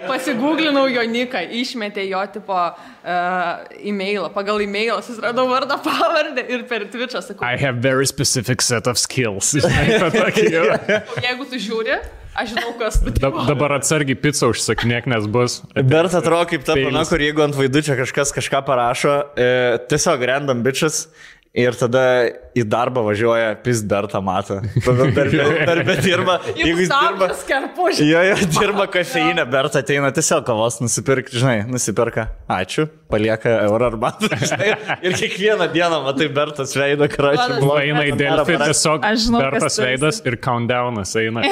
Pasigūglinau jo niką, išmetė jo tipo e-mailą. Pagal e-mailą susiradau vardą pavardę ir per Twitch'ą sakau. I have very specific set of skills. Jeigu tu žiūri, aš žinau, kas tu. Dabar atsargiai pizzą užsakinėk, nes bus. Bet atrodo kaip ta pana, kur jeigu ant vaidučio kažkas kažką parašo, tiesiog random bitches. Ir tada į darbą važiuoja Bertą matą. Darbė dirba. Jeigu jis dirba skerpužį. Jo, dirba kafeinę, Bertą ateina tiesiog kavos nusipirkti, žinai, nusiperka. Ačiū, palieka eurą arbatą. Ir kiekvieną dieną matai Bertas veidą, kračią. Eina į Delfį, tiesiog Bertas veidas ir countdownas eina.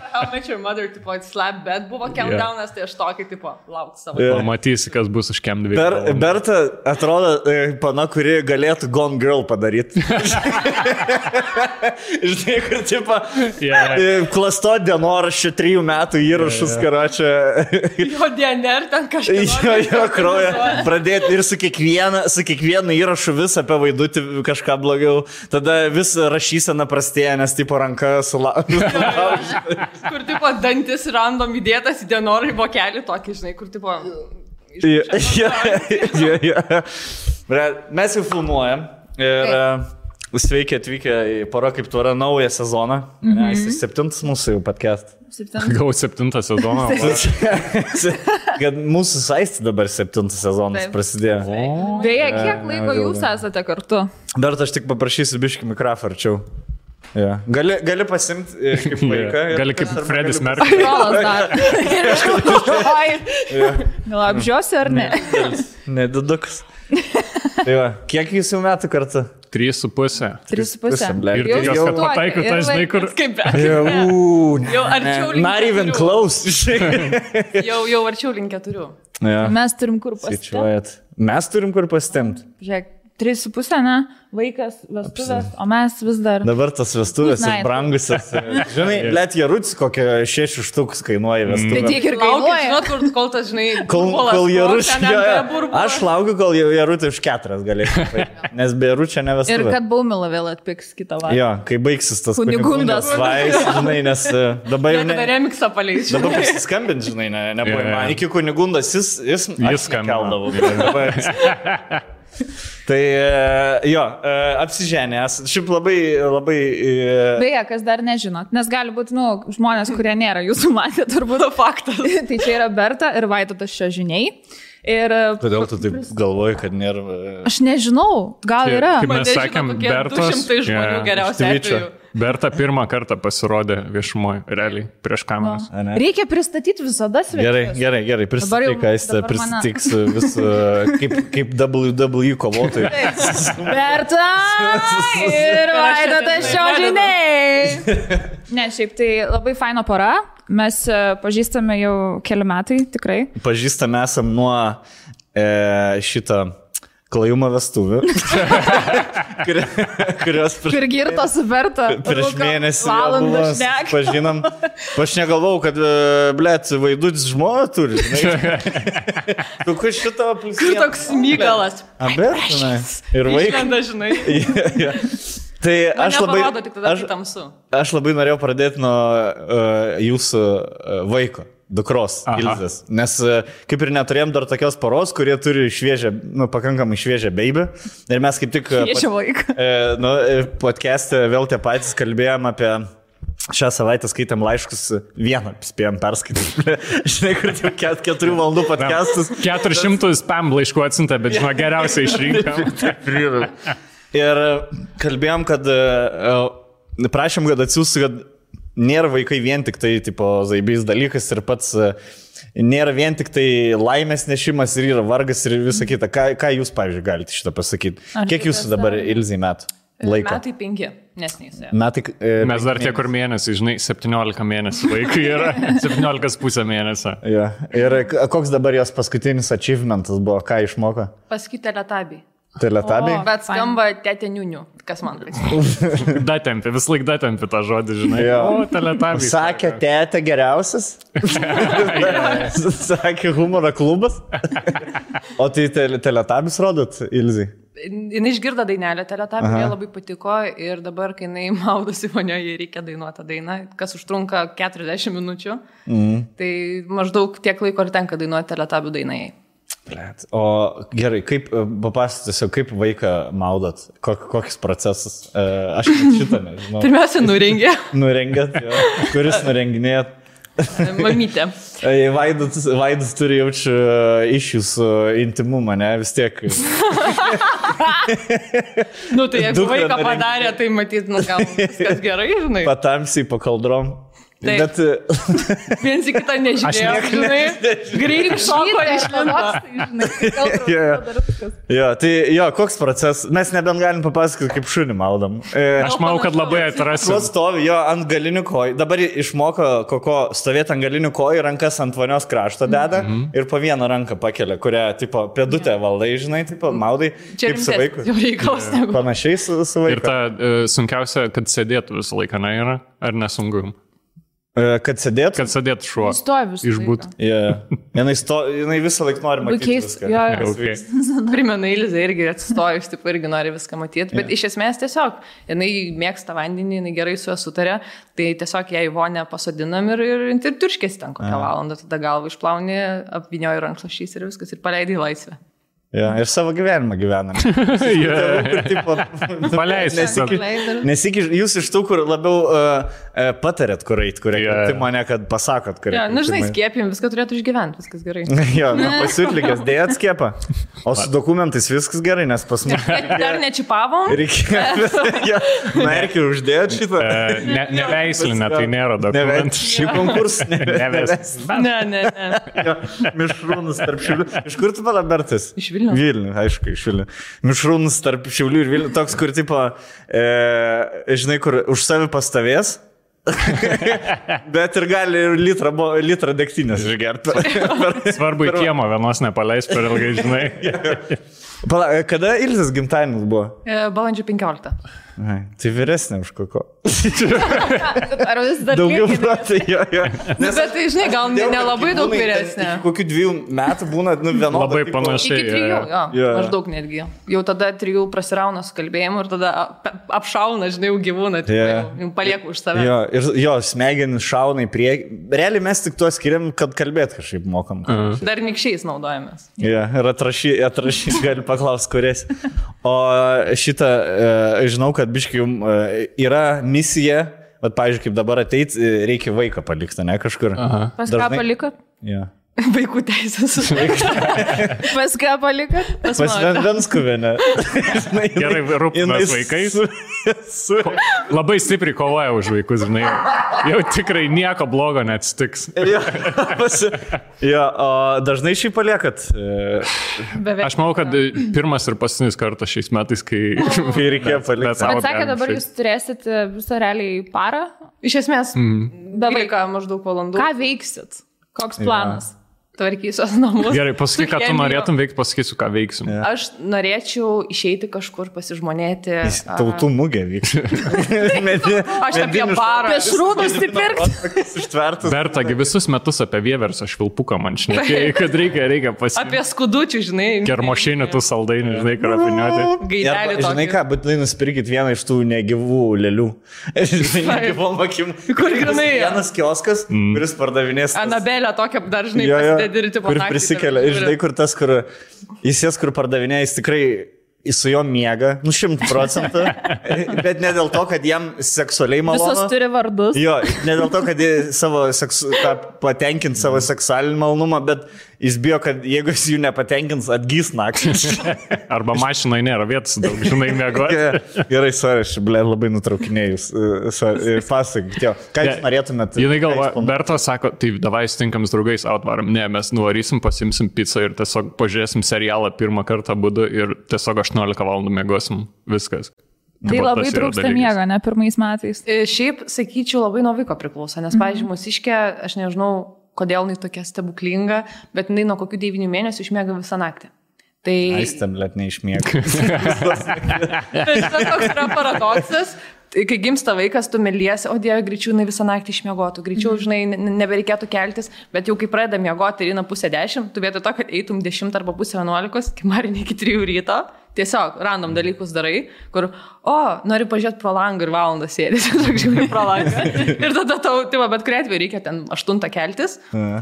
How Much Your Mother, tipo, slap bet buvo countdownas, tai aš tokį, tipo, lauk savo. Pamatysi, kas bus už kem 2. Berta atrodo pana, kuri galėtų Gone Girl padaryti. Žinai, kur tipo klasto dienoraščio 3 metų įrašus, karočią. Jo DNR ten kažką. Jo kraują. Pradėti ir su kiekvienu įrašu vis apie vaidutį kažką blogiau. Tada vis rašysena prastėja, nes tipo ranka sulaužė. Kur tipo dantis random įdėtas į dienoraščio vokelį tokį, žinai, kur tipo... Mes jau filmuojam ir sveiki atvykę į Pora kaip tvara naują sezoną. Jis 7 mūsų jau podcast. Gal 7 sezoną. Kad mūsų saisti dabar 7 sezonas prasidėjo. Beje, kiek laiko jūs esate kartu? Dar aš tik paprašysiu biškį mikrofą arčiau. Gali pasimti kaip vaiką. Gali kaip Fredis Merkuris. Gal apžiosi ar ne? Nedidukas. Kiek jūs jau metų kartu? 3,5. 3,5. Ir tikiuosi, kad pataikiu, tai žinai, kur... Jau arčiau link 4. Not even close. Jau arčiau link 4. Mes turim kur pasitemti. Mes turim kur pasitemti. Žiūrėk, 3,5, ne? Vaikas, vestuvės, o mes vis dar... Dabar tas vestuvės ir brangusias. Žinai, let Jarutis kokią 6 štukus kainuoja vestuvės. Tai tiek ir kainuoja. Žinot, kol tas, žinai, kol Jarutis... Aš laukiu, kol Jarutį už 4 galėsiu. Nes be Jaručio ne vestuvė. Ir kad Baumila vėl atpiks kitą vakarą. Jo, kai baigsis tas Kunigundas vais, žinai, nes dabar jau... Tada remiksą paleis. Dabar pasiskambint, žinai, nebuvo. Iki Kunigundas jis keldavo. Tai jo, apsiženęs. Šiaip labai... Beje, kas dar nežinot, nes gali būti, žmonės, kurie nėra jūsų matę, turbūt faktas. Tai čia yra Berta ir Vaidotas Šiožiniai. Kodėl tu taip galvoji, kad nėra... Aš nežinau, gal yra. Kaip mes sakėm, Bertas... 200 žmonių geriausiai atveju. Berta pirmą kartą pasirodė viešumoje, realiai, prieš kameras. Reikia pristatyti visada svečius. Gerai, pristatyk, Aistė, prisitiks visų kaip WWE kovotojai. Berta ir Vaidotas Šiožiniai. Ne, šiaip tai labai faino pora. Mes pažįstame jau keli metai, tikrai. Pažįstame esam nuo šito klajumo vestuvių. Kurios kur girto su Berta. Prieš mėnesį buvo, pažinom. Aš negalvau, kad, blėt, Vaidutis žmona turi. Kokiu šito pliusį. Kur toks Mygalas. Berta, ir vaikas. Išlenda, žinai. Tai aš labai norėjau pradėti nuo jūsų vaiko. Dukros, Ilzės. Nes kaip ir neturėjom dar tokios poros, kurie turi šviežią, pakankamai šviežią baby. Ir mes kaip tik podcast'e vėl tie patys kalbėjom apie šią savaitę skaitėm laiškus, vieną spėjom perskaityti. Žinai, kur jau 4 valandų podcastus. 400 spam laiškų atsinta, bet žinoma, geriausiai išrinkom. Ir kalbėjom, kad prašėm, kad atsiųstų, kad nėra vaikai vien tik tai, tipo, zaibys dalykas ir pats nėra vien tik tai laimės nešimas ir yra vargas ir visa kita. Ką jūs, pavyzdžiui, galite šitą pasakyti? Kiek jūsų dabar Ilzai metų laiko? Metai 5, nesnys. Mes dar tie kur mėnesį, žinai, 17 mėnesių vaikai yra, 17,5 mėnesio. Ja. Ir koks dabar jos paskutinis achievementas buvo, ką išmoko? Pasakyti teletabiai. Teletabiai? Bet skamba tetė niunių. Kas man prisimena? Datempi, vis laik datempi tą žodį, žinai. O, teletabiai. Sakė, tetė geriausias. Sakė, humoro klubas. O tai teletabis rodot, Ilzai? Jinai išgirdo dainelę Teletubby, jai labai patiko ir dabar, kai jinai maudosi vonioje, reikia dainuoti tą dainą, kas užtrunka 40 minučių. Tai maždaug tiek laiko ir tenka dainuoti Teletubby dainai. O gerai, kaip papasakosiu, kaip vaiką maudot, kokius procesus? Aš šitą nežinau. Pirmiausia, nurengė. Nurengėt, jo. Kuris nurenginėt? Mamytė. Vaidas turi jaučiu išjus intimumą, ne? Vis tiek. Nu, tai jeigu vaiką padarė, tai matyt, gal viskas gerai, žinai. Patamsiai pakaldrom. Bet viens į kitą nežiūrėjo, žinai. Greitai šoko Jo, tai jo, koks procesas. Mes nebent galim papasakoti, kaip šunį maudam. Aš manau, kad labai atrasim. Stovi jo ant galinių kojų. Dabar išmoko koko stovėti ant galinių kojų, rankas ant vonios krašto deda ir po vieną ranką pakelia, kurią, tipo, pėdutę valdai, žinai, tipo, maudai. Čia kaip su vaiku. Jau reikalas negu. Panašiai su vaiku. Ir ta sunkiausia, kad sėdėtų visą laiką, ne yra? Ar nesunku? Kad sėdėtų? Kad sėdėtų šuo. Stovi visą Išbūt. Jinai visą laiką nori matyti viską. Okay. Primena Ilzė irgi atsistojus, taip irgi nori viską matyti, bet iš esmės tiesiog, jinai mėgsta vandenį, jinai gerai su juo sutarė, tai tiesiog ją į vonę pasodinam ir turškėsi ten kokią valandą, tada galvą išplauni, apvinioji rankšluosčiais ir viskas ir paleidai į laisvę. Ja, ir savo gyvenimą gyvenam. Nesikiš, jūs iš tų, kur labiau patarėt, kur eit, kur tai mane, kad pasakot, kur eit. Ja, nu, žinai, skiepim, viską turėtų išgyventi, viskas gerai. Jo, pasiutlikęs, dėjat skiepą. O su dokumentais viskas gerai, nes pas mus... Dar nečipavom? Reikėjo, merkių uždėjot šitą. Neveislinė, tai nėra dokumentų. Šį konkursą neveislinė. Ne. Mišrūnus tarp Šiaulių. Iš kur tu Bertas? Iš Vilnių. Vilnių, aišku, iš Vilnių. Mišrūnus tarp Šiaulių ir Vilnių. Toks, kur, tipo, žinai, kur už savi pastovės, bet ir gali litrą degtinės išgerti. Svarbu į kiemą vienos nepaleis per ilgai, žinai. Kada Ilzės gimtadienis buvo? Balandžio 15. Tai vyresnė už koko. Ar vis dar daugiau metų, jo. Bet tai, žinai, gal nelabai daug vyresnė. Kokių 2 metų būna, vienodą. Labai panašiai. Iki 3, jo, maždaug netgi. Jau tada 3 prasirauna su kalbėjimu ir tada apšauna, žinai, jau gyvūną, jau palieku už save. Jo, ir jo, smegenis šauna į priekį. Realiai mes tik tuo skiriam, kad kalbėt kažkaip mokam. Dar nikščiais naudojamės. Jo, ir atrašys gali paklausti, kuris. O šitą, žinau, kad biškai jums yra misija, bet, pavyzdžiui, kaip dabar ateit, reikia vaiką palikti, ne, kažkur. Pas ką palikot? Jo. Vaikų teisės. Pas ką palikot? Pas Venskuvėne. Gerai, rūpinas vaikais. Labai stipriai kovoja už vaikus, žinai. Jau tikrai nieko blogo neatsitiks. Jo, o dažnai šį paliekat? Aš manau, kad pirmas ir paskutinis kartas šiais metais, kai reikėjo palikti. Bet sakė, dabar jūs turėsit visą realiai parą? Iš esmės, 12 maždaug valandų. Ką veiksit? Koks planas? Tvarkysios namus. Gerai, pasakyk, ką tu norėtum veikti, pasakysiu, ką veiksim. Ja. Aš norėčiau išeiti kažkur pasižmonėti. Tautų mugė vyks. Aš apie parą. Apie šrūdus įpirkti. Bertagi visus metus apie vieversą švilpuką man šnekėjai, kad reikia pasiimti. Apie skudučių, žinai. Kermošinį tų saldainių, žinai, karapiniuoti. Gaidelį tokį. Žinai ką, būtinai nusipirkit vieną iš tų negyvų lėlių. Žinai, negyvom akim. Kur grinai? Vienas kioskas, kuris pardavinės. Anabelė tokia dar, žinai, kur prisikelia. Ir žinai, kur tas, kur jis jas, kur pardavinėja, jis tikrai su juo miega, 100%, bet ne dėl to, kad jam seksualiai malonu. Visos turi vardus. Jo, ne dėl to, kad jis patenkint savo seksualinį malonumą, bet jis bijo, kad jeigu jis jų nepatenkins, atgys naktį. Arba mašinai nėra vietos, daug žinai miegoti. Gerai, sorry, aš labai nutraukinėjus. Pasakykite, ką jūs norėtumėt? Jinai galva, Berta sako, tai davai sutinkam su draugais atvarom. Ne, mes nuvarysim, pasimsim pizzą ir tiesiog pažiūrėsim serialą pirmą kartą būdu ir tiesiog 18 valandų miegosim. Viskas. Tai labai trūksta miego, ne pirmais metais. Šiaip, sakyčiau, labai nuo vaiko priklauso, nes, pavyzdžiui, mūsiškė, aš nežinau, kodėl jinai tokia stebuklinga, bet jinai nuo kokių 9 mėnesių išmiega visą naktį. Tai... Aistam, let neišmiega. Tai toks yra paradoksas. Kai gimsta vaikas, tu meliesi, o Dieve, greičiau jinai visą naktį išmiegotų, greičiau, žinai, nebereikėtų keltis, bet jau kai pradeda miegoti ir eina 9:30, tu vietoj to, kad eitum 10 arba 10:30, kai marinė iki 3 ryto, tiesiog random dalykus darai, kur, nori pažiūrėti pro langą ir valandą sėdėsi, žiūri pro langą. Ir tada tau, bet kuriai atveju reikia ten 8 keltis.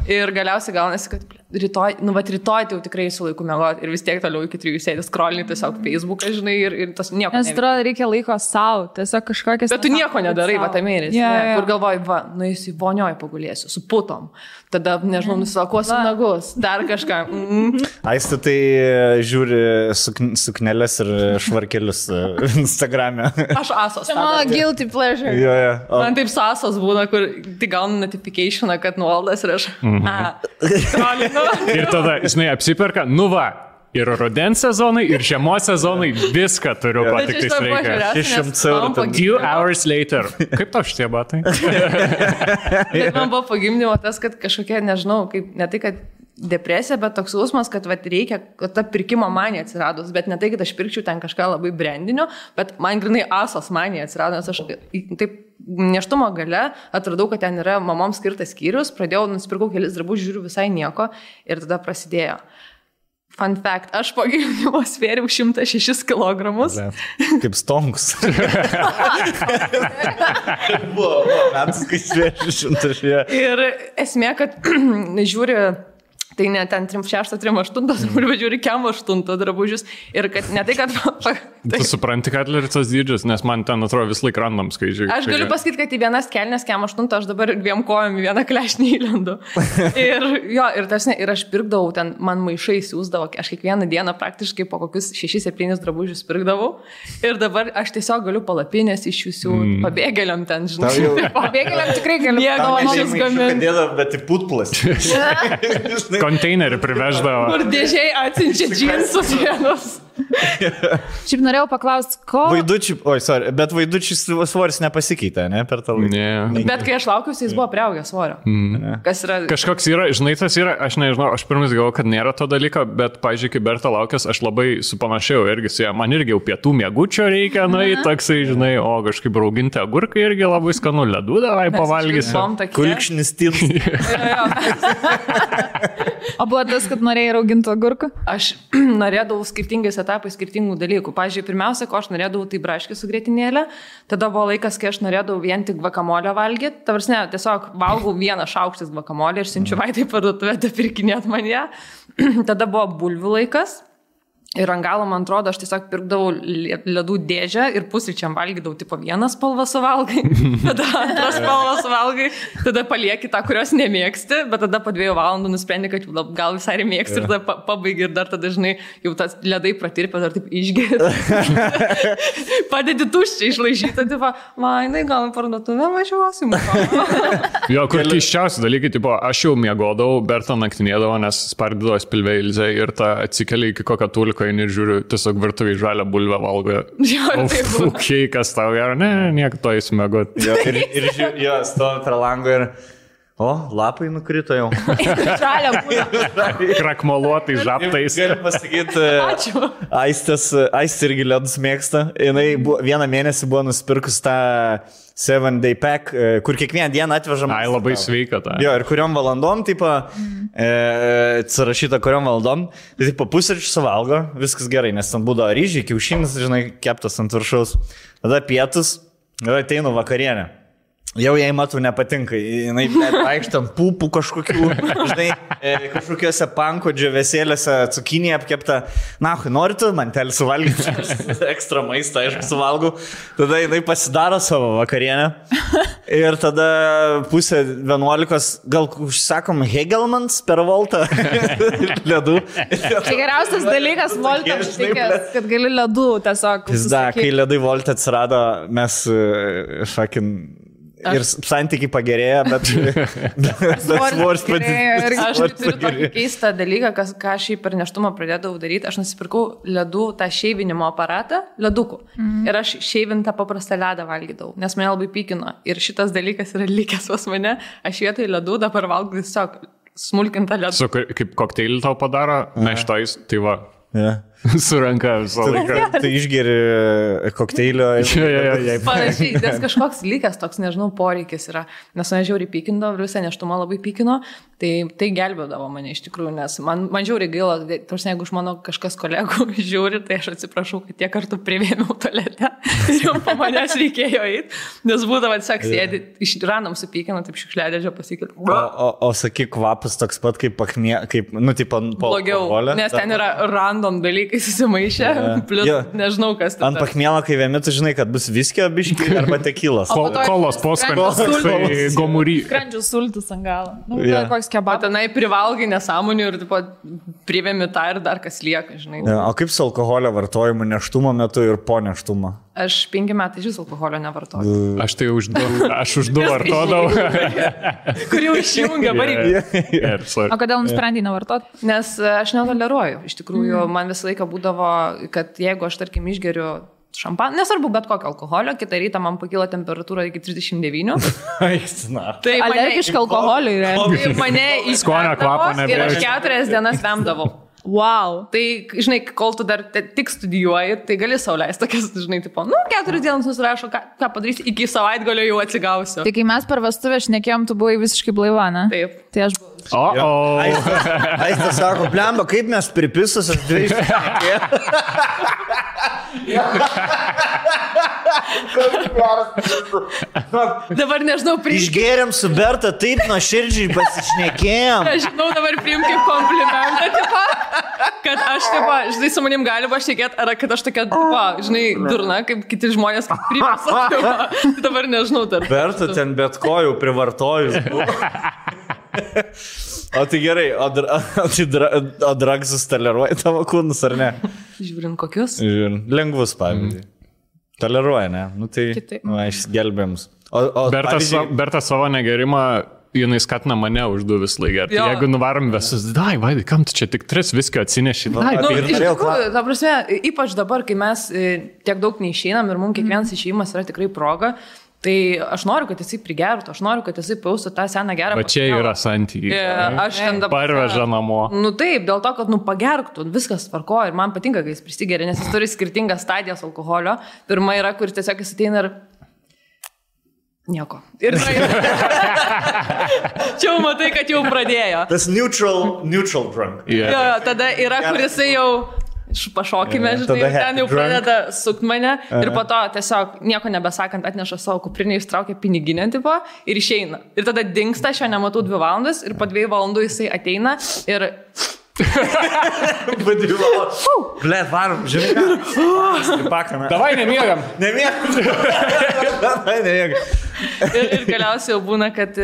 Ir galiausiai gaunasi, kad rytoj tai jau tikrai su laiku mėgoti ir vis tiek toliau iki 3 sėdės scrollinti tiesiog Facebooką, žinai, ir tas nieko. Nes atrodo, reikia laiko savo, tiesiog kažkokias... Bet tu nieko nedarai, va, tam mėnesį. Kur galvoji, va, nueisiu į vonioje pagulėsiu, su putom. Tada, nežinau, nusilakuosiu nagus, dar kažką. Aistė tai žiūri sukneles ir švarkelius Instagram'e. Aš asos. Mano guilty pleasure. Man taip sasos būna, kur tai gaunu notificationą, kad nuoldas ir aš... Ir tada, žinai, apsiperka, ir rudens sezonai, ir žiemos sezonai, viską turiu, ko tik tais reikia. 600 eurų. 2 hours later. Kaip tau šitie batai? Bet man buvo pagimdymo tas, kad kažkokia, nežinau, kaip, ne tai, kad depresija, bet toks jausmas, kad reikia, kad ta pirkimo manija atsiradus, bet ne tai, kad aš pirkčiau ten kažką labai brandinio, bet man grinai asos manija atsirado, nes aš taip neštumo gale atradau, kad ten yra mamoms skirtas skyrius, pradėjau, nusipirkau kelis drabužius, žiūriu visai nieko ir tada prasidėjo. Fun fact, aš po gimdymo svėriau 106 kilogramus. Kaip stonkus. Buvo metus, kai svėriau 106. Ir esmė, kad žiūri... Tai ne ten 3-6, 3-8, bet žiūri kem 8 drabužius. Ir kad ne tai, kad... Tu supranti, kad ir tas dydžius, nes man ten atrodo vis laik random skaičiai. Aš galiu pasakyti, kad į vienas kelnes kem 8, aš dabar 2 kojom į vieną klešnį įlendu. Ir aš pirkdavau, ten man maišai siūsdavo, aš kiekvieną dieną praktiškai po kokius 6-7 drabužius pirkdavau. Ir dabar aš tiesiog galiu palapinės iš jūsų pabėgėliam ten, žinai. Pabėgėliam tikrai galiu. Mėgavašius gaminti. Bet į putplas. Konteinerį priveždavo. Kur dėžiai atsinčia džinsus vienus. Šiaip norėjau paklausti, ko... Bet vaidučių svoris nepasikeitė, ne, per tą laiką. Ne. Bet kai aš laukiausi, jis buvo priaugęs svorio. Kas yra... Kažkoks yra, žinai, tas yra, aš nežinau, aš pirmas galvoju, kad nėra to dalyko, bet, pažiūrėk, kai Berta laukęs, aš labai supanašėjau irgi su ja. Man irgi jau pietų miegučio reikia, toksai, žinai, o kažkaip rauginti agurkai irgi labai skanu, ledų davai pavalgysiu. Kulkšnis tins. O buvo tas, kad norėjai rauginti agurką? Aš norėdavau skirtingais etapais skirtingų dalykų. Pavyzdžiui, pirmiausia, ko aš norėdavau, tai braškį su grietinėlė. Tada buvo laikas, kai aš norėdavau vien tik gvakamolę valgyti. Tavarsne, tiesiog valgau 1 šaukštis gvakamolę ir siunčiu Vaitai parduotuvę, pirkinėt man ją. Tada buvo bulvių laikas. Ir ant galo, man atrodo, aš tiesiog pirkdavau ledų dėžę ir pusryčiam valgydavau, tipo 1 spalvą suvalgai, tada 2 spalvą suvalgai, tada palieki tą, kurios nemėgsti, bet tada po 2 valandų nusprendi, kad gal visai mėgsti ir tada pabaigi ir dar tada, žinai, jau tas ledai pratirpė, dar taip išgėri. Padedi tuščiai išlaižyti, tipo, Vainai, gal į parduotuvę važiuosim. Jo, kur keiščiausi dalykai, tipo, aš jau miegodavau, Berta naktinėdavo, nes spardydavo spilvę Ilzę ir ta atsikeli iki kokio tulko ir žiūriu, tiesiog virtuviai žalią bulvę valgo. Okay, kas tau yra, nieko to įsmėgot. Ir stovi prie lango ir... lapai nukrito jau. Žalia bulvė. Krakmoluotai žaptais. Galiu pasakyti, Aistė irgi ledus mėgsta. Jinai 1 mėnesį buvo nusipirkus tą 7-day pack, kur kiekvieną dieną atvežam. Ai, labai sveika ta. Jo, ir kuriom valandom, tipo, atsirašyta kuriom valandom, tai tipo pusryčių suvalgo, viskas gerai, nes ten būdavo ryžiai, kiaušinis, žinai, keptas ant viršaus. Tada pietus, ir ateinu vakarienę. Jau jai matau nepatinka, jinai vaikštam pupų kažkokių, žinai, kažkokiuose panko džiavesėlėse cukinį apkepta. Nori tu mantelį suvalgyti, ekstra maistą, aišku, suvalgau. Tada jinai pasidaro savo vakarienę ir tada 10:30, gal užsakom Hegelmans per voltą ledų. Tai geriausias dalykas voltą užtikęs, kad gali ledų tiesiog. Kai ledai voltą atsirado, mes ir santykiai pagerėjo, bet svoris padidėjo. Aš turiu tokį keistą dalyką, ką aš per neštumą pradėdavau daryti. Aš nusipirkau ledų tą šeivinimo aparatą, ledukų. Ir aš šeivintą paprastą ledą valgydavau, nes mane labai pykino. Ir šitas dalykas yra likęs pas mane. Aš vietoj ledų dabar valgau tiesiog smulkintą ledą. Kaip kokteilį tau padaro, meštojus, tai va. Suranka visą laiką. Tai išgeri kokteilio. Panašiai, nes kažkoks likęs toks, nežinau, poreikis yra. Nes mane žiauriai pykindavo, visą neštumą labai pykino, tai gelbėdavo mane iš tikrųjų, nes man žiauriai gaila, tarsi jeigu iš mano kažkas kolegų žiūri, tai aš atsiprašau, kad tiek kartų privėmiau tualete ir jau po manęs reikėjo eiti, nes būdavo tiesiog sėdi, iš random supykino, taip šiukšliadėžio pasikėlė. O sakyk, kvapas toks pat kaip tipo blogiau, nes ten yra random dalykai susimaišę, plus nežinau, kas ten. Ant pakmėlo, kai vėmi, tu žinai, kad bus viskio biški arba tekilas. Kolos poskanis, tai gomury. Skrandžių sultis ant galo. Koks O kebabas. tenai privalgai nesąmonių ir tipo, privėmi tą ir dar kas lieka, žinai. O kaip su alkoholio vartojimu neštumo metu ir po neštumo? Aš 5 metai iš alkoholio nevartoju. Aš tai už 2 vartodavau. Kur jau išjungia varikį. O kodėl nusprendai nevartoti? Nes aš netoleruoju. Iš tikrųjų, man visą laiką būdavo, kad jeigu aš, tarkim, išgeriu šampaną, nesvarbu bet kokio alkoholio, kitą rytą man pakyla temperatūra iki 39. Tai alergiška alkoholiui, tai mane Skonio kvapo ir aš nebejaučiu. 4 dienas vemdavau. Wow. Tai, žinai, kol tu dar tik studijuoji, tai gali sauliaisti tokias, žinai, tipo, 4 dienas nusirašo, ką padarysi, iki savaitgalio jau atsigausiu. Tai kai mes per vestuvę šnekėjom, tu buvai visiškai blaiva, ne? Taip. Tai aš buvau. Aistas sako, blemba, kaip mes pripisus, aš 2 Dabar nežinau, Išgėrėm su Berta, taip nuoširdžiai pasišnekėjom. Aš žinau, dabar priim kaip komplimentą, tipo, kad aš, tipo, žinai, su manim galima šnekėti, ar kad aš tokia, tipo, žinai, durna, kaip kiti žmonės priima. Dabar nežinau, dar. Berta ten bet ko jau privartojus. O tai gerai, o dragsus toleruoja tavo kūnus, ar ne? Žiūrint kokius? Žiūrint, lengvus pavyzdžiui. Toleruoja, ne? Nu tai, išgelbėms. Berta savo negerimą, jinai skatina mane už 2 vis laiką. Jeigu nuvarom visus, Vaidai, kam tu čia tik 3 viskio atsineši? Iš tikrųjų, ta prasme, ypač dabar, kai mes tiek daug neišeinam ir mums kiekvienas išėjimas yra tikrai proga, tai aš noriu, kad jisai prigertų, aš noriu, kad jisai paustų tą seną gerą. Va čia yra santykiai. Aš ten dabar. Parveža namo. Nu taip, dėl to, kad pagerktų, viskas tvarko ir man patinka, kai jis prisigeria, nes jis turi skirtingas stadijas alkoholio. Pirma yra, kur tiesiog jis ateina ir nieko. Ir čia jau matai, kad jau pradėjo. Tas neutral drunk. Tada yra, kur jisai jau pašokime, žinai, ten jau pradeda sukti mane ir po to tiesiog nieko nebesakant atneša savo kuprinį, ištraukia piniginę tipo ir išeina. Ir tada dingsta, aš jo nematau 2 valandas ir po 2 valandų jisai ateina ir... Blet, varom, žinai ką? Davai, nemiegam. Ir galiausiai jau būna, kad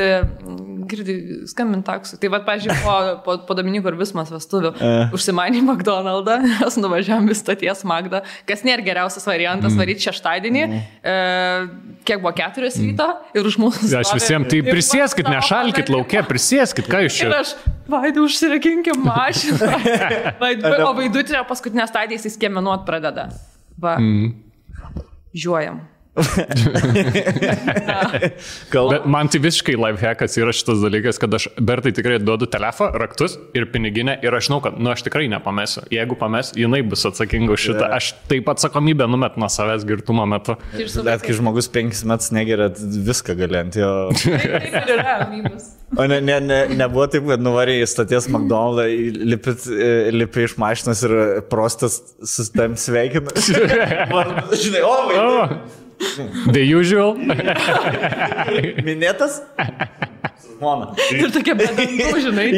girdi skambint taksų. Tai vad, pažiūrėjau, po Dominiko ir Vismas vestuvių užsimanė McDonald'ą, mes nuvažiavam vis stoties Magdą, kas nėra geriausias variantas varyti šeštadienį, kiek buvo 4 ryto ir už mūsų stovi. Aš visiems, tai prisieskit, nešalkit laukia, prisieskit, ką jūs čia. Ir aš, Vaidai, užsirakinkim mašiną. O Vaidutė paskutinę stadiją jis skiemenuot pradeda. Va, žiūrėjom. Bet man tai visiškai lifehackas yra šitas dalykas, kad aš Bertai tikrai duodu telefoną, raktus ir piniginę ir aš žinau, kad aš tikrai nepamesiu. Jeigu pames, jinai bus atsakinga už šitą. Aš taip atsakomybę numet nuo savęs girtumo metu. Bet kai žmogus 5 metus negeria, viską galint jo. O nebuvo taip, kad nuvarė į stoties McDonald'ą, lipi iš mašinos ir prostas sustam sveikina. Žinai, Vaidai. The usual. Minėtas? Mona. Ir tokia bedantų, žinai.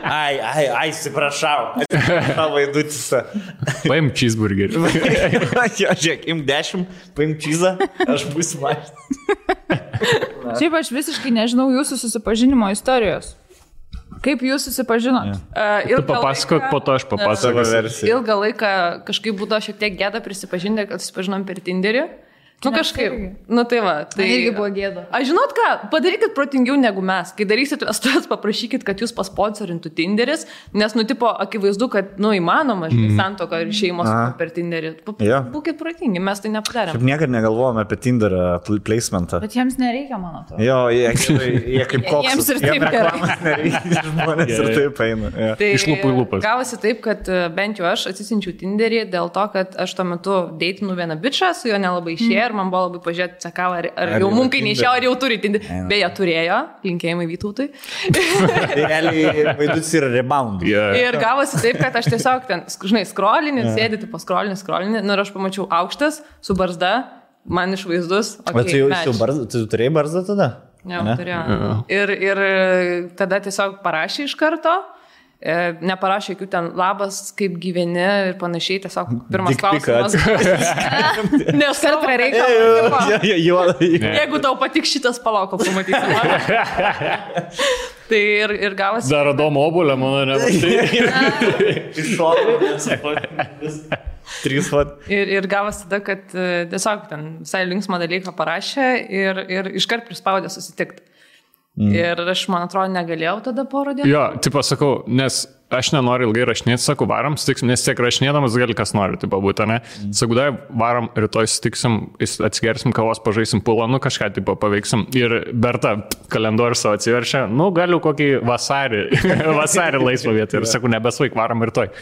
Ai, atsiprašau. Vaidutisa. Paim cheeseburgerį. Žiūrėk, im 10, paim cheesą, aš būsiu mašinas. Šiaip aš visiškai nežinau jūsų susipažinimo istorijos. Kaip jūs susipažinot? Tu papasakok, po to aš papasakosiu. Ilgą laiką kažkaip būdavo šiek tiek gėda prisipažinti, kad susipažinom per Tinderį. Nu kažkaip, nu tai va. Tai irgi buvo gėda. Aš žinot ką, padarykit protingiau negu mes. Kai darysit vestuvės, paprašykit, kad jūs pasponsorintų Tinderis, nes, nu, tipo, akivaizdu, kad, nu, įmanoma, santuoka ir šeimos per Tinderį. Būkit protingi, mes tai nepadarėm. Šiaip niekada negalvojame apie Tinderio placementą. Bet jiems nereikia, man atrodo. Jo, jie kaip koks. Jiems ir taip gerai. Nereikia, žmonės ir taip eina. Ja. Tai iš lūpų į lūpas. Gavosi taip, kad bent jau aš atsisinčiau Tinderį dėl to, kad aš tuo metu deitinu vieną bičą, su juo nelabai išėjo ir man buvo labai pažiūrėti, sakau, ar jau mum kai neišėjo, ar jau turi Tinderį. Beje, turėjo, linkėjimai Vytautui. Realiai vaidus yra rebound. Ir gavosi taip, kad aš tiesiog ten, žinai, skrolinį, sėdėti po skrolinį, nu ir aš pamačiau aukštas, su barzda, man išvaizdus. Bet tu turėjai barzdą tada? Jau, turėjau. Ir tada tiesiog parašė iš karto. Neparašė jokių ten labas, kaip gyveni ir panašiai, tiesiog pirmas klausimas. Nes kart prie reikalo. Jeigu tau patiks šitas, palauk, pamatysi. Tai ir gavosi. Dar Adomo obulę, mano nematai. Ir gavosi tada, kad tiesiog ten visai linksmą dalyką parašė ir iškart prispaudė susitikti. Ir aš, man atrodo, negalėjau tada porą dienų. Jo, tipo sakau, nes aš nenoriu ilgai rašinėti, sakau, varam, sutiksim, nes tiek rašinėdamas gali kas nori, tipo būtų, ne? Sakau, dai, varam, rytoj sutiksim, atsigersim kavos, pažaisim pulą, nu kažką, tipo, paveiksim. Ir Berta kalendorių savo atsiveršia, nu galiu kokį vasarį laisvą vietą. Ir sakau, nebesvaik, varam rytoj.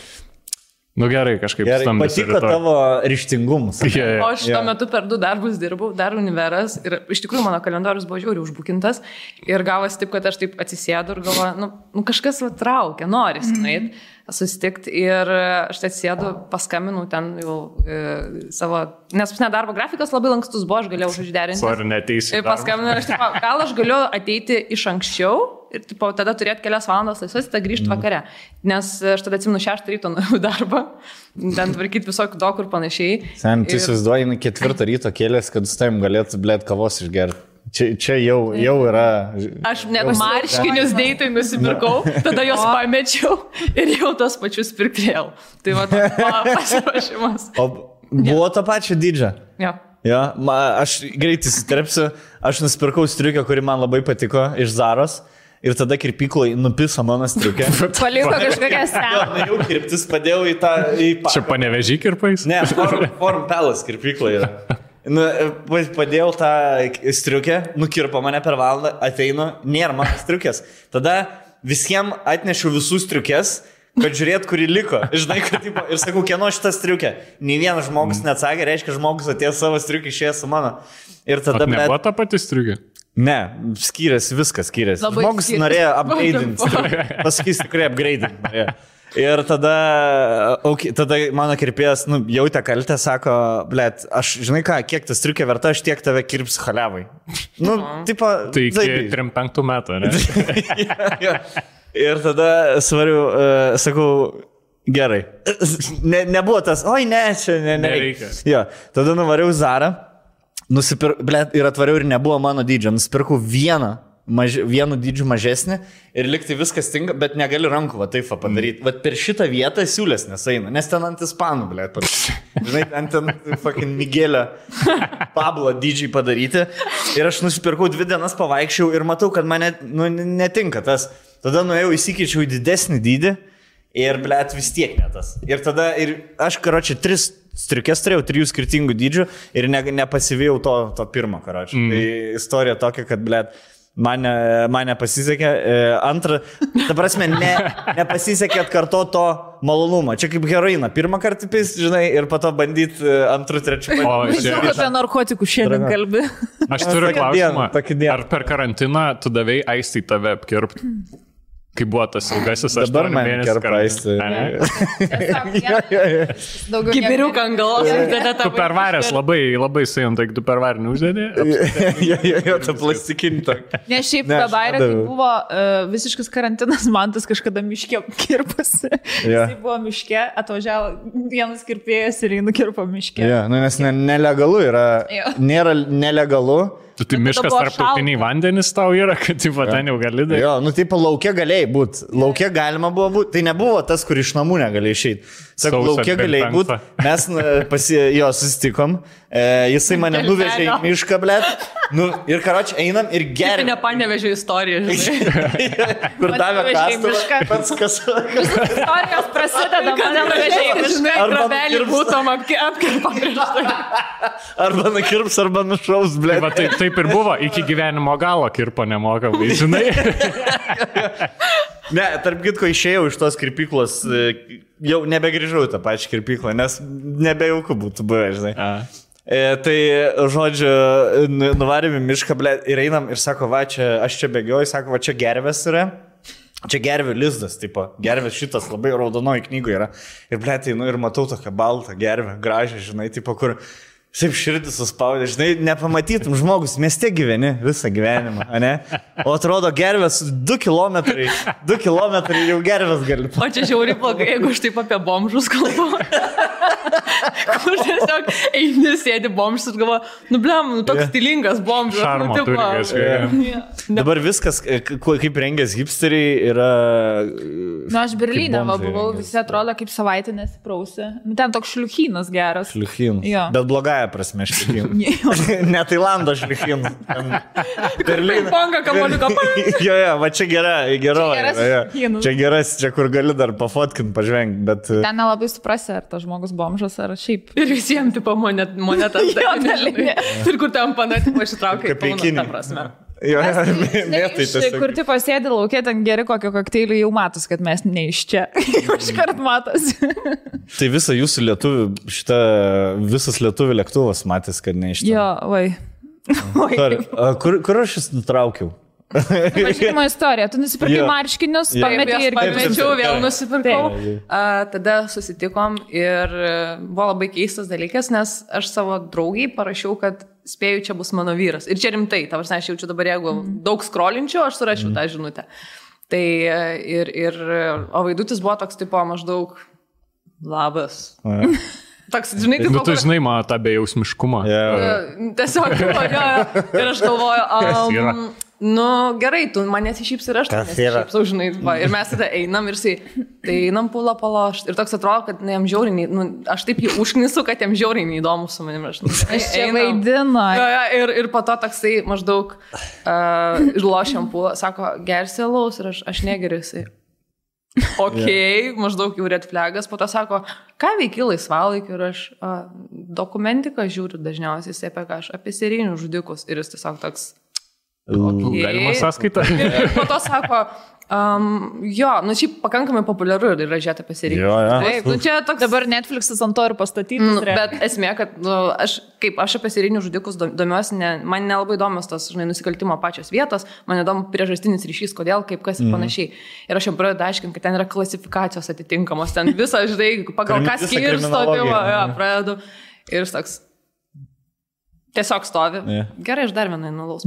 Nu gerai, kažkaip stambus. Patiko tavo ryžtingumus. O aš tuo metu per 2 darbus dirbau, dar univeras ir iš tikrųjų mano kalendorius buvo žiauriai užbukintas ir gavosi taip, kad aš taip atsisėdu ir galvoju, nu kažkas va traukia, norisi nueit, susitikti ir aš atsisėdu, paskambinau ten jau savo, nes nedarbo grafikas labai lankstus buvo, aš galėjau užderinti. Sorry, neteisi. Ir paskambinau, gal aš galiu ateiti iš anksčiau ir tipo, tada turėti kelias valandas laisvas, tada grįžti vakare. Nes aš tada atsimenu 6 ryto darbą, ten tvarkyti visokių dokų ir panašiai. Sen, tu įsivaizduoji, 4 ryto kėlės, kad su tavim galėtų, blėt, kavos išgerti. Čia jau yra... Aš net marškinius deitai nusipirkau, tada juos pamečiau ir jau tos pačius pirkėjau. Tai va, pasiruošimas. O buvo to pačio dydžio? Jo. Ja, aš greitai įsiterpsiu, aš nusipirkau striukę, kuri man labai patiko iš Zaros. Ir tada kirpykloje nupiso mano striukę. Paliko kažkokią seną. Jau kirptis padėjau į tą... Čia Panevėžį kirpais? Ne, Forum Palace kirpykloje yra. Padėjau tą striukę, nukirpo mane per valandą, ateinu, nėra mano striukės. Tada visiems atnešiu visų striukės, kad žiūrėt, kuri liko. Žinai, kad, tipo, ir sakau, kieno šitą striukę. Nei vienas žmogus neatsakė, reiškia, žmogus atėjo savo striukę, išėjo su mano. Ir tada... Nebuvo ta pati striukė? Ne, skiriasi, viskas skiriasi. Labai žmogus skiriasi. Norėjo upgrade'inti. Pasakys tikrai upgrade'inti norėjo. Ir tada mano kirpėjas, jautė kaltę, sako, blėt, aš, žinai ką, kiek tas striukė verta, aš tiek tave kirps haliavai. Tipo... Tai iki 3-5 metų, ne? Ja. Ir tada svariu, sakau, gerai. Nebuvo tas, oi ne, čia nereikia. Ja. Tada nuvariau Zarą, ir atvariau ir nebuvo mano dydžio. Nusipirkau vienu dydžiu mažesnį ir liktai viskas tinka, bet negali rankų taip padaryti. Vat per šitą vietą siūlės nesaina, nes ten ant ispanų, blėt. Žinai, ten fucking Miguelio Pablo dydžiai padaryti. Ir aš nusipirkau 2 dienas pavaikščiau ir matau, kad mane netinka tas. Tada nuėjau įsikeičiau į didesnį dydį ir, blėt, vis tiek netas. Ir tada, aš, karočią, 3 striukės turėjau, 3 skirtingų dydžių ir nepasivėjau to pirmo, karočią. Tai istorija tokia, kad, blėt, man nepasisekė. Antra, ta prasme, nepasisekė atkarto to malonumą. Čia kaip heroiną. Pirmą kartą pis, žinai, ir po to bandyti antrų, trečių. Žinau, apie narkotikų šiandien kalbi. Aš turiu klausimą. Ar per karantiną tu davei Aistai tave apkirpti? Kai buvo tas ilgasis 8 mėnesių karaisti. Kibiriuką ant galvos. Tu pervaręs labai sėjom, tai tu pervarę neuždėdė? Jo, ta plastikinį tokį. Ne, šiaip Bairė, kai buvo visiškas karantinas, man tas kažkada miške kirpasi. Jis buvo miške, atvažiavo vienas kirpėjas ir jį nukirpo miške. Nes nelegalu yra. Nėra nelegalu. Tai miškas tarptautiniai vandenys tau yra, kad ten jau gali daryti. Jo, laukia galėjai būti. Laukia galima buvo būti. Tai nebuvo tas, kur iš namų negalėjai išeiti. Sakau, laukia galėjai būti. Mes susitikom. Jisai mane nuvežė į mišką, blėt. Nu, ir karoči, einam ir geriam. Ne panevežė istoriją, žinai. Kur davė kastuvą. Pats kas. Istorijos prasideda, mane nuvežė į mišką. Grobelį būtum apkirpa prieš tai. Arba nukirps, arba nušaus, blėt. Va, taip ir buvo, iki gyvenimo galo kirpo nemokamai, žinai. Ne, tarp kitko išėjau iš tos kirpyklos, jau nebegrįžau į tą pačią kirpyklą, nes nebejauku būtų buvę, žinai. Tai, žodžiu, nuvarėm į mišką, blėt, ir einam ir sako, va, čia, aš čia bėgioju, sako, va, čia gervės yra. Čia gervių lizdas, tipo, gervės šitas labai raudonoji knygoje yra. Ir, blėt, einu ir matau tokią baltą gervę, gražią, žinai, tipo, kur... Taip širdį suspaudė, žinai, nepamatytum žmogus, mieste gyveni visą gyvenimą, ne? O atrodo gervės 2 kilometrai jau gervės gali. O čia žiauriai blogai, jeigu aš taip apie bomžus kalbu. Kur tiesiog eini, sėdi bomžus ir galvo, nu blem, toks stilingas bomžas. Šarmo turi. Dabar viskas, kaip rengės hipsteriai, yra... Nu, aš Berlyne buvau, visi atrodo kaip savaitę nesiprausi. Ten toks šliuchynas geras. Šliuchynas. Bet blogąją prasme šliuchynas. Ne Tailando šliuchynas. Berlyne. Panga kamoliuką. Jo, va čia geroji. Čia geras, čia kur gali dar pafotkinti, pažvengti, bet... Ten nelabai suprasi, ar tas žmogus bomžas, ar šiaip. Ir visiems tipo monetas. Ir kur tam panatimo ištraukia į pauną, ta prasme. Jo, mėtai tiesiog. Kur tipo sėdi laukia, ten geri kokio kokteilį, jau matos, kad mes ne iš čia. Jau iškart matos. Tai visą jūsų lietuvių, visas lietuvių lėktuvas matys, kad ne iš čia. Jo, Kur aš jis nutraukiau? Važiavimo istorija. Tu nusipirkai marškinius, pametė ir pamečiau, vėl nusipirkau. Tada susitikom ir buvo labai keistas dalykas, nes aš savo draugiai parašiau, kad spėju, čia bus mano vyras. Ir čia rimtai, ta prasme, aš jaučiu dabar, jeigu daug skrolinčiau, aš surašiau tą žinutę. Tai o Vaidutis buvo toks tipo maždaug labas. Toks, žinai, tipo, tu žinai, man tą bejausmiškumą. Tiesiog, ir aš galvoju, nu gerai, tu manęs išyps ir aš nesišypsau, žinai, ir mes tada einam ir tai einam pulą palošt. Ir toks atrodo, kad jam žiauriai, aš taip jį užknisu, kad jam žiauriai neįdomu su manim. Aš čia vaidinu. Ir po to toksai maždaug lošiam pulą, sako, gersi alaus ir aš negeriu jisai. Ok, maždaug jau red flagas, po to sako, ką veiki laisvalaikiu ir aš dokumentiką žiūriu dažniausiai apie serijinių žudikus ir jis tiesiog toks... Okay. Galima sąskaitą. Ir po to sako, jo, nu šiaip pakankamai populiaru yra žiūrėti apie seriją. Taip, nu čia toks... Dabar Netflix'as ant to ir pastatytas. Bet esmė, kad aš apie serijinių žudikus domiuosi, man nelabai įdomios tos, žinai, nusikaltimo pačios vietos, man įdomu priežastinis ryšys, kodėl, kaip, kas ir panašiai. Ir aš jam pradedu aiškinti, kad ten yra klasifikacijos atitinkamos, ten visą, žinai, pagal ką skirsto, pradedu. Ir toks... Tiesiog stovi. Gerai, aš dar vieną nulaus.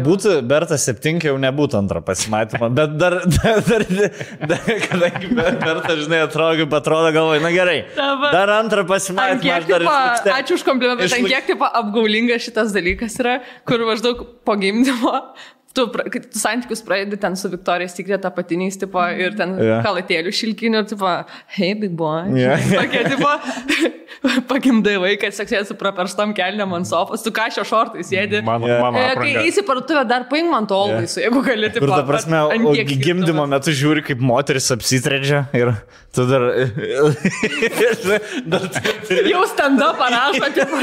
Būtų Bertas 7, jau nebūtų antrą pasimatymą, bet dar kadangi Bertas, žinai, atrodo galvoju, na gerai, dar antrą pasimatymą. Ačiū už komplimentą, ten kiek taip apgaulinga šitas dalykas yra, kur maždaug po gimdymo tu santykius pradedi ten su Victoria's Secret apatiniais, tipo, ir ten kalatėlių šilkinių, tipo, hey, big boy. Tokie, tipo, pagimdai vaiką, seksėsi su praperstom kelniam ant sofos, tu ką šio šortai sėdi. Kai eisi parduotuvę, dar paimk man to laisų, jeigu gali, tipo, ta prasme, gimdymo metu žiūri, kaip moteris apsitredžia ir tu dar... Jau stand-up parašo, tipo,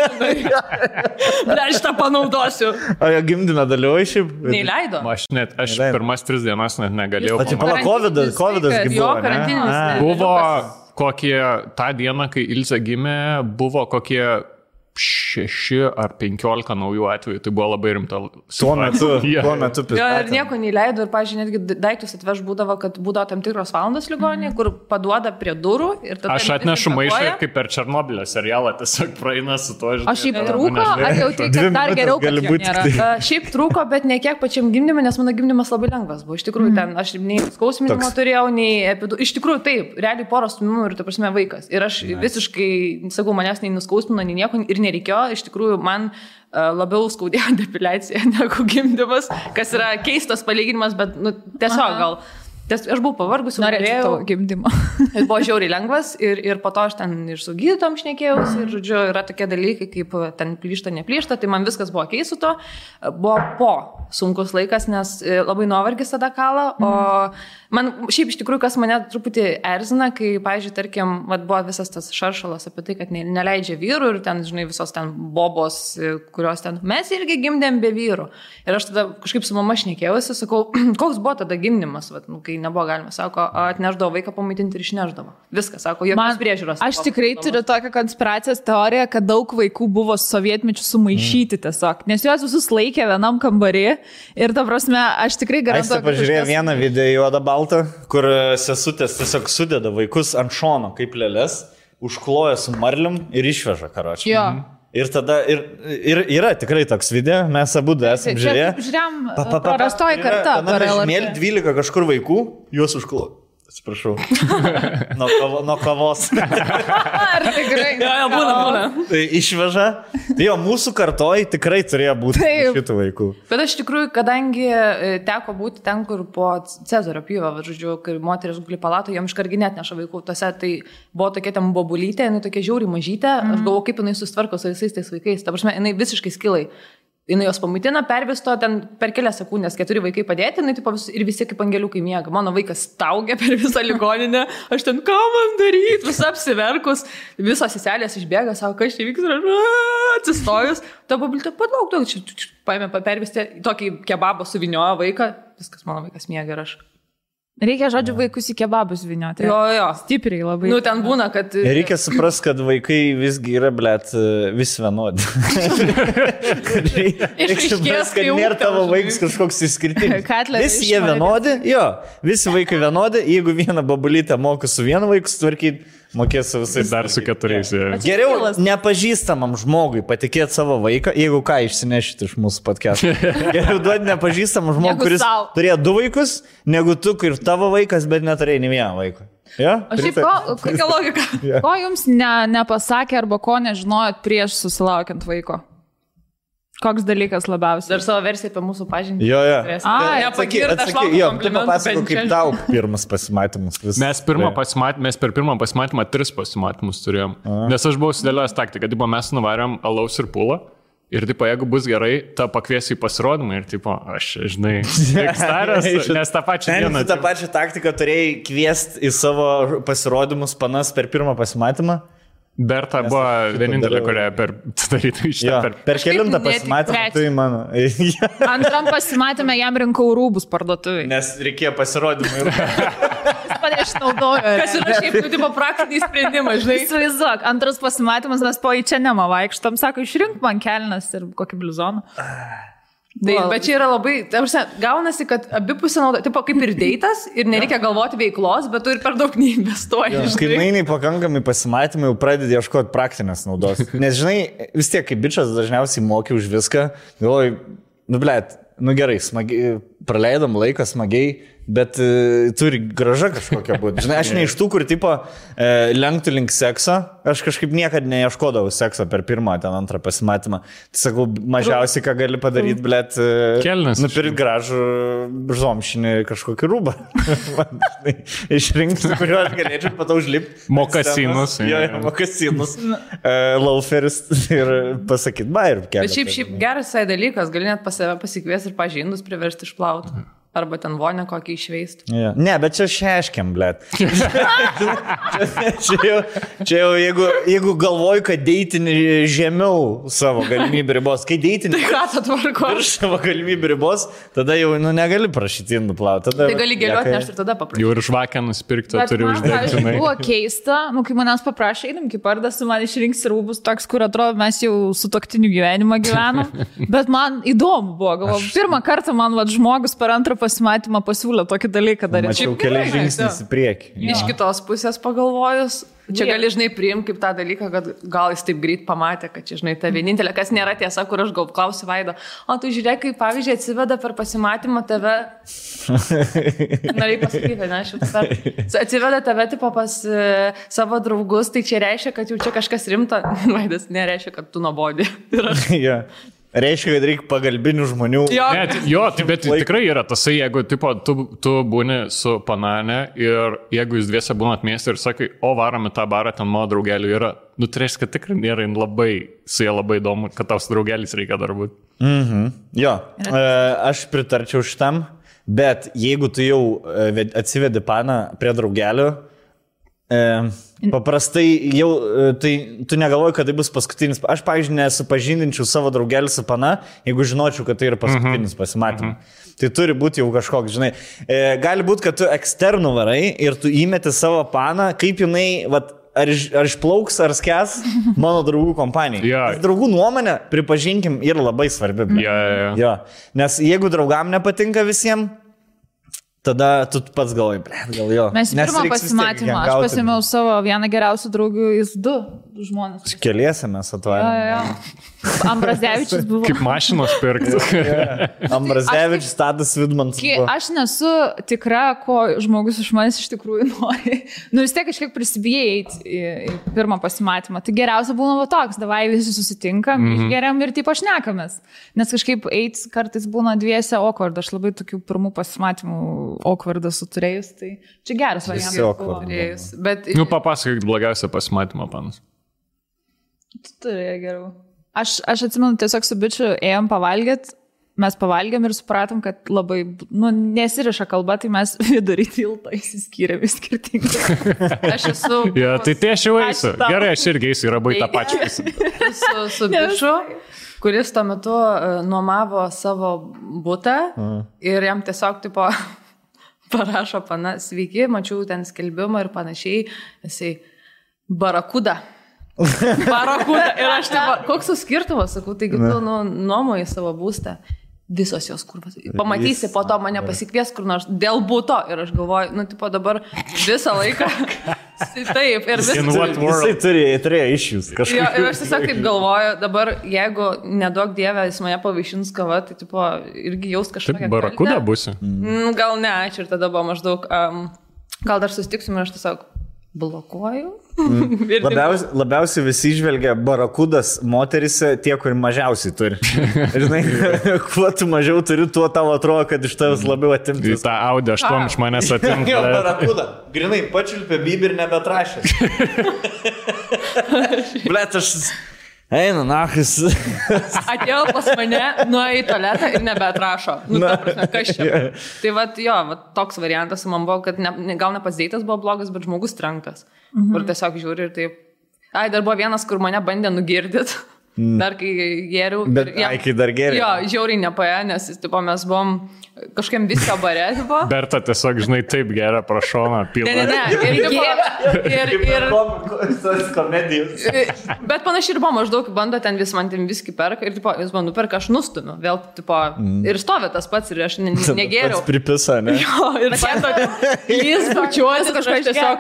dar šitą panaudosiu. O jo gimdyme dalyvauji šiaip? Neįleido. Aš pirmas 3 dienas net negalėjau. O tai pala, Covidas buvo, ne? Buvo kokie, tą dieną, kai Ilze gimė, buvo kokie 6 ar 15 naujų atvejų, tai buvo labai rimta. Tuo metu ir nieko neįleido ir, pažiūrėjau, netgi daiktus atveš būdavo, kad būdavo tam tikros valandos ligoninė, kur paduoda prie durų. Aš atnešu maišą ir kaip per Černobylio serialą tiesiog praeina su to. O šiaip trūko, ar jau tai, kad dar geriau, kad jo nėra? Šiaip trūko, bet ne kiek pačiam gimdymui, nes mano gimdymas labai lengvas buvo. Iš tikrųjų, ten aš nei skausminimo turėjau, nei iš tikrųjų taip, realiai poros stumimų ir, ta prasme, vaikas. Ir aš visiškai, sakau, manęs nei nuskausmino, nei nieko ir nereikėjo. Iš tikrųjų, man labiau skaudėjo depiliacija negu gimdymas, kas yra keistas palyginimas, bet tiesiog gal Aš buvau pavargusi, norėjau tavo gimdymo. Buvo žiauriai lengvas ir po to aš ten ir su gydytom šnekėjausi ir, žodžiu, yra tokie dalykai, kaip ten plyšta, neplyšta, tai man viskas buvo keis su to. Buvo po sunkus laikas, nes labai nuovargis tada kala, o man šiaip iš tikrųjų, kas mane truputį erzina, kai, pavyzdžiui, tarkim, buvo visas tas šaršalas apie tai, kad neleidžia vyrų ir ten, žinai, visos ten bobos, kurios ten, mes irgi gimdėm be vyrų. Ir aš tada kažkaip su mama šnekėjausi, sakau, koks buvo tada gimdymas, kai nebuvo galima, sako, atneždavo vaiką pamaitinti ir išneždavo. Viskas, sako, jokios priežiūros. Aš tikrai turiu tokią konspiracijos teoriją, kad daug vaikų buvo sovietmečių sumaišyti tiesiog, nes juos visus laikė vienam kambarį ir, ta prasme, aš tikrai garantuoju. Aš pažiūrėjau vieną video juodą baltą, kur sesutės tiesiog sudeda vaikus ant šono kaip lėlės, užkloja su marlium ir išveža karočią. Jo. Ir tada, ir yra tikrai toks video, mes abu esame žiūrėję. Žiūrėjom, prarastoji karta. Mėly 12 kažkur vaikų, juos užkloja. Atsiprašau. Nuo kavos. Ar tikrai? Jo, būna. Tai išveža. Tai jo, mūsų kartoj tikrai turėjo būti šitų vaikų. Bet aš tikrųjų, kadangi teko būti ten, kur po Cezario pjūvio, žodžiu, kai moteris guli palato, jam iškargi net neša vaikų. Tose tai buvo tokia ten bobulytė, jinai tokia žiauriai mažytė. Aš galvoju, kaip jinai susitvarko su visais tais vaikais. Ta prasme, jinai visiškai skilai. Jinai jos pamaitina, pervisto, ten per kelias sekundės 4 vaikai padėti, jinai tipo, ir visi kaip angeliukai miega. Mano vaikas staugia per visą ligoninę, aš ten, ką man daryti, visą apsiverkus, visos seselės išbėga, savo, kas čia vyks, ir atsistojus, ta pabiltė, palauk, paėmė pervisti, tokį kebabą suviniojo vaiką, viskas, mano vaikas miega ir aš. Reikia, žodžiu, vaikus į kebabus vinioti. Jo. Stipriai labai. Nu, ten būna, kad... Reikia suprasti, kad vaikai visgi yra, blėt, vis vienodi. Reikia suprasti, kad nėra tavo vaikas kažkoks išskirtinis. Visi jie vienodi, jo, visi vaikai vienodi, jeigu vieną babulytę moka su vienu vaiku sutvarkyti, mokės su visais. Dar su 4. Geriau nepažįstamam žmogui patikėti savo vaiką, jeigu ką išsinešit iš mūsų podcast'o. Geriau duoti nepažįstamam žmogui, kuris turėjo 2 vaikus, negu tu ir tavo vaikas, bet neturėjai nei vieną vaiką. Ja? O šiaip kokia logika? Ko jums nepasakė arba ko nežinojot prieš susilaukiant vaiko? Koks dalykas labiausiai? Dar savo versiją apie mūsų pažintį. Jo. Atsakyk, tu papasako, kaip tau pirmas pasimatymas. Mes per pirmą pasimatymą 3 pasimatymus turėjom. Nes aš buvau sudėliojęs taktiką, kad mes nuvarėm alaus ir pūlą. Ir tipo, jeigu bus gerai, ta pakviesiu į pasirodymą ir tipo, aš, žinai, staręs, nes tą pačią dieną. Tu tą pačią taktiką turėjai kviesti į savo pasirodymus panas per pirmą pasimatymą? Berta buvo vienintelė, kurią darytų iš tą per kelintą pasimatymą, tai mano. Antram pasimatymą jam rinkau rūbus parduotuvai. Nes reikėjo pasirodymą ir... Jis mane išnaudojo. Kas yra šiaip, tipo, praktiniai sprendimai, žinai. Įsivaizduok, antras pasimatymas, mes po į čia nemą vaikštom, sako, išrink man kelnes ir kokį blizoną. Tai, bet čia yra labai, gaunasi, kad abipusė nauda, tipo kaip ir deitas ir nereikia galvoti veiklos, bet tu ir per daug neinvestuoji. Kai mainiai pakankamai pasimatymai, jau pradedi ieškoti praktinės naudos. Nes žinai, vis tiek kaip bičas dažniausiai moki už viską, galvoju, gerai, smagiai, praleidom laiką smagiai, bet turi graža kažkokia būti. Žinai, aš ne iš tų, kur tipo lenktų link sekso, aš kažkaip niekada neieškodavau sekso per pirmą, ten antrą pasimatymą. Tai sakau, mažiausiai, ką gali padaryti, blėt, nupirkti gražų žomšinį kažkokį rūbą. Išrinkti, kuriuo aš galėčiau patau užlipti. Mokasinus. Mokasinus. Lauferis ir pasakyti, ir kelią. Bet šiaip geras dalykas, gali net pas save pasikviesti ir pažindus priversti išplauti. Arba ten vonę kokį išveistų. Ja. Ne, bet čia šeškiam, blėt. Čia jau, jeigu galvoju, kad deitinį žemiau savo galimybių ribos, kai deitinį virš savo galimybių ribos, tada jau negali prašyti nuplauti. Tai gali gėlioti nešti ir tada paprašyti. Jau ir žvakę nusipirkti, turi uždegti. Buvo keista, kai manęs paprašė, einam kaip pardas, man išrinks rūbus toks, kur atrodo mes jau su toktiniu gyvenimą gyvenam. Bet man įdomu buvo, galvoju, pirmą kartą man žmogus per antrą pasimatymą pasiūlė tokį dalyką daryti. Mačiau kelias žingsnis į priekį. Iš kitos pusės pagalvojus, čia gali, žinai, priimti kaip tą dalyką, kad gal jis taip greit pamatė, kad čia, žinai, ta vienintelė, kas nėra tiesa, kur aš gal klausiu Vaido, o tu žiūrėk, kaip pavyzdžiui atsiveda per pasimatymą tave, norėjai pasakyti, ne, atsiveda tave tipo pas savo draugus, tai čia reiškia, kad jau čia kažkas rimta, Vaidas nereiškia, kad tu nuobodi. Ja. Reiškia, kad reikia pagalbinių žmonių. Bet tikrai yra tasai, jeigu tipo, tu būni su panane ir jeigu jūs dviese būnat mieste ir sakai, o varome tą barą, ten mano draugelių yra, nu tai reiškia, kad tikrai nėra labai, su jie labai įdomu, kad tau su draugelis reikia dar būti. Jo, aš pritarčiau šitam, bet jeigu tu jau atsivedi paną prie draugelių, paprastai jau, tai tu negalvoji, kad tai bus paskutinis. Aš, pavyzdžiui, nesupažindinčiau savo draugelį su pana, jeigu žinočiau, kad tai yra paskutinis pasimatymas. Tai turi būti jau kažkoks, žinai. Gali būti, kad tu eksternų varai ir tu įmeti savo paną, kaip jinai, vat, ar išplauks, ar skęs mano draugų kompanijai. Draugų nuomonė, pripažinkim, yra labai svarbi. Jo. Nes jeigu draugam nepatinka visiems, tada tu pats galvoji, gal jo. Mes pirmą pasimatymą, aš pasimiau savo vieną geriausių draugų, jis 2 žmonės. Keliese mes atvarėme. Ambrazevičius buvo. Kaip mašinos pirkti. Ambrazevičius, Tadas Vidmantas. Aš nesu tikra, ko žmogus iš manęs iš tikrųjų nori. Nu vis tiek kažkiek prisibijai eiti į pirmą pasimatymą. Tai geriausia būna toks, davai visi susitinkam, geriam ir taip aš nekamės. Nes kažkaip eiti kartais būna dviese awkward. Aš labai tokių pirmų pasimatymų awkwardą suturėjus. Tai čia geras variantas. Bet... Nu papasakok blogiausią pasimatymą, panas. Tu turėjai geriau. Aš atsimenu, tiesiog su bičiu ėjom pavalgyti, mes pavalgėm ir supratom, kad labai, nesiriša kalba, tai mes vidury tilto įsiskyrėm į skirtingai. Aš esu... Tai aš jau eisiu. Gerai, aš irgi eisiu, yra bai tą pačią. Su bičiu, kuris tuo metu nuomavo savo butą ir jam tiesiog tipo parašo pana, sveiki, mačiau ten skelbimą ir panašiai, jisai barakuda. Barakuda. Ir aš taip, koks skirtumas, sakau, taigi tu nuomoji savo būstą. Visos jos kurvas. Pamatysi, po to mane pasikvies kur nors dėl būto. Ir aš galvoju, tipo dabar visą laiką. Taip, ir Jisai turėjo išjus kažkaip. Ir aš tiesiog taip galvoju, dabar jeigu nedaug dievę jis mane pavaišins kava, tai tipo irgi jaus kažkokią. Taip, barakuda būsi? Gal ne, ačiū. Ir tada buvo maždaug, gal dar susitiksim ir aš tiesiog blokuoju. Labiausiai visi žvelgia barakudas moterise tie, kur mažiausiai turi. Žinai, kuo tu mažiau turi, tuo tau atrodo, kad iš tavęs labiau atimti. Tai tą Audi 8 iš manęs atimti. Jo, barakuda. Grinai, pačiulpė bibį ir nebetrašė. Blet, aš... Eina, nachis. Atėjo pas mane, nuėjo į tualetą ir nebeatrašo. Ta prasme, kas čia? Tai toks variantas man buvo, kad gal ne pats deitas buvo blogas, bet žmogus trenktas. Kur tiesiog žiūri ir taip. Dar buvo vienas, kur mane bandė nugirdyti. Dar kai geriau. Bet kai dar geriau. Jo, žiauriai nepaėjo, nes mes buvom kažkiam viskio bare. Berta tiesiog, žinai, taip geria prašoną pilną. Ir komedijos. Bet panašiai ir buvo maždaug, bando ten vis man ten viskį perka ir jis man nuperka, aš nustumiu. Vėl, ir stovi tas pats ir aš negeriau. Pats pripisa, ne? Jo, ir jis bučiuosi, kažkas tiesiog,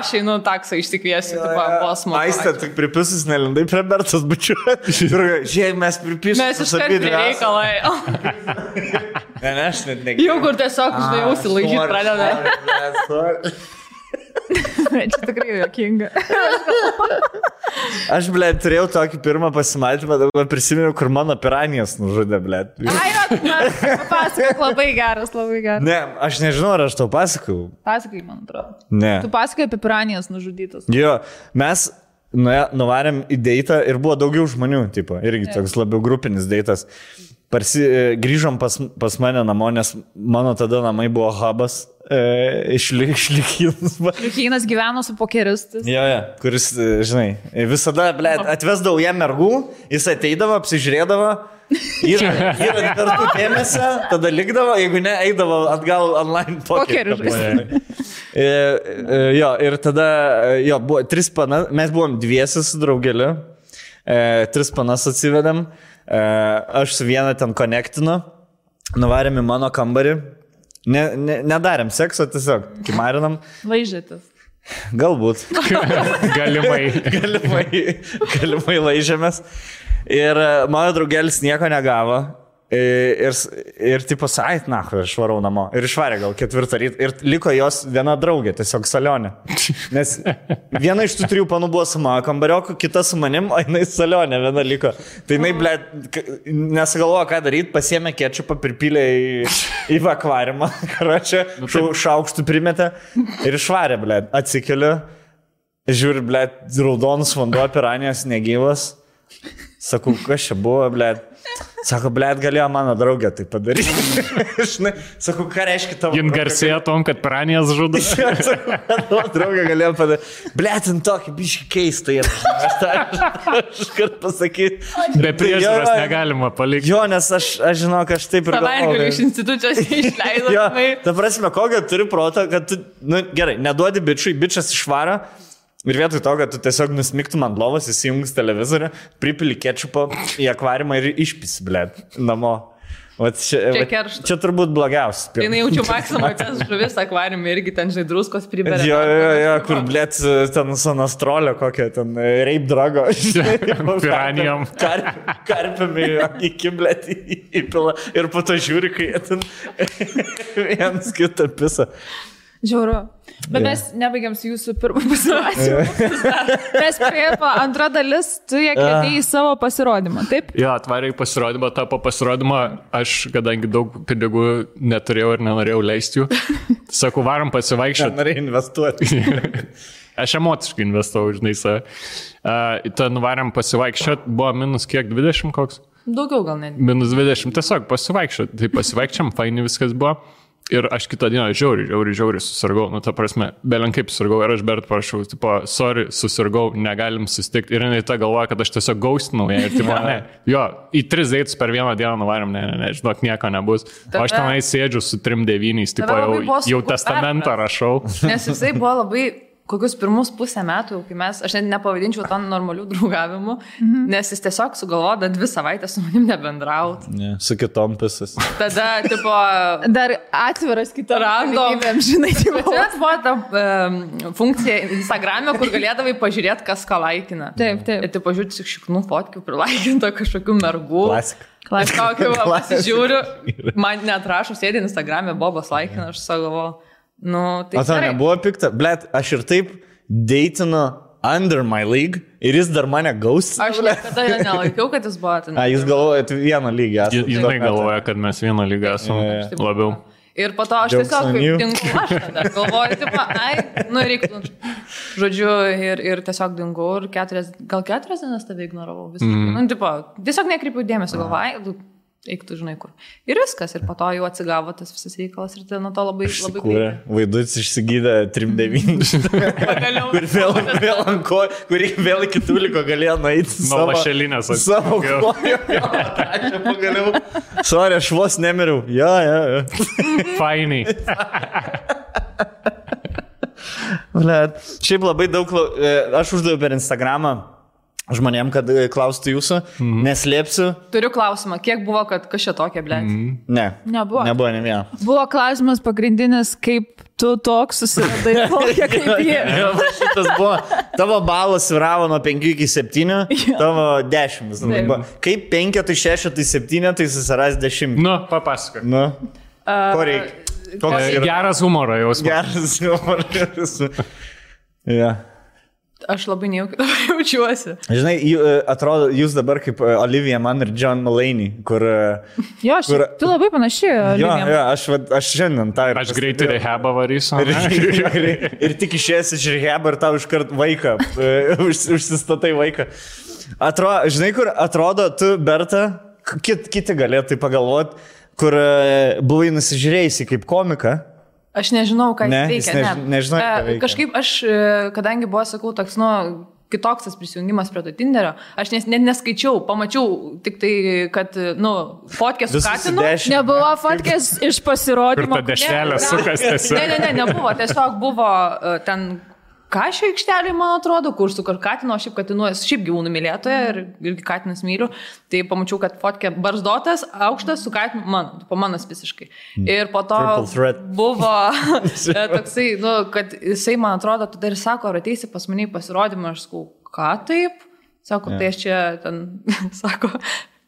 aš einu taksą išsikviesiu, posmo. Aistė, tik pripisus nelindai prie Bertos bučiuosi. Žiūrėk, mes pripišėm. Mes iškart prie reikalai. Ne, aš net negeriau. Jau kur tiesiog, žinai, užsilaižyti pradeda. Čia tikrai juokinga. Aš, blėt, turėjau tokį pirmą pasimatymą, dabar prisimenu, kur mano piranijas nužudė, blėt. Pasakok, labai geras. Ne, aš nežinau, ar aš tau pasakau. Pasakai, man atrodo. Ne. Tu pasakai apie piranijas nužudytas. Jo, mes nuvarėm į deitą ir buvo daugiau žmonių, tipo, irgi toks labiau grupinis deitas. Grįžom pas mane namo, nes mano tada namai buvo hubas iš Liukynas. Liukynas gyveno su pokeristais. Jo, kuris, žinai, visada, blėt, atvesdavau jam mergų, jis ateidavo, apsižiūrėdavo, ir kartu dėmesio, tada likdavo, jeigu ne, eidavo atgal online pokerį. Jo, ir tada, buvo 3 panas, mes buvom dviesis su draugeliu, 3 panas atsivedėm, aš su vieną ten konektinu, nuvarėm į mano kambarį, nedarėm sekso, tiesiog kimarinam. Laižėtis. Galbūt. Galimai laižėmės. Ir mano draugelis nieko negavo. Ir tipo, ait, na, aš varau namo. Ir išvarė gal 4 ryto. Ir liko jos viena draugė, tiesiog Salionė. Nes viena iš tų 3 panų buvo su mano kambarioku, kita su manim, o jinai Salionė viena liko. Tai jinai, ble, nesugalvojo, ką daryti, pasiėmė kečupą, pripylė į akvariumą, karočią, šaukštų primetė ir išvarė, ble, atsikeliu, žiūri, ble, raudonus vanduo, piranijas negyvas. Sakau, kas čia buvo, ble. Sako, blėt, galėjo mano draugė tai padaryti. Sakau, ką reiškia tavo... Jin garsėjo tom, kad piranijas žudo. Tavo draugė galėjo padaryti. Blėt, tokį biškį keistą ir aš kart pasakyti. Be priežiūros negalima palikti. Jo, nes aš žinau, kad aš taip ir galvoju. Savaitgalį iš institucijos išleidau. Jo, ta prasme, kokią turi protą, kad tu, nu gerai, neduodi bičiui, bičias išvaro. Ir vietoj to, kad tu tiesiog nusmiktum ant lovos, įsijungus televizorių, pripili kečupo į akvariumą ir išpisi, blėt, namo. Čia turbūt blogiausias. Tai jaučiu maksimą, tas žuvis akvariumą irgi ten, žinai, druskos priberia. Jo, kur, blėt, ten sanastrolio kokią, ten rape drago. Piranijom. Karpiami iki, blėt, įpila. Ir po to žiūri, kai jie ten vienas kitą pisa. Žiauru. Bet mes nebaigiam su jūsų pirmą pasirodymą. Mes priepo antra dalis, tu ją kvietei į savo pasirodymą, taip? Jo, atvarė į pasirodymą, po pasirodymą aš, kadangi daug pinigų neturėjau ir nenorėjau leisti jų, sakau, varom pasivaikščioti. Norėjau investuoti. Aš emociškai investavau, žinai, save. Ten varom pasivaikščioti, buvo minus kiek, 20 koks? Daugiau gal net. Minus 20, tiesiog pasivaikščioti. Tai pasivaikščiam, faini viskas buvo. Ir aš kitą dieną žiauriai susirgau, nu ta prasme, belenkaip susirgau ir aš Bert parašau, tipo, sorry, susirgau, negalim susitikti. Ir jinai ta galvoja, kad aš tiesiog gaustinau ją ir tipo, ne, jo, į 3 deitus per vieną dieną nuvarėm, ne, žinok, nieko nebus. O aš tenai sėdžiu su 3-9, tipo, jau testamentą rašau. Nes jisai buvo labai... Kokius pirmus 1,5 metų, kai aš net nepavadinčiau to normalių draugavimu, nes jis tiesiog sugalvojo 2 savaitės su manim nebendrauti. Su kitom pisas. Tada, tipo... Dar atviras kitom galimybėm, žinai, tipo. Čia buvo ta funkcija Instagram'e, kur galėdavai pažiūrėti, kas ką laikina. Taip. Ir tai pažiūrėti tik šiknų fotkių, prilaikinto kažkokių mergų. Klasika. Kažkokį pasižiūriu, man neatrašo, sėdė Instagram'e, Bobas laikina, aš savo... Nu, tai o tau nebuvo pikta? Blet, aš ir taip deitinu under my league ir jis dar mane gaustina. Aš niekada nelaikiau, kad jis buvo ten. Jūs galvojate vieną lygį. Jinai galvoja, kad mes vieną lygą esame labiau. Ir po to aš tiesiog dingau, aš tada galvoju, tipo, reiktų. Žodžiu, ir tiesiog dingau ir gal 4 dienas tave ignoravau. Nu, tipo, tiesiog nekreipiau dėmesio, galvoju, eiktų, žinai, kur. Ir viskas, ir po to jau atsigavo tas visas reikalas ir tai nuo to labai greitai. Vaidutis išsigydė 3-9. Kur ant ko, kurį vėl iki tuliko galėjo nueiti. Nuo lašelinės. Savo kojo. Aš pagaliau. Sorry, aš vos nemiriau. Jo. Fainai. Šiaip labai daug, aš uždaviau per Instagramą žmonėm, kad klaustų jūsų, neslėpsiu. Turiu klausimą, kiek buvo, kad kas čia tokia, blėt? Ne. Nebuvo. Nebuvo ne vieno. Buvo klausimas pagrindinis, kaip tu toks susiradai tokia kaip jie. Šitas buvo, tavo balas sviravo nuo 5 iki 7, tavo 10. Kaip 5, tai 6, tai 7, tai susiras 10. Nu, papasakok. Nu, ko reikia? Geras humoro jausmas. Geras humoro jausmas. Ja. Aš labai nejaukiai dabar jaučiuosi. Žinai, atrodo, jūs dabar kaip Olivia Mann ir John Mulaney, kur... Jo, tu labai panaši. Jo, aš šiandien tą ir... Aš greitai rehabą varysiu. Ir tik išėjęs iš rehabą ir tau iškart vaiką, užsistatai vaiką. Žinai, kur atrodo, tu, Berta, kiti galėtų pagalvoti, kur buvai nusižiūrėjusi kaip komika. Aš nežinau, ką jis veikia. Nežinau, ką veikia. Kažkaip aš, kadangi buvo, sakau, toks, kitoks tas prisijungimas prie to Tinderio, aš net neskaičiau, pamačiau tik tai, kad, fotkė su Katinu. Nebuvo fotkės iš pasirodymo. Kur ta dešrelė sukas tiesiog. Ne, nebuvo, tiesiog buvo ten... Kašio aikštelė, man atrodo, kur su Katinu, šiaip Katinu, šiaip gyvūnų mylėtoja ir Katinas myliu, tai pamačiau, kad fotkė barzdotas, aukštas su Katinu, manas visiškai. Ir po to buvo toksai, kad jisai, man atrodo, tu dar sako, ar ateisi pas mane į pasirodymą, aš sakau, ką taip? Sako, tai aš čia,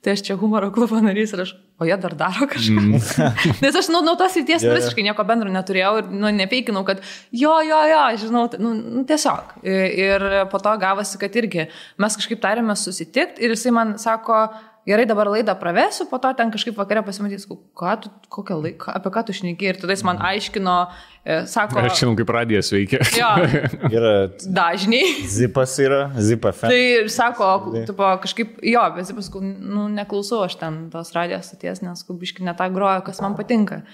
tai aš čia humoro klubo narys ir aš, o jie dar daro kažką. Nes aš nuo tos ryties visiškai nieko bendro neturėjau ir nepeikinau, kad jo, žinau, tiesiog. Ir po to gavosi, kad irgi mes kažkaip tarėme susitikti ir jisai man sako, gerai, dabar laidą pravesiu, po to ten kažkaip vakare pasimatys, kokią laiką, apie ką tu šneki. Ir tada jis man aiškino, sako... Aš žinau, kaip radijas veikia. Jo, Yra dažniai. Zipas yra, Zipa fan. Tai sako, tipo, kažkaip, jo, bet Zipas, neklausau aš ten tos radijos stoties, nes biškai ne tą groju, kas man patinka.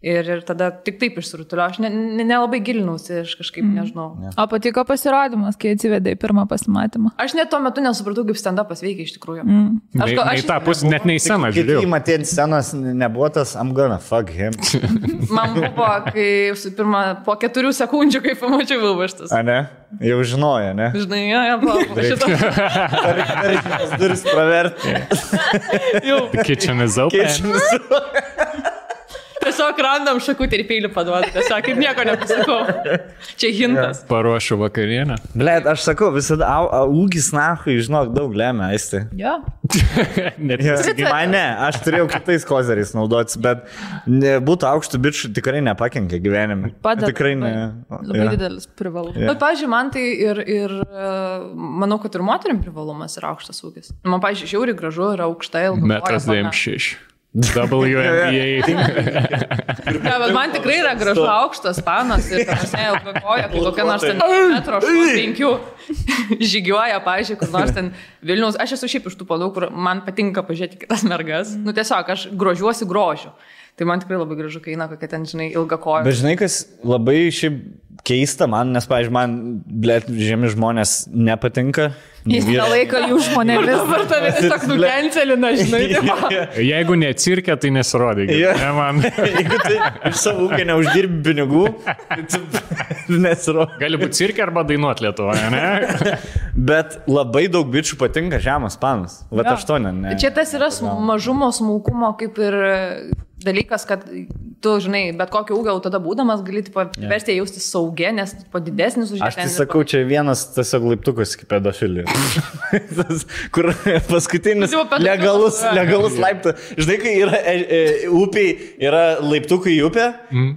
Ir tada tik taip išsirutulio, aš nelabai gilinausi, aš kažkaip nežinau. O patiko pasirodymas, kai atsivedė į pirmą pasimatymą? Aš net tuo metu nesupratau, kaip stand-upas veikia iš tikrųjų. Aš tą pusę net nei sceną žiūrėjau. Kai matė scenos nebuvo tas, I'm gonna fuck him. Man buvo, kai pirmą, po 4 sekundžių, kai pamačiau Vilvaštas. A ne? Jau žinojo, ne? Žinai, buvo šitą. Reikia duris praverti. Kitchen is open. Tiesiog randam šakutį ir peilį paduoti, tiesiog kaip nieko nepasakau. Čia hintas. Paruošiu vakarienę. Blet, aš sakau, visada ūgis nahui, žinok, daug lemia, aisti. Jo. Man ne, aš turėjau kitais kozeriais naudotis, bet būtų aukštų bičių tikrai nepakenkia gyvenime. Padeda. Tikrai ne. Labai didelis privalumas. Bet, pavyzdžiui, man tai ir manau, kad ir moterim privalumas yra aukštas ūgis. Man, pavyzdžiui, žiauriai gražu yra aukšta ilga. 1,96 m. WNBA. Ja, bet man tikrai yra gražu aukštas panas ir ilga koja, kai kokia nors ten 1,5 m žygiuoja, pavyzdžiui, kur nors ten Vilniaus. Aš esu šiaip iš tų panų, kur man patinka pažiūrėti kitas mergas. Tiesiog aš grožiuosi grožiu. Tai man tikrai labai gražu, kai eina kokia ten, žinai, ilga koja. Bet žinai, kas labai šiaip keista man, nes, pavyzdžiui, man, blet, žemi žmonės nepatinka. Jis nelaiko jų žmonėmis. Dabar tave tiesiog nukencelina, žinai. Jeigu ne cirke, tai nesirodė. Ne man. Jeigu tai iš savo ūkio neuždirbi pinigų, tai nesirodė. Gali būti cirke arba dainuot Lietuvoje, ne? Bet labai daug bičių patinka žemas panas. Vat aš to ne. Čia tas yra mažumo, smulkumo kaip ir dalykas, kad tu, žinai, bet kokio ūgio tada būdamas gali versti jausti saugė, nes didesnis už ją. Aš tai sakau, čia vienas tiesiog laiptukas kaip pedofilija. Kur paskutinis legalus laiptas. Žinai, kai yra upiai, yra laiptukai į upę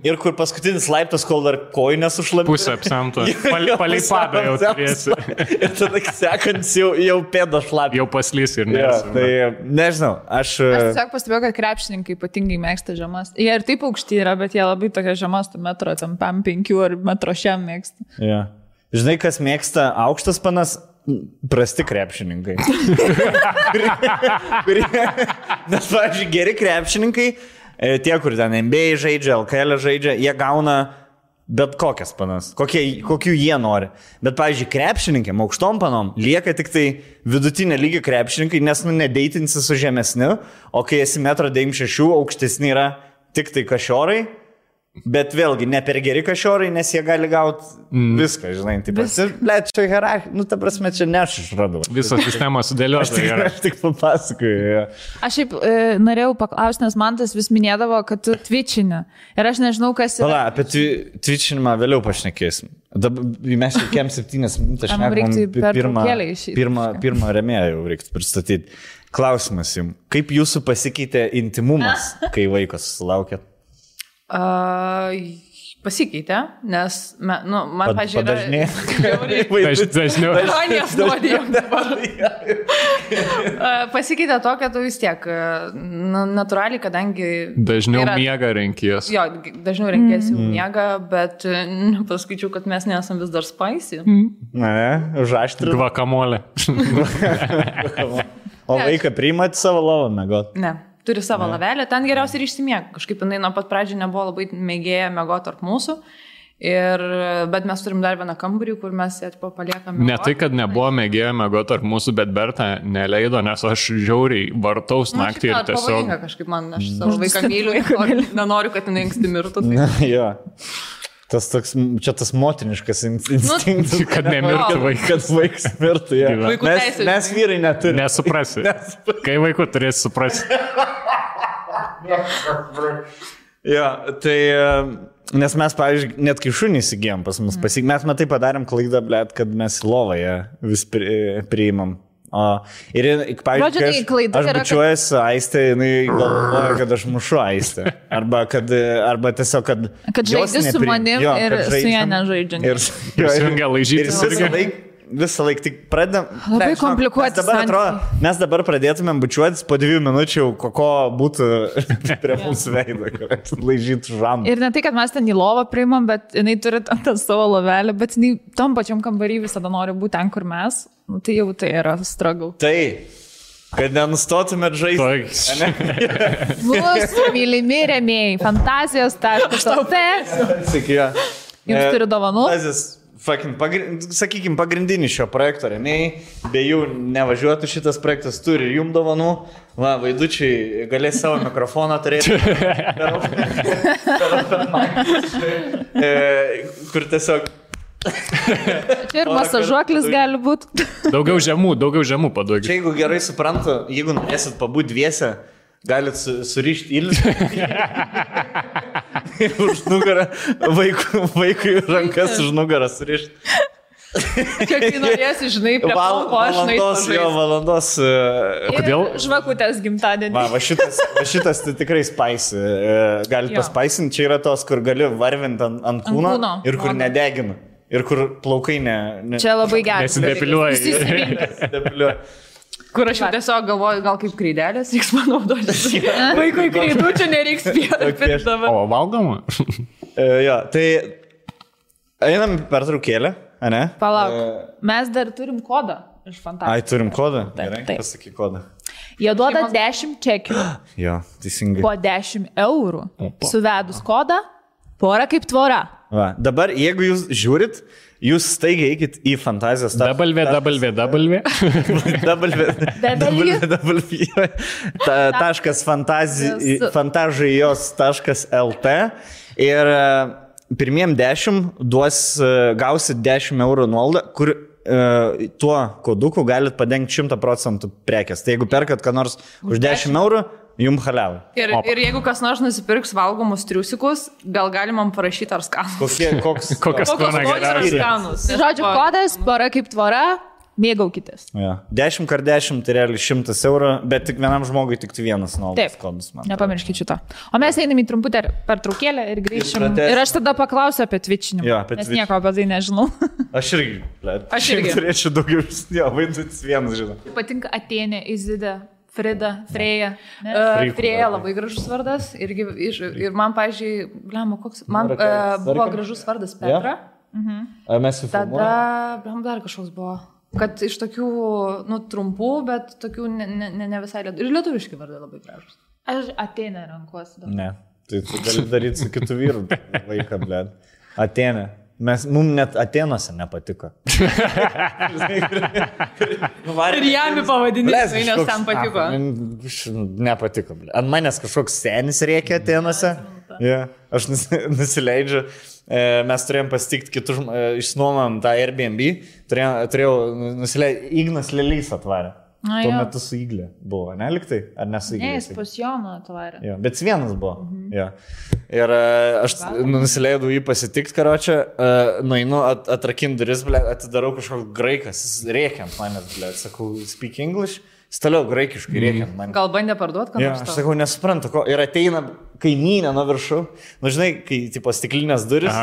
ir kur paskutinis laiptas, kol dar kojų nesušlapė. Pusę apsemto. Palei padą jau turėsi. Ir tada sekant jau pėda šlapė. Jau paslys ir nes. Tai nežinau, aš tiesiog pastebėjau, kad krepšininkai ypatingai mėgsta žemas. Jie ir taip aukšti yra, bet jie labai tokia žemas, tu metro, ten 5 ar metro šiam mėgsta. Ja. Žinai, kas mėgsta aukštas panas? Prasti krepšininkai. Nes, pavyzdžiui, geri krepšininkai, tie, kur ten NBA žaidžia, LKL žaidžia, jie gauna bet kokias panas, kokių jie nori. Bet, pavyzdžiui, krepšininkėm, aukštom panom, lieka tik tai vidutinė lygio krepšininkai, nes nedeitinsi su žemesniu, o kai esi 1,96 m, aukštesni yra tik tai kašiorai, bet vėlgi ne per geri kašiorai, nes jie gali gauti viską, žinai. Blet, čia hierarchija, ta prasme, čia ne aš išradau. Visą sistemą sudėlioti. Aš tik papasakoju. Ja. Aš šiaip norėjau paklausti, nes man tas vis minėdavo, kad tu twitchini. Ir aš nežinau, kas yra. Pala, apie twitchinimą vėliau pašnekėsim. Mes jau kem 7 minutės šnekam, pirmą remėją jau reiktų pristatyti. Klausimas jums, kaip jūsų pasikeitė intimumas, kai vaikas sulaukėt? Pasikeitė, nes, man, pažiūrėjau, dažniau. Pasikeitė to, kad tu vis tiek, natūraliai, kadangi... Dažniau miega renkies. Jo, dažniau renkies jau miega, bet paskaičiau, kad mes nesam vis dar spicy. Ne, užaštri. Gvakamolė. O vaiką priimat savo lovą mėgot? Ne. Turi savo lavelę, ten geriausiai ir išsimiega. Kažkaip jinai nuo pat pradžių nebuvo labai mėgėję mėgoti tarp mūsų. Bet mes turim dar vieną kambarį, kur mes ją paliekame. Ne tai, kad nebuvo mėgėję mėgoti tarp mūsų, bet Berta neleido, nes aš žiauriai vartaus naktį ir tiesiog... Pavojinga kažkaip man, aš savo vaiką myliu ir nenoriu, kad jinai anksti mirtų. Jo. Čia tas motiniškas instinktas, kad nemirtų vaikas. Kad vaikas mirtų, ja. Mes vyrai neturime. Nesuprasi. Kai vaikų turės suprasti. Jo, tai, nes mes, pavyzdžiui, net kai šunį įsigijom pas mus, mes matai padarėm klaidą, blėt, kad mes lovoje vis priimam Ir, pavyzdžiui, Žodžiu, tai klaida aš yra, bučiuojuosi Aistę, jinai galvoja, kad aš mušu Aistę. Arba tiesiog, kad žaidži su manim ir su ją nežaidžiant. Ir Sungia laižyti. Visą laiką tik pradedam. Labai komplikuoti. Mes dabar pradėtumėm bučiuotis po 2 minučių, ko būtų prie mūsų veido, kad laižytų žamą. Ir ne tai, kad mes ten į lovą priimam, bet jinai turi tą savo lovelę, bet jinai tom pačiam kambarį visada nori būti ten, kur mes. Nu, tai jau tai yra struggle. Tai, kad nenustotumėt žaisti. Mūsų mylimi rėmėjai, fantazijos.lt. Jums turi dovanų? Sakykime, pagrindinį šio projekto rėmėjai, be jų nevažiuotų šitas projektas, turi ir jums dovanų. Va, vaidučiai galės savo mikrofoną turėti. Kur tiesiog... Čia ir masažuoklis gali būti. Daugiau žemų paduokit. Čia jeigu gerai suprantu, jeigu norėsit pabūti dviese, galit surišti ilgį. Ir už nugarą vaikui rankas už nugarą surišti. Kiek tai norėsi, žinai, prie palko, aš valandos. Kodėl? Žvakutės gimtadienį. Va šitas tai tikrai spaisi. Galit paspaisinti, čia yra tos, kur gali varvinti ant kūno ir kur nedegina. Ir kur plaukai ne... Čia labai geras. Nesidepiliuoja. Kur aš jau tiesiog galvoju, gal kaip kreidelės reiks panaudoti. Vaikui kreidų čia nereiks pirkti dabar. O, valgoma? Jo, tai einam per traukėlę, ne? Palauk, mes dar turim kodą iš fantazijos. Ai, turim kodą? Taip. Pasakyk kodą. Jie duoda 10 čekių. Jo, teisingai. Po 10 eurų. Suvedus kodą, pora kaip tvora. Va, dabar, jeigu jūs žiūrit, jūs staigiai eikit į fantazijos fantazijos.lt ir pirmiem 10 gausit 10 eurų nuolaidą, kur tuo koduku galit padengti 100% prekės. Tai jeigu perkat ką nors už 10 eurų, jums haliavai. Ir jeigu kas nors nusipirks valgomus triusikus, gal galima parašyti ar skanus. Kokios skonis ar skanus. Žodžiu, kodas, pora kaip tvora, mėgaukitės. Ja. 10x10 tai realiai 100 eurų, bet tik vienam žmogui tik vienas nuolaidos kodas. Nepamirškit šito. O mes einam į trumputę pertraukėlę ir grįšim. Ir aš tada paklausiu apie twitchinimą. Jo, nes nieko apie tai nežinau. Aš irgi turėčiau daugiau, vaidintis vienas, žinau. Patinka Atėnė, Izida. Frida, Freja. Freja labai gražus vardas. Ir man, pavyzdžiui, man buvo gražus vardas Petra. Ar mes jau tada, dar kažkoks buvo. Kad iš tokių, trumpų, bet tokių ne visai lietuviški. Ir lietuviški vardai labai gražus. Aš Atėnę renkuosi. Ne, tai tu gali daryti su kitu vyru vaiką, blėd. Atėnė. Mums net Atenuose nepatiko. Ir jam į pavadinimą, nes ten patiko. Nepatiko. Ant manęs kažkoks senis rėkia Atenuose. Aš nusileidžiu. Mes turėjom pasitikti kitus, išnuomam tą Airbnb. Turėjau nusileidžiu. Ignas Lelys atvarė. Tuo metu su Iglė buvo, ne liktai? Ar ne su Iglė? Ne, jis pas Joną atvarė. Jo, bet vienas buvo. Jo. Ir aš nusileidau jį pasitikti, karočią, nueinu, atrakinu duris, atidarau kažkoks graikas, jis rėkia ant manęs, sakau, speak English, jis toliau graikiškai rėkia ant manęs. Gal bandė parduoti, ką nors? Aš sakau, nesuprantu, ko. Ir ateina kaimynė nuo viršų, žinai, kai tipo stiklinės duris,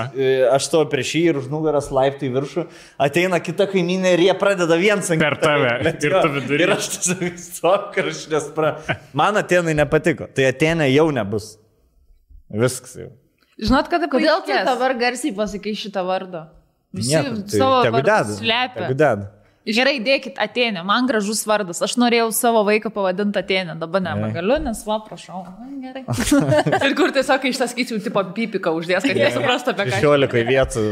aš stoju prieš jį ir už nugaras laiptai viršų, ateina kita kaimynė ir jie pradeda viens ant per tave. Ir aš tiesiog stok, ir aš nesprantu. Man Atėnai nepatiko, tai Atėnė jau nebus. Viskas jau. Žinot, kada kodėl tu dabar garsiai pasakai šitą vardą? Visi savo vardus slepia. Gerai, dėkit Atėnė, man gražus vardas. Aš norėjau savo vaiką pavadinti Atėnė, dabar nebegaliu, nes prašau. Gerai. Ir kur tiesiog iš tas skaičių tipo pipiką uždės, kad nesuprastų apie ką. 16 vietų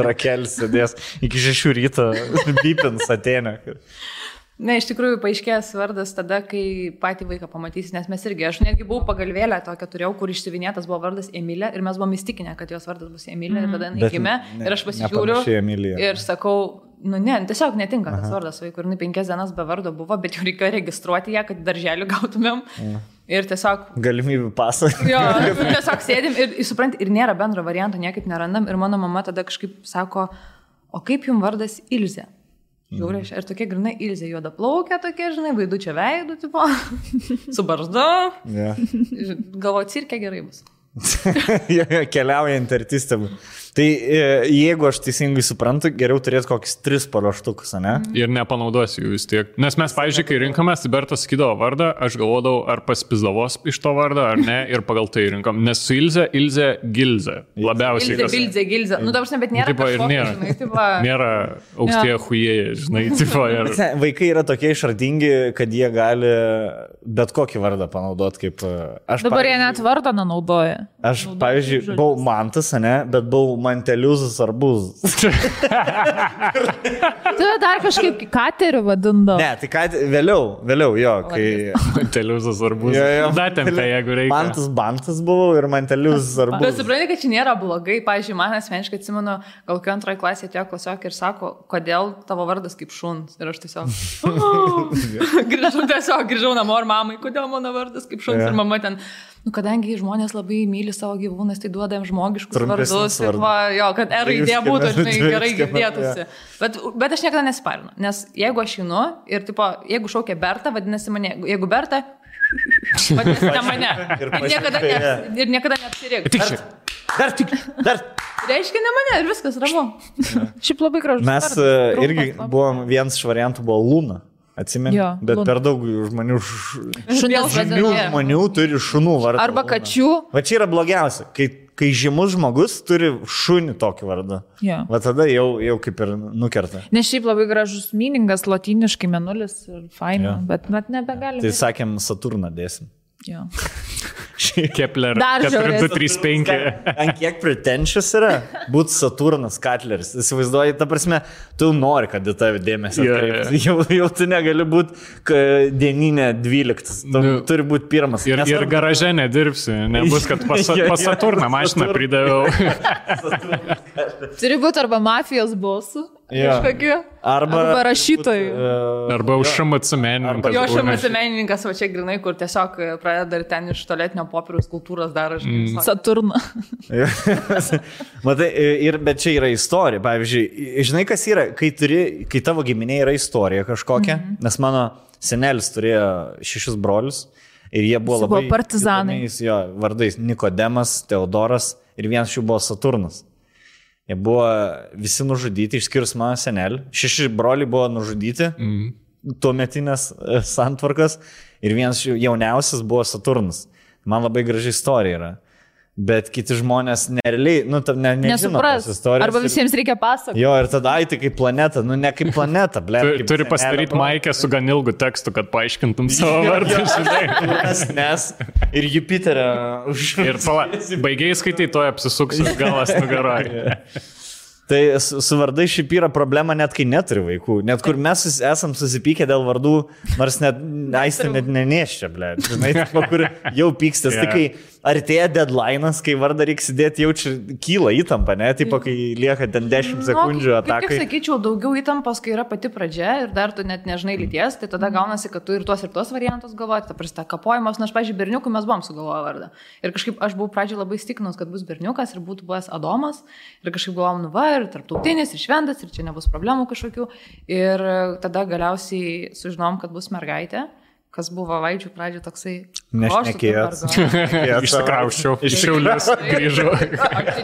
Rakelis sėdės iki 6 ryto pipins Atėnė. Ne, iš tikrųjų paaiškės vardas tada, kai patį vaiką pamatysi, nes mes irgi, aš netgi buvau pagalvėlę tokią turėjau, kur išsivinėtas buvo vardas Emilė ir mes buvom įstikinę, kad jos vardas bus Emilė ir tada jinai gimė ir aš pasižiūriu ir sakau, tiesiog netinka tas vardas vaikui ir 5 dienas be vardo buvo, bet jau reikėjo registruoti ją, kad darželį gautumėm ir tiesiog... Galimybių pasą. Jo, tiesiog sėdim ir supranti, ir nėra bendro varianto, niekaip nerandam ir mano mama tada kažkaip sako, o kaip jums vardas Ilzė? Žiūrė, ir tokia grinai Ilzė juoda plaukia, tokia, žinai, vaidu čia veidu, tipo, su barzdu. Yeah. Galvoju, cirke gerai bus. Keliaujant artistėm. Tai jeigu aš teisingai suprantu, geriau turėti kokius 3 paruoštukus, ne? Ir nepanaudosiu jų vis tiek. Nes mes, pavyzdžiui, kai rinkomės, tai Bertas sakydavo vardą, aš galvodavau, ar pasipizdavos iš to vardą, ar ne, ir pagal tai rinkom. Nes su Ilze, Gilze. Labiausiai. Gilze. Nu, dabar, bet nėra. Tipo, ir nėra. Žinai, tipo... Nėra aukštieji chujėjai, žinai. Tipo, ir... Vaikai yra tokie išradingi, kad jie gali bet kokį vardą panaudoti kaip... Dabar jie net vardą nenaudoja. Aš, pavyzdžiui, buvau Mantas, ne, bet buvau Manteliuzas arbūzas. Tu dar kažkaip katerių vadindavo. Ne, tai vėliau, jo, kai... Manteliuzas arbūzas. Datempė, jeigu reikia. Bantas buvau ir Manteliuzas arbūzas. Bet supranti, kad čia nėra blogai. Pavyzdžiui, man asmeniškai atsimenu, gal kai antroje klasėje atėjo klasiokė ir sako, kodėl tavo vardas kaip šuns. Ir aš tiesiog grįžau namo ir mamai, kodėl mano vardas kaip šuns. Ir mama ten... Nu, kadangi žmonės labai myli savo gyvūnus, tai duodam žmogiškus vardus. Ir va, jo, kad raidė būtų, žinai, gerai girdėtųsi. Bet aš niekada nesiparinu. Nes jeigu aš einu ir, tipo, jeigu šaukia Berta, vadinasi mane, jeigu Berta, vadinasi ne mane. Ir niekada neapsirėk. Dar. Reiškia ne mane ir viskas ramu. Šiaip labai gražus. Mes irgi buvom, vienas iš variantų buvo Luna. Atsimeni, bet Luna. Per daug žmonių žmonių turi šunų vardą. Arba kačių. Va čia yra blogiausia, kai žymus žmogus turi šunį tokį vardą. Va tada jau kaip ir nukerta. Nes šiaip labai gražus meaningas, lotyniškai menulis ir faina, bet nebegalim. Tai sakėm, Saturną dėsim. Jo. Kepler 4235. Ant kiek pretentious yra būti Saturnas Katleris. Įsivaizduoji, ta prasme, tu nori, kad į tave dėmesį atkreipti. Jau tu negali būti dieninė 12. Turi būti pirmas. Ir garaže nedirbsi. Nebus, kad pas Saturną mašiną pridaviau. Turi būti arba mafijos bosų. Arba rašytojų. Arba užšamat menininkas. Jo užšamat menininkas, va čia grinai, kur tiesiog pradeda ir ten iš tualetinio popieriaus kultūros daro. Saturną. Matai, bet čia yra istorija. Pavyzdžiui, žinai, kas yra, kai tavo giminė yra istorija kažkokia, nes mano senelis turėjo 6 brolius ir jie buvo labai partizanai. Jo, vardais Nikodemas, Teodoras ir vienas jų buvo Saturnas. Jie buvo visi nužudyti, išskyrus mano senelį. 6 broliai buvo nužudyti, tuometinės santvarkas, ir vienas jauniausias buvo Saturnas. Man labai graži istorija yra. Bet kiti žmonės nerealiai, nežino tos istorijos. Arba visiems reikia pasakoti. Jo, ir tada tai kaip planeta, ne kaip planeta, ble. Turi pasidaryti maikę su gan ilgu tekstu, kad paaiškintum savo vardą, žinai. Nes ir Jupiterio ir baigiai skaitai, toje apsisuksis galas nugaroje. Tai su vardai šiaip yra problema net kai neturi vaikų. Net kur mes esam susipykę dėl vardų, nors net Aistė net neneščia, ble. Žinai, kur jau pykstės. Tai kai artėja deadline'as, kai vardą reikia sėdėti, jaučia kyla įtampa, ne? Taip, kai lieka ten 10 sekundžių atakai. Kaip sakyčiau, daugiau įtampos, kai yra pati pradžia ir dar tu net nežinai lyties, tai tada gaunasi, kad tu ir tuos variantus galvoji, ta prasta kapojimas, nors, pavyzdžiui, berniukui mes buvom sugalvoję vardą. Ir kažkaip aš buvau pradžioje labai stikinus, kad bus berniukas ir būtų buvęs Adomas. Ir kažkaip galvom, ir tarptautinis, ir šventas, ir čia nebus problemų kažkokių. Ir tada galiausiai sužinom, kad bus mergaitė, kas buvo Vaidžių pradžioje toksai... Nešnekėjęs. Išsikrauščiau, iš Šiaulius grįžau.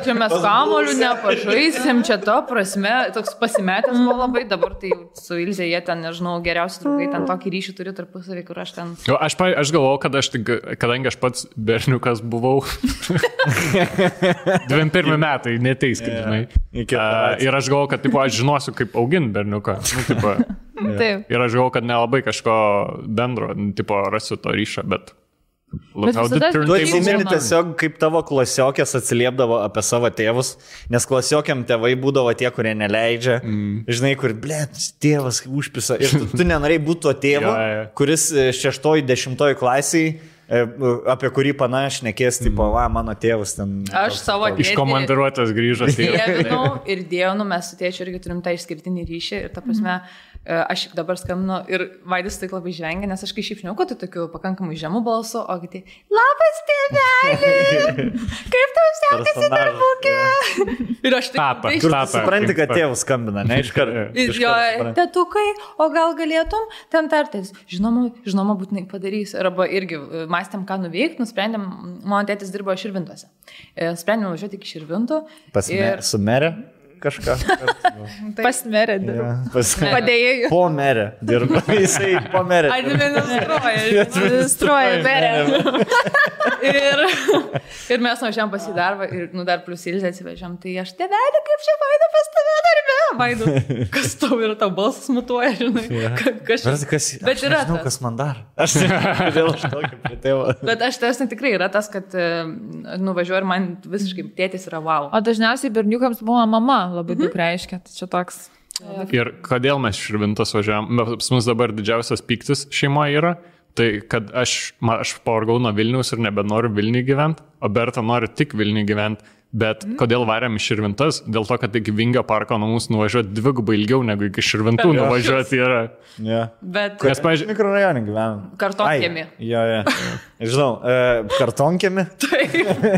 Čia mes kamolių nepažaisim, čia to prasme, toks pasimetęs buvo labai, dabar tai su Ilze jie ten, nežinau, geriausi draugai, ten tokį ryšį turi tarpusavį, kur aš ten... Aš galvojau, kad kadangi aš pats berniukas buvau, 21 metai, neteiskit, žinai. Ir aš galvojau, kad aš žinosiu, kaip augint berniuką. Ir aš galvojau, kad nelabai kažko bendro, rasiu to ryšą, bet... Tu atsimeni tiesiog, kaip tavo klasiokės atsiliepdavo apie savo tėvus, nes klasiokiam tėvai būdavo tie, kurie neleidžia, žinai, kur, tėvas užpisa, ir tu nenorėjai būti tuo tėvu, kuris 6-10 klasiai, apie kurį panašiai nekės, tipo, mano tėvas ten... Aš savo tėtį... Iš komandiruotės grįžo. Ir dėjau, mes su tėčiu irgi turim tą išskirtinį ryšį ir ta prasme, aš dabar skambinu ir Vaidis tai labai žengia, nes aš kai šiaip žinau, kad tu tokiu pakankamai žemų balsu, o kiti, labas tėvelį, kaip tau sekasi darbukė? Ir aš taip, kur tu supranti, kad tėvus skambina, ne iš karto. Jo, tetukai, o gal galėtum ten tartis? Žinoma, būtinai padarysiu. Arba irgi mąstėm, ką nuveikti, nusprendėm, mano tėtis dirbo Širvintose. Sprendėm važiuoti iki Širvintų. Su merė kažką. Pas merę dirba. Padėjėjų. Po merę dirba. Jisai po merę. Administruoja merę. Ir mes nuvažiavam pas į darbą ir dar plus Ilzę atsivežiam. Tai aš tėvelį, kaip čia Vaida pas tave darbe. Vaidu, kas tau yra, tau balsas mutuoja, žinai. Bet yra žinau, kas man dar. Aš kodėl aš tokį prie tėvo. Bet aš tas tikrai yra tas, kad nuvažiuoju ir man visiškai tėtis yra wow. O dažniausiai berniukams buvo mama labai daug reiškia. Tai čia toks. Ir kodėl mes Širvintos važiavam? Pas mus dabar didžiausias pyktis šeimoje yra, tai kad aš pavargau nuo Vilniaus ir nebenoriu Vilniui gyventi, o Berta nori tik Vilniui gyventi. Bet kodėl varėm iš Širvintas? Dėl to, kad iki Vingio parko nuo mūsų nuvažiuoti dvigubai ilgiau negu iki Širvintų nuvažiuoti yra. Bet nes, pavyzdžiui, mikrorajonį gyvenam. Kartonkiemi. Žinau, kartonkiemi.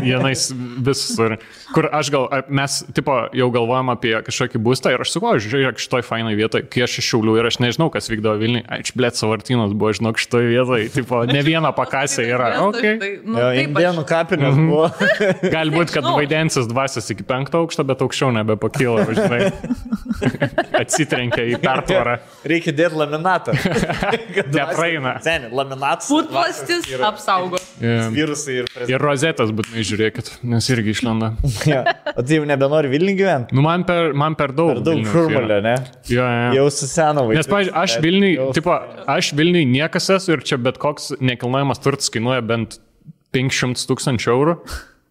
Vienais visur. Kur aš mes tipo jau galvojam apie kažkokį būstą ir aš sakau, žiūrėk, šitoj fainai vietoj, kai aš iš Šiaulių ir aš nežinau, kas vykdavo Vilniui. Blėt, Savartynas buvo, žinok, šitoj vietoj. Tipo, ne viena pakasė yra. Indėnų kapinės buvo. Galbūt, kad Vaidensis dvasias iki 5 aukšto, bet aukščiau nebepakyla, žinai. Atsitrenkia į pertvarą. Reikia dėti laminatą. Nepraeina. Laminatas. Putplastis apsaugo. Virusai ir rozetės būtinai žiūrėkit, nes irgi išlenda. O tai jau nebenori Vilniui gyventi? Nu, man per daug. Per daug šurmulio, ne? Jau suseno vaikas. Nes, pavyzdžiui, aš Vilniui niekas esu ir čia bet koks nekilnojamas turtas kainuoja bent 500 000 eurų.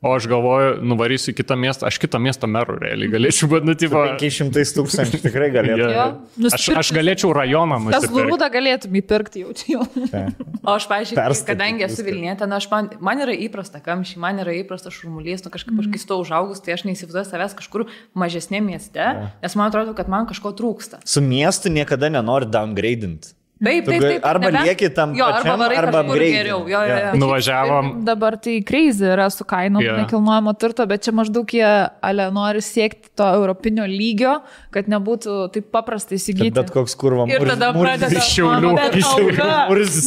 O aš galvoju, nuvarysiu į kitą miestą, aš kitą miesto merų realiai galėčiau, bet, 500 000 tikrai galėtų. Aš galėčiau rajoną nusipirkti. Tas Lurūdą galėtum įpirkti jau. O aš, pavyzdžiui, kadangi esu Vilnietė, man yra įprasta kamščiai, man yra įprasta šurmulys, kažkaip aš kai stovau užaugus, tai aš neįsivaizduoju savęs kažkur mažesnė mieste, nes man atrodo, kad man kažko trūksta. Su miestu niekada nenori downgradinti. Taip. Arba lieki tam pačiam, arba geriau. Nuvažiavom. Dabar tai crazy yra su kainom nekilnojamo turto, bet čia maždaug jie nori siekti to europinio lygio, kad nebūtų taip paprastai įsigyti. Bet koks kurva ir tada pradeda iš Šiaulių.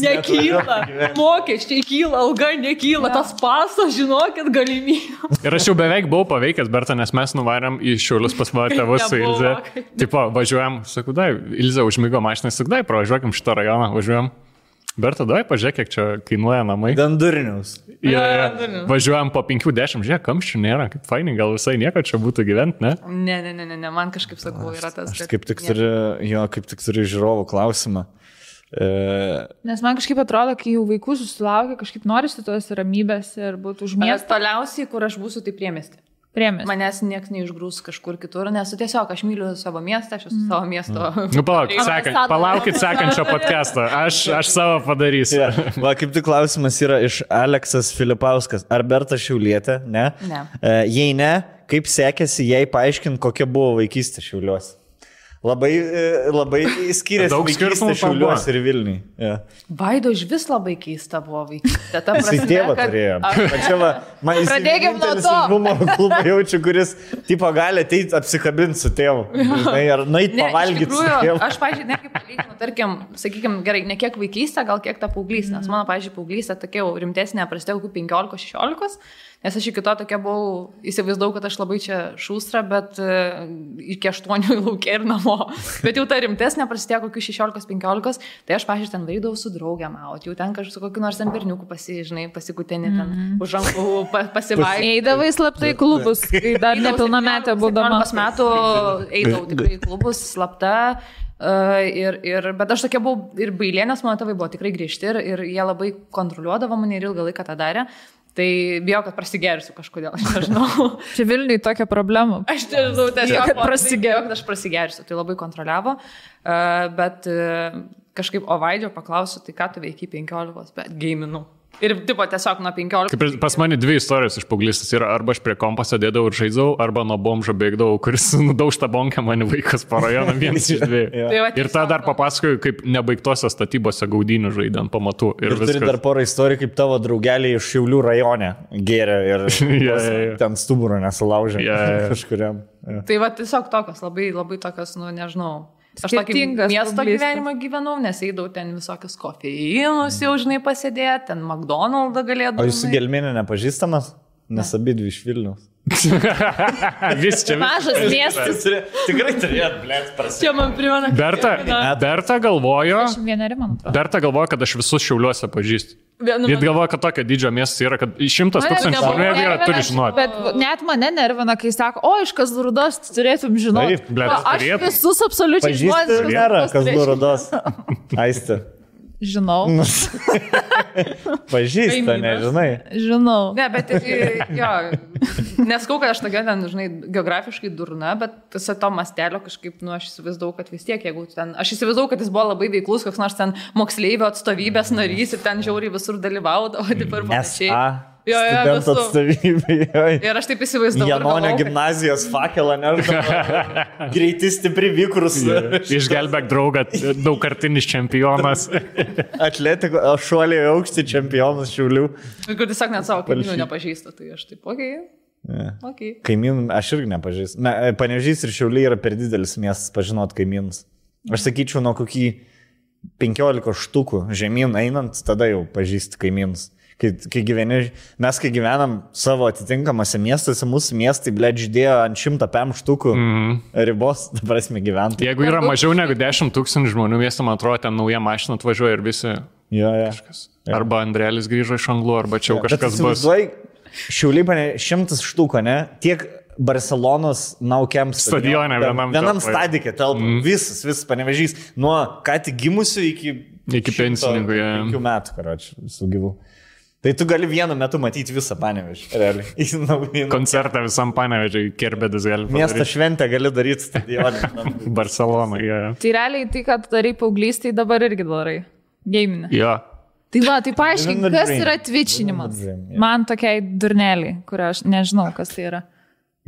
Nekyla, mokesčiai kyla, alga nekyla, tas pasas, žinokit, galimybė. Ir aš jau beveik buvau paveikęs, Berta, nes mes nuvarėm į Šiaulius pas mano tėvus su Ilze. Tipo, važiuojam, sakau, Ilze užmigo mašiną, sakau, pravažiuokim šitą rajoną, važiuojam. Berta, pažiūrėk, kiek čia kainuoja namai. Dandurinius. Važiuojam po 5-10, žiūrėk, kamščių nėra, kaip fainai, gal visai nieko čia būtų gyventi, ne? Ne, man kažkaip sakau, yra tas. Aš kaip tik turiu žiūrovų klausimą. Nes man kažkaip atrodo, kai jau vaikų susilaukia, kažkaip norisi tos ramybės ir būtų už miestą. Toliausiai, kur aš būsiu, tai priemiesti. Manęs nieks neišgrūs kažkur kitur, nes tiesiog aš myliu savo miestą, aš esu savo miesto. Nu, palaukit sekančio podcast'o, aš savo padarysiu. Va, kaip tik klausimas yra iš Aleksas Filipauskas. Ar Berta Šiaulietė? Ne. Jei ne, kaip sekėsi jai paaiškinti, kokia buvo vaikystė Šiauliuose? Labai skiriasi vaikystė Šiauliuose ir Vilniui. Vaido iš vis labai keista buvo vaikystė. Jisai tėvą turėjo. Pradėkim nuo to. Humoro klubą jaučiu, kuris tipo gali ateiti apsikabinti su tėvu. Ar nueit pavalgyti su tėvu. Aš, pavyzdžiui, netgi palyginu, tarkim, sakykime, gerai, ne kiek vaikystė, gal kiek ta paauglystė. Nes mano, pavyzdžiui, paauglystė tokia jau rimtesnė, prasidėjo kokių 15-16. Nes aš iki to tokia buvau, įsivaizdavau, kad aš labai čia šūstra, bet iki 8 laukia ir namo. Bet jau ta rimtesnė prasidėjo kokių 16-15, tai aš, pavyzdžiui, ten vaidavau su draugėm, jau ten kažkaip su kokiu nors ten berniuku pasikutinį, ten už rankų pasivaikščioti. Eidavai slaptai klubus, kai dar nepilnametė būdama. 15 metų eidavau tikrai į klubus slapta. Bet aš tokia buvau ir bailė, nes mano tėvai buvo tikrai griežti ir jie labai kontroliuodavo mane ir ilgą laiką tą darė. Tai bijau, kad prasigersiu kažkodėl, aš nežinau. Čia Vilniui tokia problema. Aš nežinau, tiesiog kad aš prasigersiu, tai labai kontroliavo. Bet kažkaip Ovaidžio paklausiu, tai ką tu veikiai 15, bet gaminu. Ir tipo tiesiog nuo 15. Kaip ir pas mane 2 istorijos iš paauglystės yra, arba aš prie kompo sėdėdavau ir žaidžiau, arba nuo bomžo bėgdavau, kuris nudaužta bonkę mane vaikas po rajoną, vienas iš 2. Ir tą dar papasakoju, kaip nebaigtose statybose gaudynių žaidė ant pamatų. Ir turi dar porą istorijų, kaip tavo draugeliai iš Šiaulių rajone gėrė ir ten stuburą nesulaužė kažkuriam. Tai va tiesiog tokios, labai, labai tokios, nu nežinau. Aš tokį miesto gyvenimą gyvenau, nes eidavau ten visokius kofeinus jau, žinai, pasėdėti, ten McDonald's galėdavau. O jūsų gelminė nepažįstamas? Nes abidvi iš Vilniaus. Vis čia. Mažas miestas. Tikrai turėt, blėt, prasidėti. Čia man primena. Berta galvojo, kad aš visus Šiauliuose pažįstu. Jis galvoja, kad tokio didžio miestas yra, kad 100 000 žmonių yra, turi žinoti. Bet net mane nervina, kai sako, o iš Kazlų-Rūdos turėtum žinoti. Aš visus absoliučiai žmonės. Nėra Kazlų-Rūdos. Aistė. Žinau. Pažįsta, nežinai. Žinau. Ne, bet jo, neskau, kad aš tokia ten, žinai, geografiškai durna, bet visą to mastelio kažkaip, nu, aš įsivaizdavau, kad vis tiek, jeigu ten, aš įsivaizdavau, kad jis buvo labai veiklus, koks nors ten moksleivio atstovybės narys ir ten žiauriai visur dalyvaudavo, taip ir panašiai. Studentų atstovybė. Ir aš taip įsivaizdavau. Janonio gimnazijos fakelą, nežinau. Greiti stipri vykrus. Išgelbėk draugą, daugkartinis čempionas. Atletiko, šuoliai aukšti čempionas Šiaulių. Ir kur tiesiog net savo kaimynų nepažįsta, tai aš taip, okei. Kaimynų aš irgi nepažįstu. Panevėžys ir Šiauliai yra per didelis miestas pažinot kaimynus. Aš sakyčiau, nuo kokį 15 štukų žemyn einant, tada jau pažįsti kaimynus. Kai gyvenam savo atitinkamose miestuose, mūsų miestai, blėt, žydėjo ant 100 PM štukų ribos, ta prasme, gyventi. Jeigu yra mažiau negu 10 000 žmonių miestą, man atrodo, ten nauja mašina atvažiuoja ir visi. Kažkas. Arba Andrėlis grįžo iš Anglų, arba čia jau kažkas bus. Šiauliai 100 štukų, ne? Tiek Barcelonos Naukiam stadione vienam stadike telpa. Visas Panevėžys. Nuo ką tik gimusių iki pensininkų. 5 metų, karoči, visų gyvų. Tai tu gali vienu metu matyti visą Panevėžį, realiai. Koncertą visam Panevėžiui, Kerbedis gali padaryti. Miesto šventę gali daryti stadioną. Barcelona, Tai realiai tai, kad darai paauglystėj, dabar irgi darai. Gaminė. Jo. Tai va, tai paaiškink, kas yra twitchinimas. Man tokiai durneliai, kur aš nežinau, kas tai yra.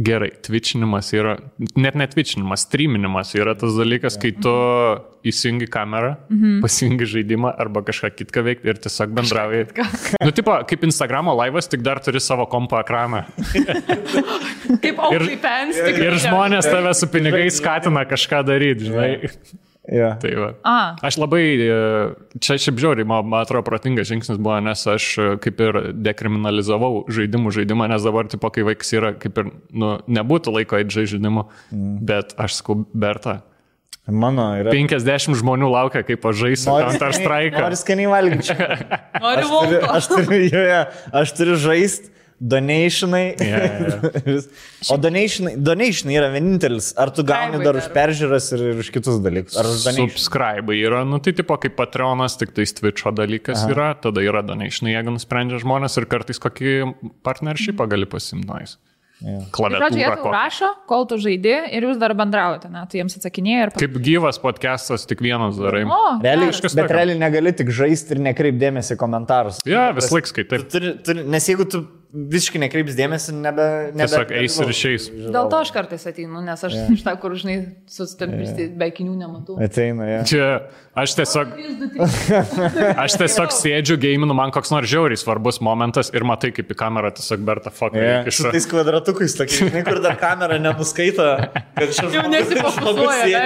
Gerai, twitchinimas yra, net twitchinimas, streaminimas yra tas dalykas, kai tu įsijungi kamerą, pasijungi žaidimą arba kažką kitką veikti ir tiesiog bendrauji. Nu, tipo, kaip Instagramo laivas, tik dar turi savo kompo ekraną. Kaip OnlyFans. Ir žmonės tave su pinigais skatina kažką daryti, žinai. Tai va. Aš labai, čia šiaip žiauriai, man atrodo, protingas žingsnis buvo, nes aš kaip ir dekriminalizavau žaidimą, nes dabar, tipo, kai vaikas yra, kaip ir, nu, nebūtų laiko eiti žaidimų, bet aš sakau, Berta, mano yra 50 žmonių laukia, kaip aš žaisiu Counter Strike. Nori skaniai valgyti. Aš turiu žaisti. Donationai. O donationai yra vienintelis. Ar tu gauni dar už peržiūras ir už kitus dalykus? Ar subscribe yra, nu tai tipo kaip Patreonas, tik tai Twitch'o dalykas yra, tada yra donationai, jeigu nusprendžia žmonės ir kartais kokį partnershipą gali pasimnais. Klaviatūrą. Jie tau rašo, kol tu žaidi ir jūs dar bendraujate, ne? Tu jiems atsakinėjai ir... Kaip gyvas podcastas, tik vienas darai. Bet realiai negali tik žaisti ir nekreipdėmėsi komentarus. Vis laik skaitai. Nes jeigu tu visiškai nekreips dėmesį, tiesiog eis ir išeis. Dėl to aš kartais ateinu, nes aš iš tą, kur, žinai, sustampisti be akinių nematau. Ateina, Čia aš tiesiog sėdžiu, gaminu, man koks nors žiauriai svarbus momentas ir matai, kaip į kamerą tiesiog Berta fuck. Su tais kvadratukais, tokiai, kur dar kamera nenuskaito, kad šis nesifokusuoja.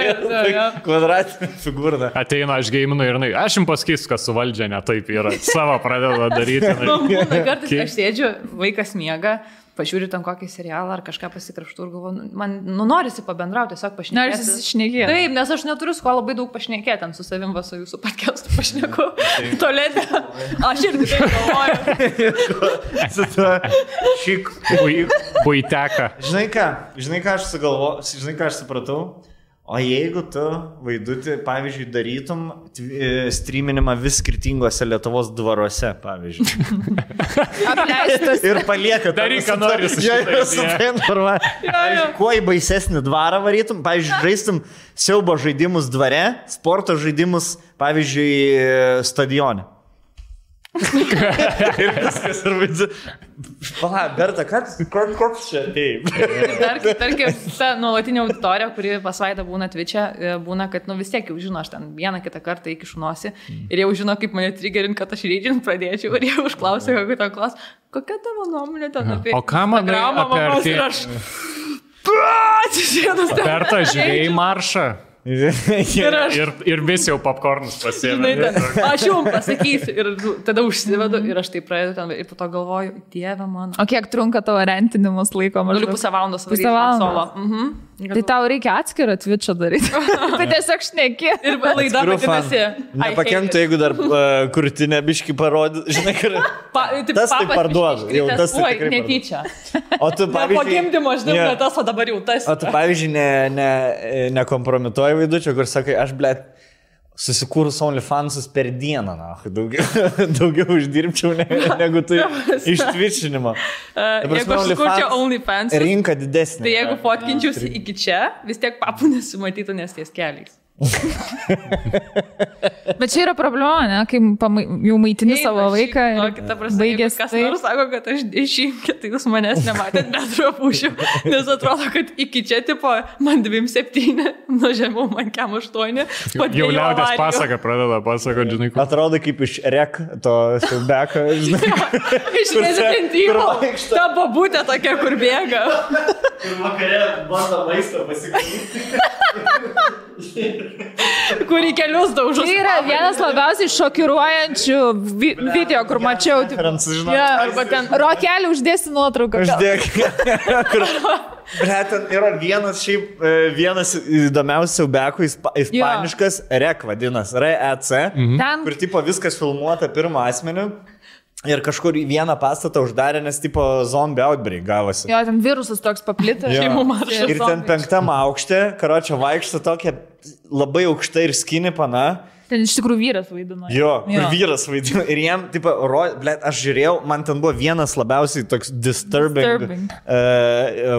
Kvadratinė figūra. Ateina, aš gaminu ir aš jums pasakysiu, kas su valdžia ne taip yra. Savo pradeda daryti. Kartais aš sėdžiu, vaikas miega, pažiūri tam kokį serialą ar kažką pasikrapštų ir galvoju, man norisi pabendrauti, tiesiog pašnekėti. Norisi šnekėti. Taip, nes aš neturiu su kuo labai daug pašnekėti, ten su savim su jūsų podcast'u pašneku. Tolėdė. Aš irgi taip galvoju. Su tuo šik buiteka. Žinai ką aš supratau? O jeigu tu, Vaidutį, pavyzdžiui, darytum streaminimą vis skirtingose Lietuvos dvaruose, pavyzdžiui. Apleistas. Ir palieka. Daryk, ką nori su šitą. Kuo į baisesnį dvarą varytum, pavyzdžiui, žaistum siaubo žaidimus dvare, sporto žaidimus, pavyzdžiui, stadione. Ir viskas, ir vaidžiu. Pala, Berta, koks čia? Taip. Tarkim, ta nuolatinė auditorija, kuri pas Vaidą būna Twitch'e, būna, kad vis tiek jau žino, aš ten vieną kitą kartą įkišu nosį ir jau žino, kaip mane triggerint, kad aš reidžint pradėčiau ir jau užklausė, kokia tavo nuomonė ten apie... O ką manai apie Berta, žiūrėjai maršą? Ir vis jau popcornus pasiėmė. Aš jums pasakysiu ir tada užsivedu ir aš tai pradedu ten ir po to galvoju, Dieve mano. O kiek trunka tavo rentinimus laiko? Galiu pusę valandos varyti solo. Tai tau reikia atskirą Twitch'ą daryti. Tai tiesiog šneki. Ir laida vadinasi. Nepakenktų, jeigu dar krūtinę biškį parodė. Žinai, kur... Tas tai parduodu. Jau tas tai tikrai netyčia. O tu, pavyzdžiui... Po gimdymo aš dirbu tas, o dabar jau tas. O tu, pavyzdžiui, nekompromituoji vaidučio, kur sakai, aš, blėt, susikūrus OnlyFansus per dieną, na, daugiau uždirbčiau negu tai ištvičinimo. Jeigu aš sukurčiau OnlyFansus, rinka didesnė. Tai jeigu fotkinčiausi iki čia, vis tiek papų nesimatytų, nes ties keliais. Bet čia yra problema, ne? Kai jau maitini savo vaiką ir baigės. Kas nors sako, kad aš dešimtį, tai jūs manęs nematėt, bet drapušiu. Nes atrodo, kad iki čia tipo man 2,7, nuo žemiau man kem 8. Jau liaudės pasaka pradeda pasakoti, žinai. Atrodo kaip iš rek to siaubeko, žinai. Iš rezidentyvo. Ta babutė tokia, kur bėga. Ir vakare bando maistą pasigaminti. Kur į kelius daužus. Tai yra vienas labiausiai šokiruojančių video, kur mačiau. Arba ten Rokelį uždėsi nuotrauką. Uždėk. Ten yra vienas įdomiausių siaubekų, ispaniškas REC vadinasi, REC, kur tipo viskas filmuota pirmą asmenį. Ir kažkur į vieną pastatą uždarė, nes tipo zombie outbreak gavosi. Jo, ten virusas toks paplitęs. Ir ten 5 aukšte, karočią vaikšto tokia labai aukšta ir skinny pana. Ten iš tikrųjų vyras vaidino. Jo, vyras vaidino. Ir jam, tipo, aš žiūrėjau, man ten buvo vienas labiausiai toks disturbing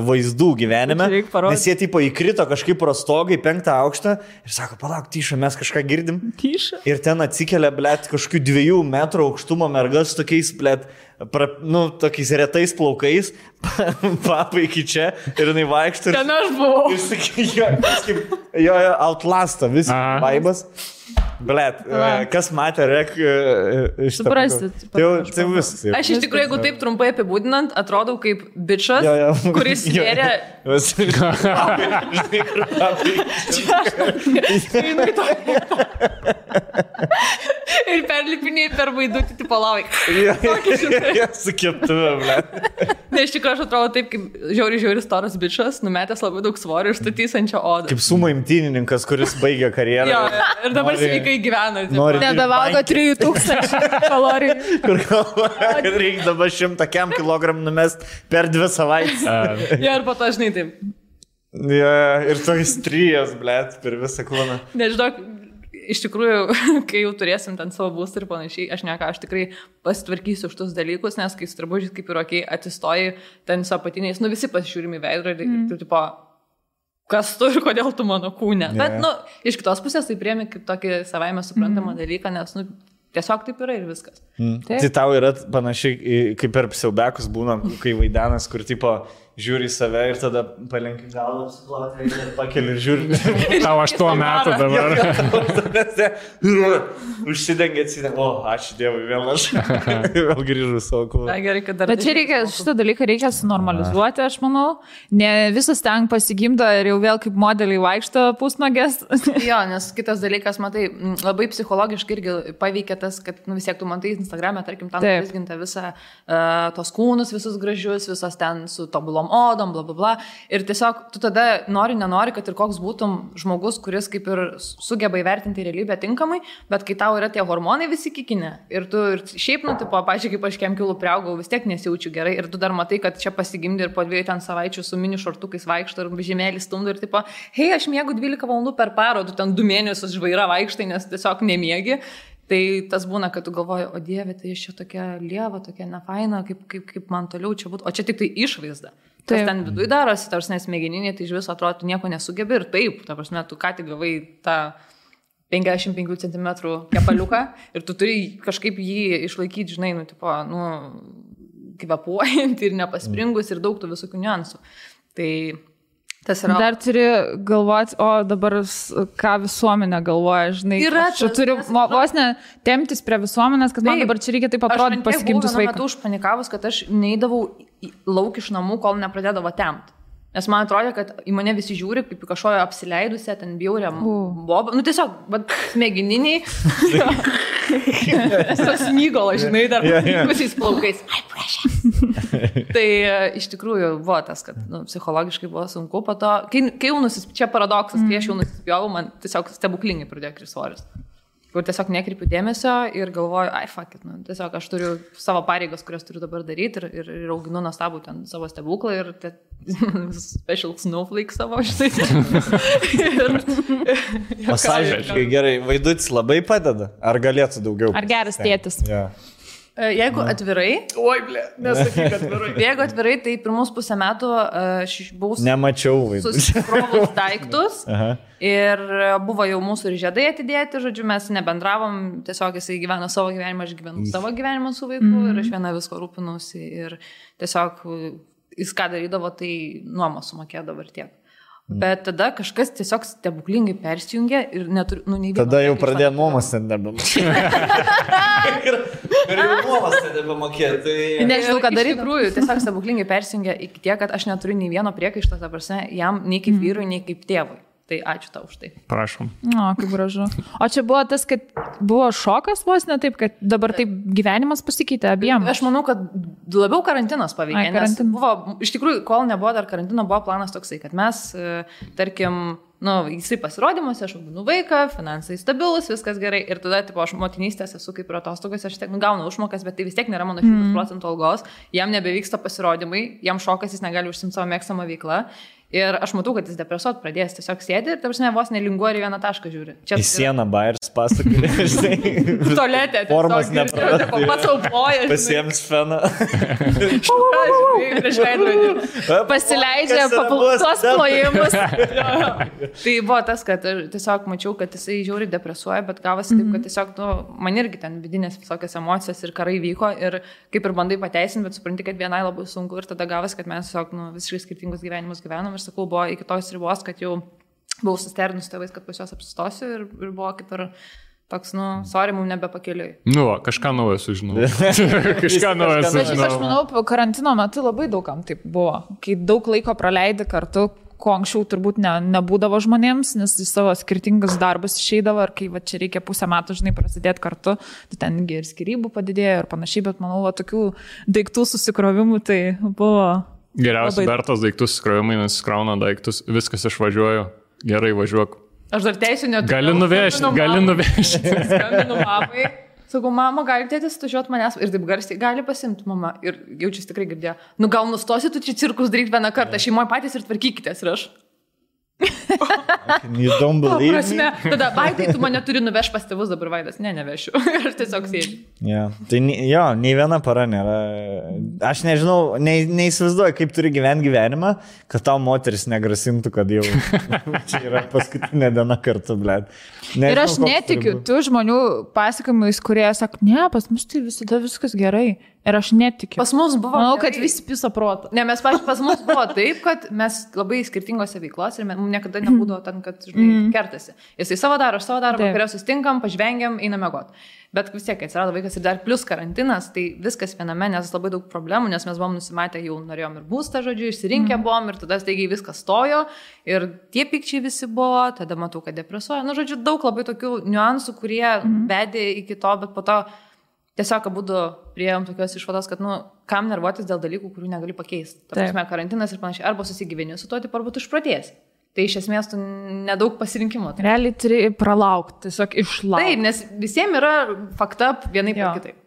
vaizdų gyvenime. Nes jie, tipo, įkrito kažkaip pro stogą į 5 aukštą ir sako, palauk, Tyša, mes kažką girdim. Tyša. Ir ten atsikelia, blėt, kažkokių 2 metrų aukštumo mergas tokiais, blėt, tokiais retais plaukais, papa iki čia ir jinai vaikšto. Ten aš buvau. Ir sakai, jo, outlasta, vis vaibas. Blet, kas matė REC iš to? Suprastit. Tai viskas. Aš iš tikrųjų, jeigu taip trumpai apibūdinant, atrodau kaip bičas, kuris svėrė... Ir perlipiniai per vaidutį, tipo lavai. Su keptuve, blet. Ne, iš tikrųjų, aš atrodo taip, kaip žiauri storas bičas, numetęs labai daug svorio ir statysančio odą. Kaip sumo imtynininkas, kuris baigė karjerą. Jo, ir dabar sveikai gyvena. Nebevalgo 3000 kalorijų. Kur galvoja, kad reikia dabar 100 kg numest per 2 savaitės. Jo, ir po to žinai taip. Jo, ir toks trijas, blet, per visą kūną. Nežinau, iš tikrųjų, kai jau turėsim ten savo būstą ir panašiai, aš tikrai pasitvarkysiu už tus dalykus, nes kai su drabužiais kaip ir okei, atsistoji ten su apatiniais, visi pasižiūrime į veidrodį ir tu tipo, kas tu ir kodėl tu mano kūne. Bet, iš kitos pusės tai priemi kaip tokį savaime suprantamą dalyką, nes, tiesiog taip yra ir viskas. Tai tau yra panašiai, kaip per siaubekus būna, kai vaidenas, kur tipo žiūri į save ir tada palenki galvą, apsiplauti ir pakeli ir žiūri. Tau 8 metų dabar. Užsidengia, o, ačiū Dievui, vėl aš. Vėl grįžu savo kūną. Bet čia šitą dalyką reikia sunormalizuoti, aš manau. Ne visas ten pasigimdo ir jau vėl kaip modeliai vaikšto pusnogės. Jo, nes kitas dalykas, matai, labai psichologiškai irgi paveikia tas, kad vis tiek tu matai Instagram'e, tarkim, tam vizginta visą tos kūnus, visus gražius, visos ten su tobulom odom, bla, bla, bla. Ir tiesiog tu tada nenori, kad ir koks būtum žmogus, kuris kaip ir sugeba įvertinti realybę tinkamai, bet kai tau yra tie hormonai visi kikinė ir tu ir šiaip, tipo, pažiūrėk, kaip aš kem kilų priaugau, vis tiek nesijaučiu gerai ir tu dar matai, kad čia pasigimdi ir po 2 ten savaičių su mini šortukais vaikšto ir žemėlį stumdo ir tipo, hei, aš miegu 12 valandų per parą, tu ten 2 mėnesius žvaira vaikštai, nes tiesiog nemiegi. Tai tas būna, kad tu galvoji, o Dieve, tai aš čia tokia lieva, tokia nefaina, kaip man toliau čia būtų. O čia tik tai išvaizda. Kas ten viduje darosi, tarsi nesmegeninė, tai iš viso atrodo, tu nieko nesugebi ir taip, ta prasme, tu ką tik gavai tą 55 cm kepaliuką ir tu turi kažkaip jį išlaikyti, žinai, kvepuojant ir nepaspringus ir daug tų visokių niuansų. Tai tas yra... Dar turi galvoti, o dabar ką visuomenė galvoja, žinai. Aš turiu vos ne temptis prie visuomenės, kad man dabar čia reikia taip atrodyti pasikimtus vaikus. Aš metu užpanikavus, kad aš neįdavau lauk iš namų, kol nepradėdavo tempt. Nes man atrodė, kad į mane visi žiūri, kaip į kažkojo apsileidusią, ten bjaurią bobą. Tiesiog, smegeniniai. Smygolo, žinai, dar pusiais plaukais. Ai, prašė. Tai iš tikrųjų buvo tas, kad psichologiškai buvo sunku po to. Kai jau čia paradoksas, kai aš jau nusispjovau, man tiesiog stebuklingai pradėjo kristi svoris. Kur tiesiog nekreipiu dėmesio ir galvoju, ai, fuck it, tiesiog aš turiu savo pareigas, kurias turiu dabar daryti ir auginu nuostabų ten savo stebuklą ir special snowflake savo, žinai. Pasažiškai gerai, Vaidutis labai padeda, ar galėtų daugiau? Ar geras tėtis? Yeah. Jeigu atvirai... Oi, blė, nesakyk atvirai. Jeigu atvirai, tai pirmus pusę metų aš buvau... Nemačiau Vaidutis. Susikrovus daiktus ir buvo jau mūsų ir žiedai atidėti, žodžiu, mes nebendravom, tiesiog jisai gyveno savo gyvenimą, aš gyvenu savo gyvenimą su vaiku ir aš viena visko rūpinausi ir tiesiog jis ką darydavo, tai nuomos sumokėdavo ir tiek. Bet tada kažkas tiesiog stebuklingai persijungė ir neturiu, nei vieno. Tada jau pradėjo nuomos ten nebemokėti. Ir jau nuomos ten nebemokėti. Nežinau, ką daryti. Iš tikrųjų, tiesiog stebuklingai persijungė iki tiek, kad aš neturiu nei vieno priekaišto, ta prasme, jam nei kaip vyrui, nei kaip tėvui. Tai ačiū tau už tai. Prašom. O, kaip gražu. O čia buvo tas, kad buvo šokas vos ne taip, kad dabar taip gyvenimas pasikeitė abiem. Aš manau, kad labiau karantinas paveikė. Nes buvo, iš tikrųjų, kol nebuvo dar karantino, buvo planas toksai, kad mes, tarkim, jisai pasirodymuose, aš auginu vaiką, finansai stabilus, viskas gerai. Ir tada, tipo, aš motinystės esu kaip ir atostogos, aš tiek gaunu užmokas, bet tai vis tiek nėra mano 100% algos. Jam nebevyksta pasirodymai, jam šokas, jis negali užsimti savo mėgstamą veiklą. Ir aš matau, kad jis depresuot pradės, tiesiog sėdi ir, tarsi, vos nelinguoja ir vieną tašką žiūri. Į sieną bairis pasakė, žinai. Tualetė. Formas neprarast. Pats aupoja. Pasiems feną. Prieš veidrodį. Pasileidžia tuos plojimus. Tai buvo tas, kad tiesiog mačiau, kad jisai žiauriai depresuoja, bet gavosi taip, kad tiesiog, man irgi ten vidinės visokios emocijos ir karai vyko ir kaip ir bandai pateisinti, bet supranti, kad vienai labai sunku ir tada gavosi, kad mes tiesiog visiškai skirtingus gyvenimus gyvenom. Ir sakau, buvo iki tos ribos, kad jau buvau susternus tėvais, kad pas juos apsistosiu ir buvo kaip ir toks, sorry, mums nebepakeliui. Kažką naujo sužinau. Kažką naujo sužinau. Aš manau, karantino metu labai daugam taip buvo, kai daug laiko praleidi kartu, ko anksčiau turbūt nebūdavo žmonėms, nes į savo skirtingus darbus išeidavo ir kai čia reikia pusę metų, žinai, prasidėti kartu, tai tengi ir skirybų padidėjo ir panašiai, bet manau, tokių daiktų susikrovimų tai buvo... Geriausia Bertos daiktus skrovimai, nes skrauna daiktus, viskas išvažiuoju, gerai važiuok. Aš dar teisiu neturiu. Gali nuvežti. Skambinu mamai. Sakau, mama, gali tėtis tužiuot manęs ir taip garsiai, gali pasimti mama. Ir jaučiasi tikrai girdėjo. Gal nustosi tu čia cirkus daryti vieną kartą, šeimoje patys ir tvarkykitės ir aš. You don't believe me? Tada, Vaidai, tu mane turi nuvežti pas tėvus, dabar Vaidas, nevešiu. Ir tiesiog sėdžiu. Yeah. Tai nei viena para nėra. Aš nežinau, neįsivaizduoju, kaip turi gyventi gyvenimą, kad tau moteris negrasintų, kad jau čia yra paskutinė diena kartu, blėt. Ir aš netikiu tų žmonių pasakojimais, kurie sako, ne, pas mus tai visada viskas gerai. Ir aš netikiu. Pas mus buvo... Manau, kad visi piso proto. Ne, pas mus buvo taip, kad mes labai skirtingose veiklos ir mums niekada nebūdavo ten, kad, žinai, kertasi. Jisai savo daro, aš savo daro, vakarė sustinkam, pažvengiam, einam miegot. Bet vis tiek, atsirado vaikas ir dar plus karantinas, tai viskas viename, nes labai daug problemų, nes mes buvom nusimatę, jau norėjom ir būstą, žodžiu, išsirinkę buvom ir tada staigiai viskas stojo ir tie pykčiai visi buvo, tada matau, kad depresuoja. Žodžiu, daug labai tokių niuansų, kurie vedė iki to, bet po to tiesiog abudu priėjom tokios išvados, kad, kam nervuotis dėl dalykų, kurių negali pakeisti. Ta prasme, karantinas ir panašiai, arba susigyveni su to, tai arba tu išprotėsi. Tai iš esmės tu nedaug pasirinkimo. Realiai turi pralaukti, tiesiog išlaukti. Taip, nes visiems yra fakta vienaip ar kitaip.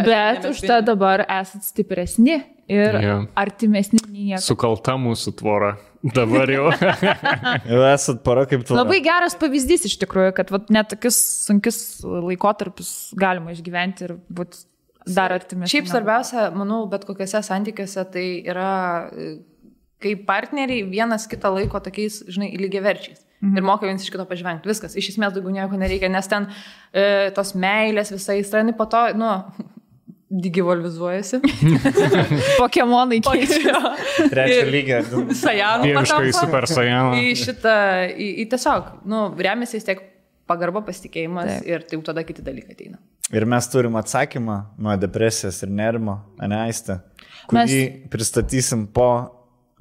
Bet už tą dabar esat stipresni ir artimesni nei niekas. Sukalta mūsų tvora. Dabar jau. Jau esat para kaip tvora. Labai geras pavyzdys iš tikrųjų, kad net tokius sunkius laikotarpius galima išgyventi ir būti dar artimesni. Šiaip svarbiausia, manau, bet kokiuose santykiuose tai yra, kai partneriai vienas kitą laiko tokiais, žinai, lygiaverčiais. ir moka vienas iš kito pažvengti. Viskas, iš esmės daugiau nieko nereikia, nes ten tos meilės visai įstraini, po to, digivolvizuojasi. Pokemonai keičia. Trečio lygio. Sajanų. Dieviškai super sajanų. Į tiesiog, remiasi vis tiek pagarba, pasitikėjimas ir tai jau tada kiti dalykai ateina. Ir mes turim atsakymą nuo depresijos ir nerimo, Aiste, kurį pristatysim po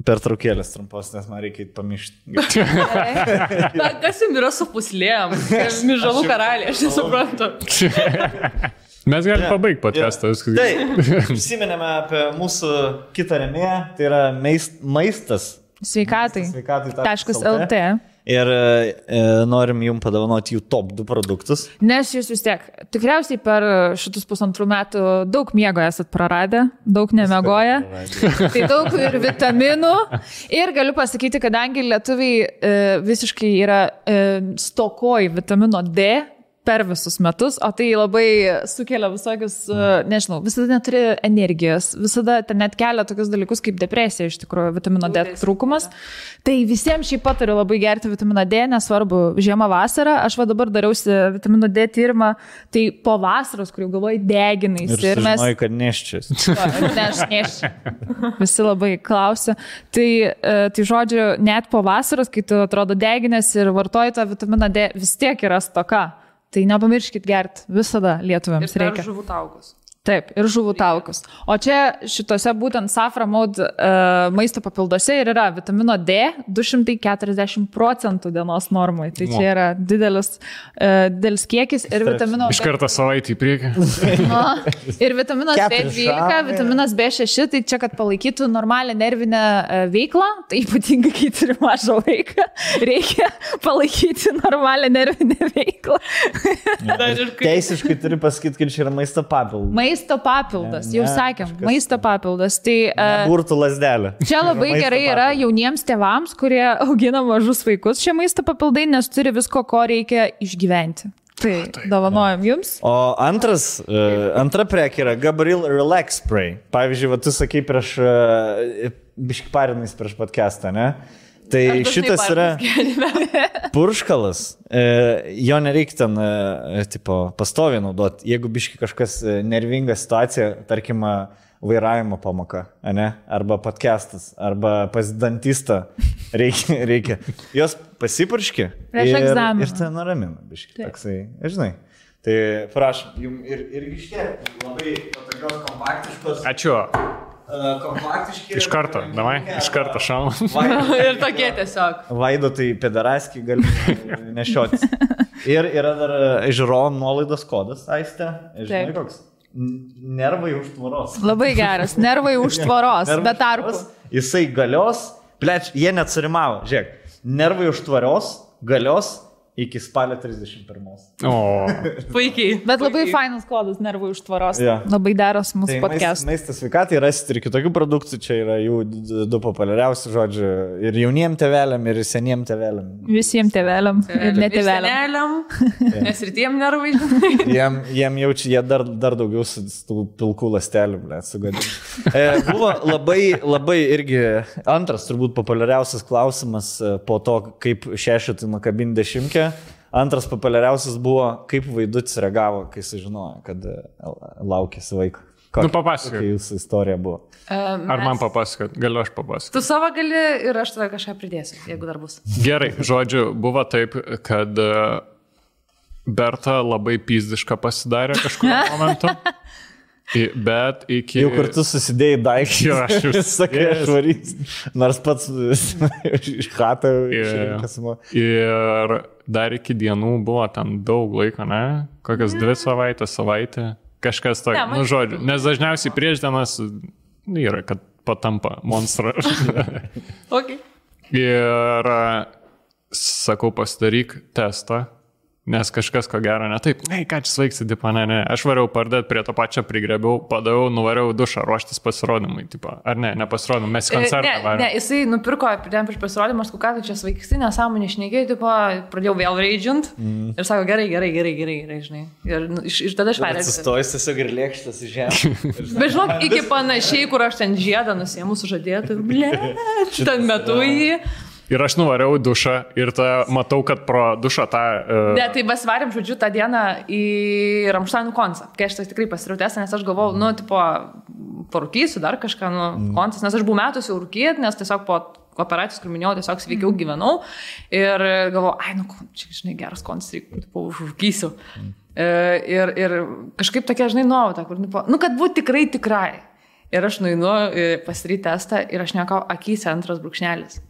pertraukėlės trumpos, nes man reikia pamiršti. Kas jums yra su puslėm? Mižalų karaliai, aš nesuprantu. Mes galime pabaigti podcastą. Tai, prisiminėme apie mūsų kitą rėmėją, tai yra maistas. Sveikatai. Sveikatai.lt. Ir norim jums padovanoti jų top 2 produktus. Nes jūs vis tiek, tikriausiai per šitus 1,5 metų daug miego esat praradę, daug nemiegoję. Tai daug ir vitaminų. Ir galiu pasakyti, kadangi lietuviai visiškai yra stokoj vitamino D per visus metus, o tai labai sukelia visokius, nežinau, visada neturi energijos, visada ten net kelia tokius dalykus kaip depresija, iš tikrųjų, vitamino D trūkumas. Tai visiems šiaip patariu labai gerti vitaminą D, nesvarbu, žiemą, vasarą. Aš dabar dariausi vitamino D tyrimą, tai po vasaros, kur jau galvoju, deginais. Ir mes... Žinojai, kad neščias. Ne, aš neščiu. Visi labai klausia. Tai žodžiu, net po vasaros, kai tu atrodo deginės ir vartoji tą vitaminą D, vis tiek yra stoka. Tai nepamirškit gerti, visada lietuviams reikia. Ir žuvų taukus. Taip, ir žuvų taukus. O čia šitose būtent Safra Mode maisto papilduose ir yra vitamino D 240% dienos normai. Tai čia yra didelis kiekis ir vitamino... Iš karto savaitį į priekį. Ir vitaminas B12, vitaminas B6, tai čia, kad palaikytų normalią nervinę veiklą, tai ypatingai, kai turi mažą vaiką, reikia palaikyti normalią nervinę veiklą. Teisiškai turi pasakyti, kad čia yra maisto papildas. Maisto papildas, jau sakėm, maisto papildas. Tai, burtų lasdelė. Čia labai gerai yra jauniems tėvams, kurie augina mažus vaikus šie maisto papildai, nes turi visko, ko reikia išgyventi. Tai dovanojam jums. O antra prekė yra Gabriel Relax Spray. Pavyzdžiui, tu sakai prieš biškparinais prieš podcastą, ne? Tai šitas yra purškalas, jo nereikia ten pastoviai naudoti. Jeigu biški kažkas nervinga situacija, tarkim, vairavimo pamoka, ne? Arba podcastas, arba pas dantistą reikia. Jos pasipurški ir tai nuramina biški. Toksai, žinai. Tai prašom, jums ir iškėlė labai patogios kompaktiškos. Ačiū. Kompaktiški. Iš karto, davai, iš karto šauna. Ir tokie tiesiog. Vaido tai pedaraskį gali nešiotis. Ir yra dar žiūrovom nuolaidos kodas, Aiste. Žinai koks? Nervai už tvoros. Labai geras, nervai už tvoros, be tarpų. Jisai galios, jie net surimavo, žiūrėk, nervai už tvoros, galios iki spalio 31. O. Puikiai. Bet labai fainas kodas nervų už tvoros. Ja. Labai deros mūsų podcast. Maistas sveikatai rasite ir kitokių produktų, čia yra jų 2 populiariausi žodžiai. Ir jauniem tėveliam, ir seniem tėveliam. Visiems tėveliam ir netėveliam. Nes ir tiem nervai. Jiem jaučia, jie dar daugiau su pilkų ląstelių, sugadina. Buvo labai irgi antras turbūt populiariausias klausimas po to, kaip šešetui nukabinti 10. Antras populiariausias buvo, kaip Vaidutis reagavo, kai sužinojo, kad laukėsi vaiko. Papasakok. Kokia jūsų istorija buvo? Ar man papasakot? Galiu aš papasakot. Tu savo gali ir aš tada kažką pridėsiu, jeigu dar bus. Gerai, žodžiu, buvo taip, kad Berta labai pizdiška pasidarė kažkurio momentu. Bet iki... Jau kartu susidėjai daiktus. Jo, aš jau sakai, aš varys. Nors pats iš chatą išrinkas. Ir dar iki dienų buvo ten daug laiko, ne? Kokias 2 savaitę. Kažkas tokio, žodžiu. Nes dažniausiai prieš dienas yra, kad patampa monstrą. Okay. Ir sakau, pasidaryk testą. Nes kažkas ko gero ne taip, ką čia svaigsi, tipo, ne. Aš variau pardėti prie to pačią, prigrebiau, padavau, nuvariau dušą ruoštis pasirodymui, tipo. Ar ne pasirodymui, mes į koncertą varėm. Ne, jisai nupirko prieš pasirodymą, aš ką tu čia svaigsti, nesąmonė šnekėjai, tipo, pradėjau vėl raidžint ir sako, gerai, žinai. Ir tada aš perėjau. Sustojus tiesiog ir lėkštas į žemę. Bet žinok, iki panašiai, kur aš ten žiedą nusiėmu sužadėtų, ten metu jį. Ir aš nuvariau dušą ir matau, kad pro dušą tą... Ne, tai besvarėm, žodžiu, tą dieną į Ramšteinų koncą. Kai aš tai tikrai pasirautęs, nes aš galvojau, parūkysiu dar kažką, koncas, nes aš buvau metus jau rūkyti, nes tiesiog po operacijos, kur minėjau, tiesiog sveikiau gyvenau. Ir galvojau, čia, žinai, geras koncas, užrūkysiu. Ir kažkaip tokia, žinai, nuojauta, kur, kad būtų tikrai. Ir aš nueinu pasidaryti testą ir aš nekau akyse 2 brūkšnelis.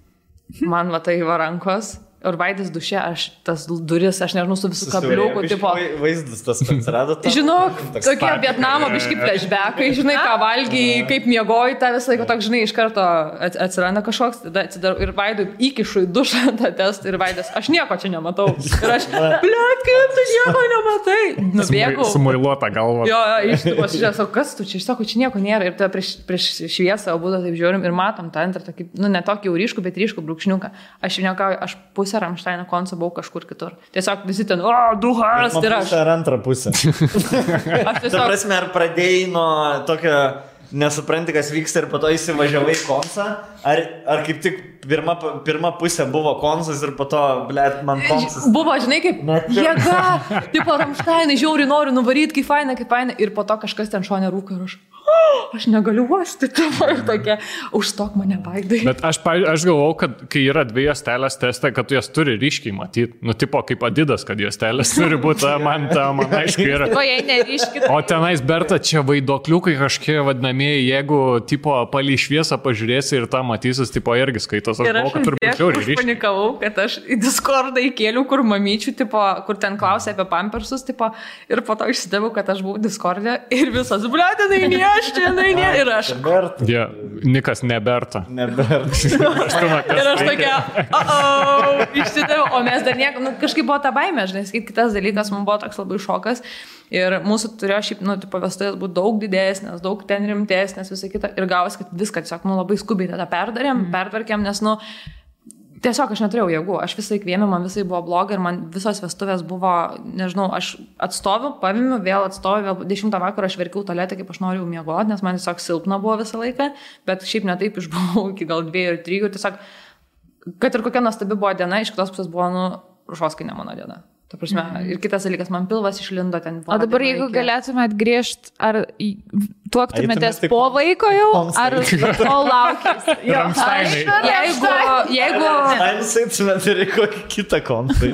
Man va tai va rankos. Ir Vaidas duše, tas duris, aš nežinau, su visų kabliukų, tipo... Vaizdas tas atsirado. Žinok, tokie Vietnamo biški flashbackai, žinai, ką valgiai, kaip miegoji, tą visą laiką toks, žinai, iš karto atsiranda kažkoks, tada atsidarau ir Vaidui įkišu į dušą tą testą ir Vaidas, aš nieko čia nematau. Ir aš, bliat, kaip tu nieko nematai? Nubėgau. Sumuiluota galva. Jo, iš tų pasižiūrėjau, kas tu čia, aš sakau, čia nieko nėra. Ir tada prieš šviesą abudu taip žiūrim ir matom tą antrą, tokį, ne tokį jau ryškų, bet ryškų brūkšniuką. Aš pusę Ramšteino koncą buvau kažkur kitur. Tiesiog visi ten, duhas, ir aš. Ar antrą pusę. Aš tiesiog... Ta prasme, ar pradėjai nuo tokio nesupranti, kas vyksta ir po to įsivažiavai koncą, ar kaip tik pirma pusė buvo koncas ir po to, blėt, man koncas. Buvo, žinai, kaip jėga, tipo Ramšteinai, žiauri noriu nuvaryti, kaip faina, ir po to kažkas ten šone rūko ir aš negaliu uosti, tavo ir tokia, užstok mane Vaidai. Bet aš galvau, kad kai yra 2 juostelės teste, kad tu jas turi ryškiai matyti. Tipo kaip Adidas, kad juostelės turi būti, man aišku yra. O tenais, Berta, čia vaidokliukai kažkie vadinamieji, jeigu tipo palį šviesą pažiūrėsi ir tą matysis, tipo irgi skaitos. Ir aš panikavau, kad aš į Discordą įkėliau, kur mamyčių, tipo, kur ten klausė apie pampersus, tipo, ir po to išsidavau, kad aš buvau Discord'e ir visas, blėtinai, ir aš. Ja, Nikas neberta. Ir aš tokia, išsidaviau, o mes dar nieko, kažkaip buvo ta baimė, žinai, kitas dalykas, man buvo toks labai šokas. Ir mūsų turėjo šiaip, vestuvės būti daug didesnės, daug ten rimtesnės, visą kitą. Ir gavosi, kad viską tiesiog, labai skubiai tada pertvarkėm, nes, tiesiog aš neturėjau jėgų, aš visai kvėmė, man visai buvo blogai ir man visos vestuvės buvo, nežinau, aš atstoviu, pavimiu, vėl 10 vakarą aš verkiau tualetę, kaip aš noriu miegoti, nes man tiesiog silpna buvo visą laiką, bet šiaip netaip išbuvau iki gal 2 ir 3 ir tiesiog, kad ir kokia nuostabi buvo diena, iš kitos pusės buvo, rušoskai ne mano diena. Ta prasme, ir kitas dalykas, man pilvas išlindo ten. O dabar jeigu galėtumėt grįžti, ar tuoktumėtės po vaiko jau, ar po laukės? Jeigu... Ramšteinus ir kokį kitą kontą.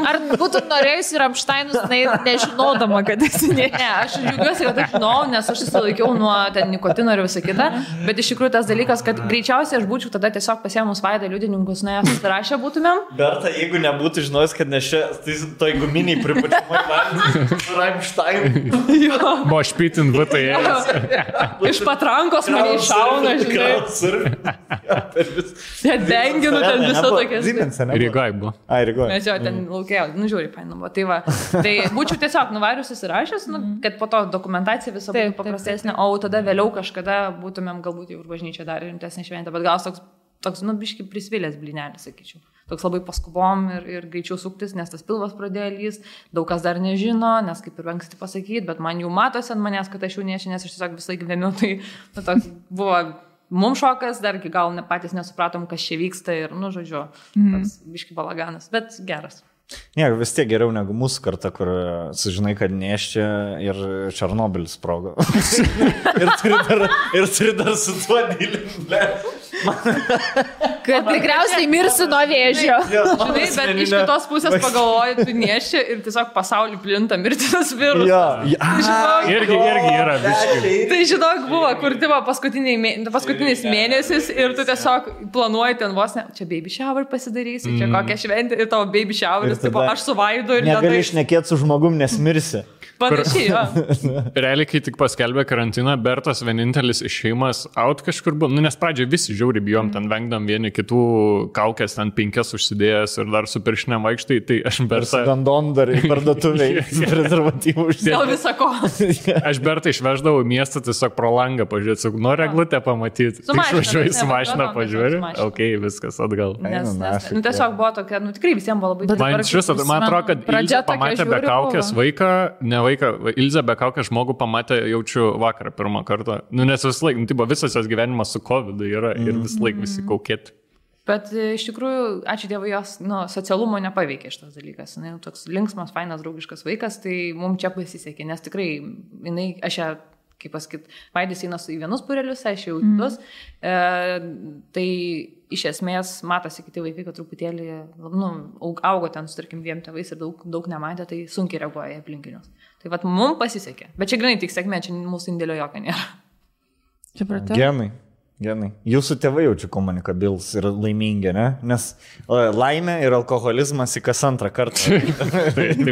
Ar būtų norėjusi Ramšteinus nežinodama, kad esi ne? Ne, aš džiaugiuosi, kad aš žinau, nes aš susilaikiau nuo ten nikotino ir visą kitą, bet iš tikrųjų tas dalykas, kad greičiausiai aš būčiau tada tiesiog pasėmus Vaidą liudininkus, nuėjęs susirašę būtumėm. Berta, jeigu nebūtų žinojęs, kad ne tai toj guminiai pripučiamai valgyti su Ramšteinu. Buvo špitin VTS. Iš patrankos mane iššauna, žinai. Net benginu ten visą tokias. Rygai buvo. Mes jo ten laukėjau, žiūri, painu buvo. Tai va, tai būčiau tiesiog nuvarius įsirašęs, kad po to dokumentacija visą būtų paprastesnė, o tada vėliau kažkada būtumėm galbūt jau ir bažnyčia dar rimtesnė šventė, bet gal toks biški prisvilęs blinelis, sakyčiau. Toks labai paskubom ir greičiau suktis, nes tas pilvas pradėjo lyst, daug kas dar nežino, nes kaip ir anksti pasakyti, bet man jau matosi ant manęs, kad aš jau nešė, nes aš tiesiog visai gyvenu, tai toks buvo mums šokas, dar iki gal patys nesupratom, kas čia vyksta ir, žodžiu, toks biški balaganas, bet geras. Ne, vis tiek geriau negu mūsų karta, kur sužinai, kad neščia ir Černobylis sprogo. ir turi dar su tuo dylinti. Kad tikriausiai mirsi nuo vėžio. Žinai, bet iš kitos pusės pagalvoji, tu neščia ir tiesiog pasaulį plinta mirtinas virusas. Irgi yra biški. Tai žinok, buvo, kur tipo paskutinis mėnesis ir tu tiesiog planuoji ten vos ne, čia baby shower pasidarysi, čia kokią šventę ir tavo baby showeris, tipo aš su Vaidu ir negali šnekėti su žmogum, nes mirsi. Panašiai, jo. Realiai, kai tik paskelbė karantiną, Bertas vienintelis išėjimas out kažkur buvo, nes pradžioje visi žiauri bijom, ten vengdam vieni kitų kaukės, ten 5 užsidėjęs ir dar su piršinėm vaikštai, tai aš Bertą... Gandon dar į parduotuviai, prezervatyvų užsidėjęs. Dėl visako. Aš Bertą išveždavau į miestą tiesiog pro langą pažiūrėti, sakau, noriu eglutę pamatyti. Išvažiuoju su mašina pažiūrėti, okei, viskas atgal. Tiesiog buvo tokia, tikrai visiems buvo labai... Man atrodo, kad Ilzė pamatė be kaukės vaiką, Ilzė be kaukės žmogų pamatė, jaučiu vakarą pirmą kartą. Nes vis laik, visas jos gyvenimas su COVID yra ir vis laik visi kaukėti. Bet iš tikrųjų, ačiū Dievui, jos socialumo nepaveikė šitas dalykas. Jis toks linksmas, fainas, draugiškas vaikas, tai mums čia pasisekė, nes tikrai, aš ją, kaip pasakyt, Vaidis eina į vienus būrelius, aš jau kitus. Tai iš esmės matosi kiti vaikai, kad truputėlį augo ten su, tarkim, 2 tėvais ir daug nematė, tai sunkiai reaguoja į aplinkinius. Tai vat mums pasisekė. Bet čia grinai tik sėkmė, čia mūsų indėlio jokio nėra. Genai. Jūsų tėvai jaučiu komunikabilus ir laimingi, ne? Nes laimė ir alkoholizmas į kas antrą kartą.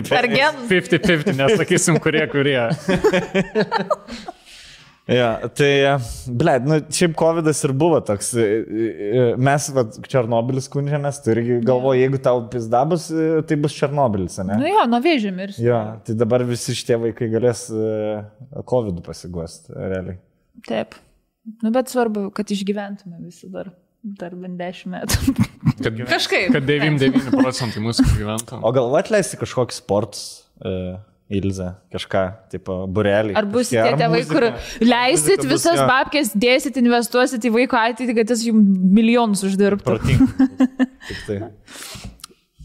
Per genus. 50-50, nesakysim, kurie. Ja, tai, šiaip COVID'as ir buvo toks. Mes, Černobylis skundžiamės, tu irgi galvoji, jeigu tau pizda bus, tai bus Černobylis, ne? Nuo vėžio mirs. Jo, tai dabar visi šitie vaikai galės COVID'u pasiguosti, realiai. Taip. Bet svarbu, kad išgyventume visi dar bent 10 metų. Kažkaip. Kad 99% mūsų gyventų. O gal atleisti kažkokį sportus, Ilze, kažką, tipo, burelį. Ar bus tie tėvai, kur leisit visas babkės, dėsit, investuosit į vaiko ateitį, kad jis jums milijonus uždirbtų? Protingai. Tik tai.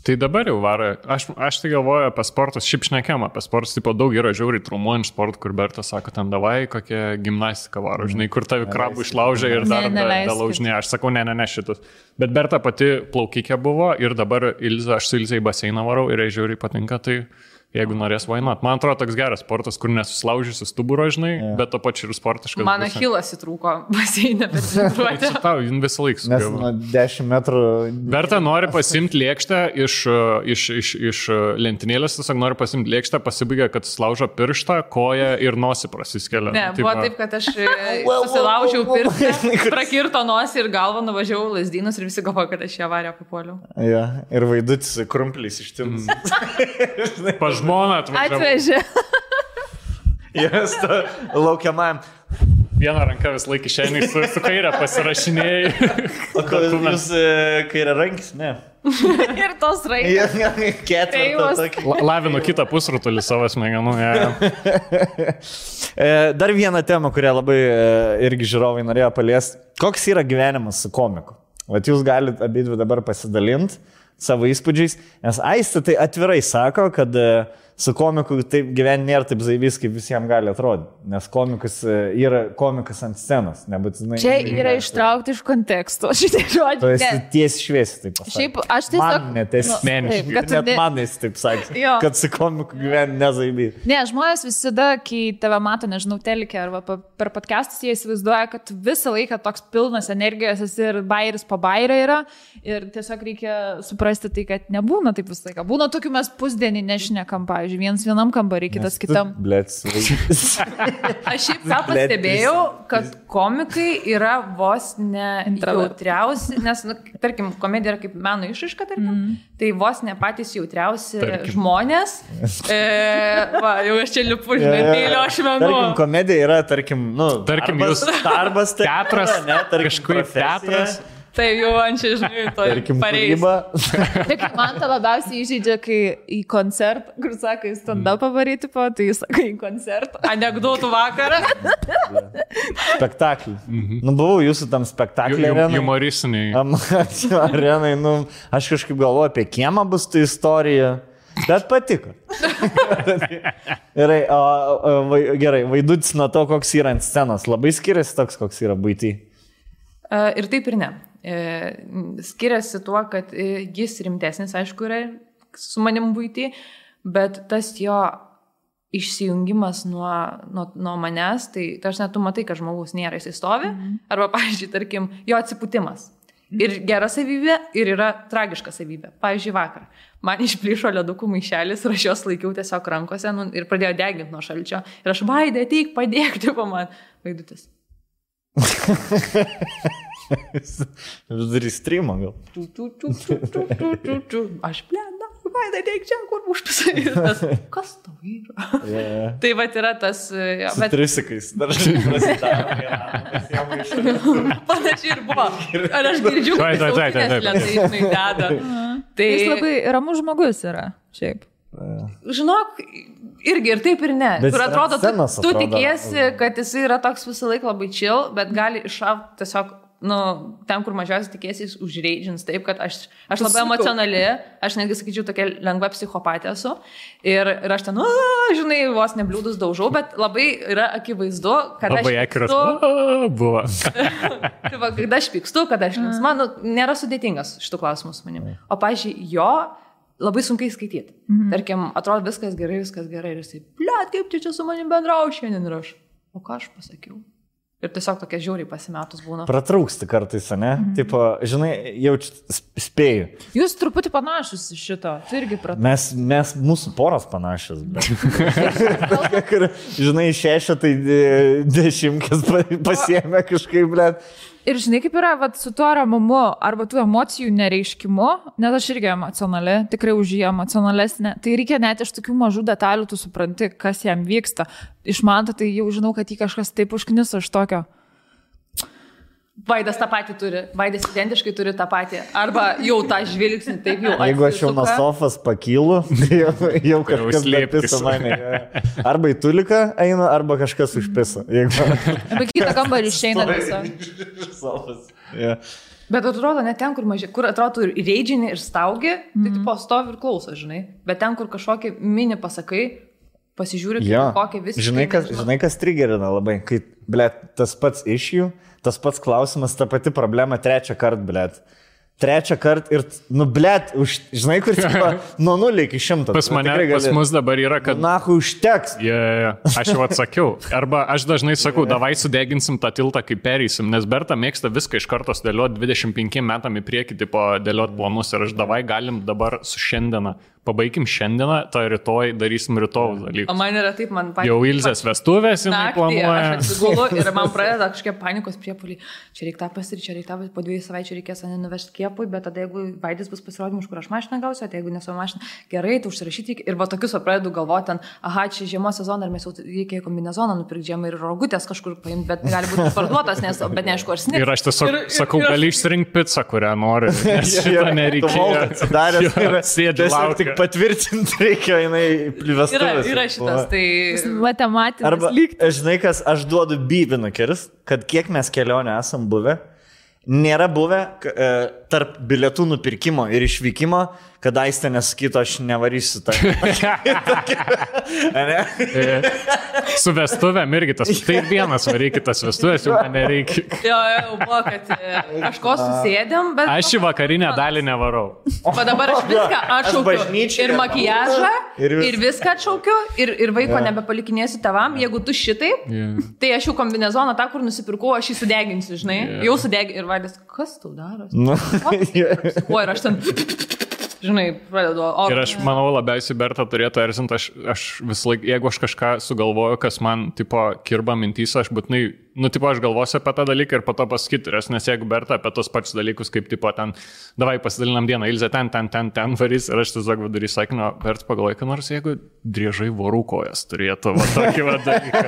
Tai dabar jau varo. Aš tai galvoju apie sportus, šiaip šnekėm apie sportus, tipo daug yra žiauriai traumuojant sportų, kur Berta sako, ten davai, kokia gimnastika varo, žinai, kur tavi krabų išlaužia ir dar belaužinė. Aš sakau, ne šitus. Bet Berta pati plaukikė buvo ir dabar aš su Ilze į baseiną varau ir jai žiauriai patinka, tai jeigu norės vainot. Man atrodo, toks geras sportas, kur nesusilaužysi stuburo, žinai, bet to pačiu ir sportiškas. Man achilas įtrūko baseinę, bet treniruotė. Čia tau, visą laiką nes nuo 10 metrų... Berta nori pasimti lėkštę iš lentynėlės, tiesiog nori pasimti lėkštę, pasibaigia, kad slaužo pirštą, koją ir nosį prasiskelia. Ne, buvo taip, kad aš susilaužiau pirštą, prakirto nosį ir galvą, nuvažiavau Lazdynus ir visi galvoja, kad aš ją varę papuoliau. Ja, ir Vaidutis krumplys ištins. Žmona atvežė. Jas laukiamajam. Vieną ranką vis laik išeini su kairę pasirašinėjai. O jūs kairę rankis? Ne. Ir tos rankis. Ketvirtą. Lavinu kitą pusrutulį savo smegenų. Dar vieną temą, kurią labai irgi žiūrovai norėjo paliesti. Koks yra gyvenimas su komiku? Vat jūs galite abidvi dabar pasidalinti savo įspūdžiais, nes Aistė tai atvirai sako, kad su komiku taip gyventi nėra taip zaibys, kaip visiems gali atrodyti, nes komikas yra komikas ant scenos, nebūtinai. Čia yra ištraukti iš konteksto, šitie žodžiai. Tu esi tiesi šviesi, taip pasakė. Šiaip aš tiesiog... Man net esi net manais, taip sakė, kad su komiku gyventi nezaibys. Ne, žmonės visada, kai tave mato, nežinau, telikė arba per podcastus, jie įsivaizduoja, kad visą laiką toks pilnas energijos esi ir bairis po bairą yra ir tiesiog reikia suprasti tai, kad nebūna taip visą laiką. Būna tokių mes pusdienį nešnekam, pavyzdžiui, vienam kambarį, kitas kitam. Aš šiaip ką pastebėjau, kad komikai yra vos ne jautriausi, nes, tarkim, komedija yra kaip meno išraiška, tarkim, tai vos ne patys jautriausi žmonės. Jau aš čia lipu, žinai, mėlio ašmenų. Tarkim, komedija yra, tarkim, jūs darbas, teatras, kažkaip teatras. Tai jau man čia, žinai, to pareis. Tik man tą labiausiai įžeidžia, kai į koncertą, kur sako, į stand-upą varyti po, tai jis sako į koncertą. Anekdotų vakarą. Spektaklį. Buvau jūsų tam spektaklį arenai. Humoristiniai. Arenai, aš kažkaip galvoju apie kiemą bus ta istorija. Bet patiko. Gerai, Vaidutis nuo to, koks yra ant scenos. Labai skiriasi toks, koks yra buity. Ir taip ir ne. Skiriasi tuo, kad jis rimtesnis, aišku, yra su manim buity, bet tas jo išsijungimas nuo manęs, tai aš net tu matai, kad žmogus nėra, jis stovi, arba, pavyzdžiui, tarkim, jo atsipūtimas. Ir gera savybė, ir yra tragiška savybė. Pavyzdžiui, vakar man išplyšo ledukų maišelis ir aš jos laikiau tiesiog rankose ir pradėjo deginti nuo šalčio. Ir aš, Vaidai, ateik, padėk, tipo man. Vaidutis. Vis darys streamą gal. Aš blėda, Vaidai, teik čia, kur užpisai. Kas tau yra? Tai va yra tas... Su trisikais. Panašiai ir buvo. Ar aš girdžiu, kad jis autinės lentai, žinai, deda. Jis labai ramus žmogus yra, šiaip. Žinok, irgi ir taip ir ne. Kur atrodo, tu tikiesi, kad jis yra toks visą laiką labai chill, bet gali iššauti tiesiog nu, ten, kur mažiausiai tikėsiais, užreidžins taip, kad aš labai emocionali, aš netgi sakyčiau, tokia lengva psichopatė esu. Ir aš ten, žinai, vos nebliūdus daužau, bet labai yra akivaizdu, kad labai aš akiras buvo. Tai va, kada aš pykstu, kada aš linksma, nėra sudėtingas šitų klausimų su manim. O, pažiūrėjau, jo labai sunkiai skaityti. Tarkim, atrodo viskas gerai. Ir jisai, blet, kaip čia su manim bendrauja šiandien ir aš. O ką aš pasakiau? Ir tiesiog tokie žiauriai pasimetus būna. Pratrūksti kartais, ne? Tipo, žinai, jaučiu spėju. Jūs truputį panašus iš šito. Tu irgi pratrūksti. Mes mūsų poros panašios. Žinai, 6, tai 10 pasiėmė kažkaip, blėt. Ir žinai, kaip yra su tuo ramumu arba tų emocijų nereiškimu, nes aš irgi emocionali, tikrai už jį emocionalesnė, tai reikia net iš tokių mažų detalių, tu supranti, kas jam vyksta. Iš man tai jau žinau, kad jį kažkas taip užkniso iš tokio. Vaidas tą patį turi, Vaidas identiškai turi tą patį, arba jau tą žvilgsnį taip jau atsisuka. Jeigu aš jau nuo sofas pakylu, jau kažkas lepisa mane. Arba į tuliką eina, arba kažkas užpisa. Arba kitą kambarį išeina sofas. Bet atrodo, ne ten, kur atrodo ir reidžini, ir staugi, tai tipo stovi ir klauso, žinai. Bet ten, kur kažkokį mini pasakai, pasižiūri, kokie visiškai... Žinai, kas trigerina labai, kai, blėt, tas pats iš jų, tas pats klausimas, ta pati problema 3 kartą, blėt. 3 kartą ir, blėt, žinai, kur tipo, nuo 0 iki 100. Pas mus dabar yra, kad... Nahu, užteks. Aš jau atsakiau. Arba aš dažnai sakau, davai sudeginsim tą tiltą, kai pereisim, nes Berta mėgsta viską iš karto dėlioti 25 metam į priekį, tipo, dėlioti planus ir aš davai galim dabar su šiandieną. Pabaigim šiandieną, tai rytoj darysim rytojų dalykų. O man yra taip, man patys. Jau Ilzės vestuvės, jinai planuoja. Aš atsigulu ir man pradeda kažkokie panikos priepuoliai. Čia reikia tą pasirinkti, čia reikia tą, po 2 savaičių reikės mane nuvežti kiepui, bet tada jeigu Vaidis bus pasirodymus, kur aš mašiną gausiu, tai jeigu nesu mašiną, gerai, tu užsirašyti ir va tokius pradedu galvoti ten, aha, čia žiemos sezoną ir mes jau reikia kombinezoną nupirkti žiemą ir rogutės kažkur paimti, bet gali būti parduotas, bet neaišku, ar snigs. Ir aš tiesiog sakau, gali išsirinkti pizzą, kurią nori. Šitą nereikia. Patvirtinti reikia, jinai plivestuvės. Yra šitas, tai... Matematinis. Arba, žinai, kas, aš duodu bybinukeris, kad kiek mes kelionę esam buvę, nėra buvę tarp bilietų nupirkimo ir išvykimo, kad Aistė nesakytų, aš nevarysiu tą. Su vestuvėm irgi tas. Tai vienas varykit tas vestuvės, jau man nereikia. Jo, buvo, kad kažko susėdėm, bet... Aš į vakarinę dalį nevarau. O dabar aš viską atšaukiu. Ir makijažą, ir viską atšaukiu, ir vaiko nebepalikinėsiu tavam. Jeigu tu šitai, tai aš jau kombinezoną tą, kur nusipirkau, aš jį sudeginsiu, žinai. Jau sudeginsiu. Ir Vaidas, kas tau daros? O, ir aš ten... Žinai, pradedu. Ir aš manau, labiausiai Berta turėtų erzinti, aš vis laik, jeigu aš kažką sugalvoju, kas man, tipo, kirba mintys, aš būtinai, tipo, aš galvosiu apie tą dalyką ir po to pasakyti, nes jeigu Berta apie tos pačius dalykus, kaip, tipo, ten, davai pasidalinam dieną, Ilzė ten varys, ir aš tiesiog vidury sakinio, Berta pagalvoju, kad nors jeigu driežai vorų kojas turėtų, va, tokį va dalyką.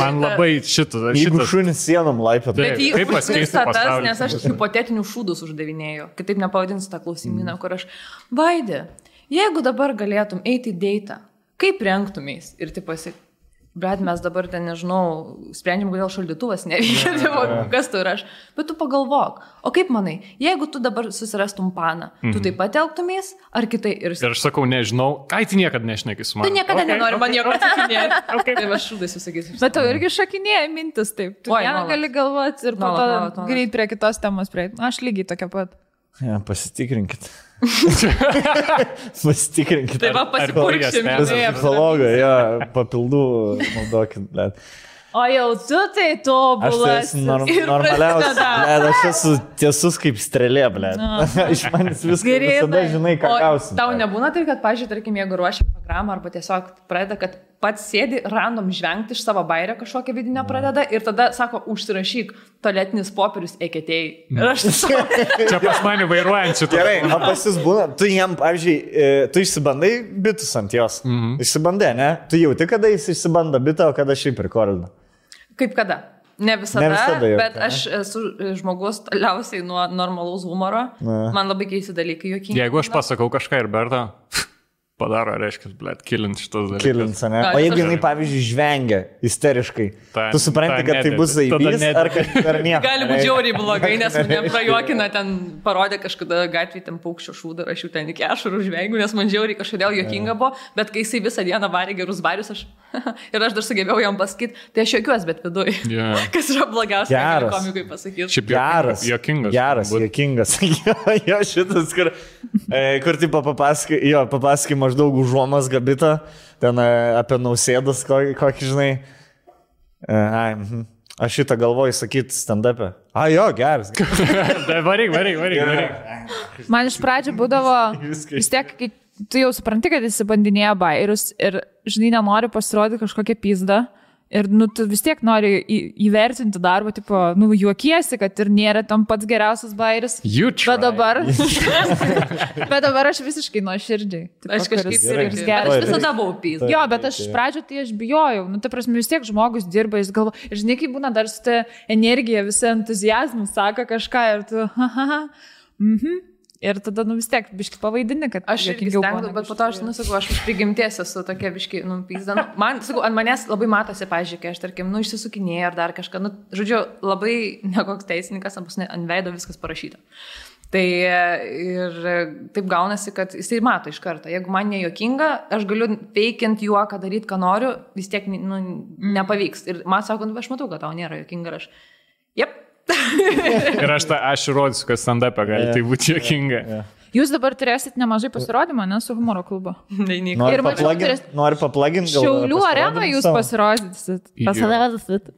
Man labai šitas. Jeigu šunis sienom laipė. Kaip pasikeisti pasaulį? Nes aš hipotetinius šūdus uždavinėjau, kitaip nepavadinsiu tą klausimyną, kur aš Vaidė, jeigu dabar galėtum eiti į deitą, kaip rengtumės? Ir taip pasik, bet mes dabar ten, nežinau, sprendžiam, kodėl šaldytuvas neveikia, kas tu ir aš. Bet tu pagalvok, o kaip manai, jeigu tu dabar susirastum paną, tu taip pat elgtumės, ar kitai? Ir aš sakau, nežinau, ką tu niekada nešneki su Tu manimi. niekada nenori man nieko atsakinėti. Tai aš šūdais visakysiu. Bet tau irgi šakinėja mintis taip. Tu gali galvoti ir po to greit prie kitos temos prieiti. Aš lygiai tokia pat. Ja, pasitikrinkit. Pasitikrinkit. Tai va, pasipurkšim. Psichologą, papildų naudokit, blėt. O jau tu tai tobulas. Aš esu normaliausias, blėt, aš esu tiesus kaip strėlė, blėt. Iš manęs viską visada žinai, ką gausim. Tau nebūna tai, kad, pažiūrėjau, tarkim, jeigu ruošia programą arba tiesiog pradeda, kad pats sėdi random žvengti iš savo bairio kažkokią vidinę pradeda ir tada sako, užsirašyk tualetinis popierius eketėjai. Ir aš tiesiog... Čia pas mane vairuojančių. Gerai, o pas jūs būna, tu jam, pavyzdžiui, tu išsibandai bitus ant jos. Išsibandai, ne? Tu jauti, kada jis išsibando bitą, o kada šiaip rekordina. Kaip kada? Ne visada bet aš esu žmogus toliausiai nuo normalaus humoro. Man labai keisti dalykai juokingi. Jeigu aš pasakau kažką ir Berta... padaro, reiškia, blėt, kilint šitas dalykas. Kilins, ne? O jeigu jinai, pavyzdžiui, žvengia isteriškai, tu supranti, kad tai bus zaibys ar nieko? Gali būti žiauriai blogai, nes mane prajuokina, ten parodė kažkada gatvėje ten paukščio šūdą, aš jau ten iki ašarų žvengiu, nes man žiauriai kažkodėl juokinga buvo, bet kai jisai visą dieną varė gerus barius, ir aš dar sugebėjau jam pasakyti, tai aš juokiuosi, bet viduj. Yeah. Kas yra blogiausia, ką komikui pasakyti. Šiaip juokingas. Geras, juokingas. Jo, šitas, kur tipo papasakai maždaug užuomas gabitą, ten apie Nausėdas, kokį žinai. Aš šitą galvoju sakyti stand-up'e. Jo, geras. Varyk. Man iš pradžių būdavo, vis tiek, kai tu jau supranti, kad jis bandinėja bairius ir, žinai, nenori pasirodyti kažkokią pizdą. Ir, tu vis tiek nori įvertinti darbą, tipo, juokiesi, kad ir nėra tam pats geriausias bairis. Bet dabar aš visiškai nuoširdžiai. Aš kažkaip ir geras. Aš visada buvau pizda. Jo, bet aš iš pradžių tai aš bijojau. Ta prasme, vis tiek žmogus dirba, jis galvo. Ir žinai, kaip būna dar su ta energija, visą entuzijazmą sako kažką ir tu, Ir tada, vis tiek, biški pavaidini, kad aš irgi stengdu, bet po to aš, sakau, aš prigimties esu tokia biški, pizda. Man, sakau, ant manęs labai matosi, pažiūrėk, kai aš, tarkim, išsisukinėjau ar dar kažką, žodžiu, labai nekoks teisininkas, ant veido viskas parašyta. Tai ir taip gaunasi, kad jisai mato iš karto. Jeigu man nejuokinga, aš galiu veikiant juoką daryti, ką noriu, vis tiek, nepavyks. Ir man sako, aš matau, kad tau nėra juokinga, ir aš, jep. Ir aš rodysiu, kad stand-up'e gali tai būti juokinga. Jūs dabar turėsit nemažai pasirodymą, ne, su humoro klubu. Nori paplaginti? Šiaulių areną jūs pasirodysit.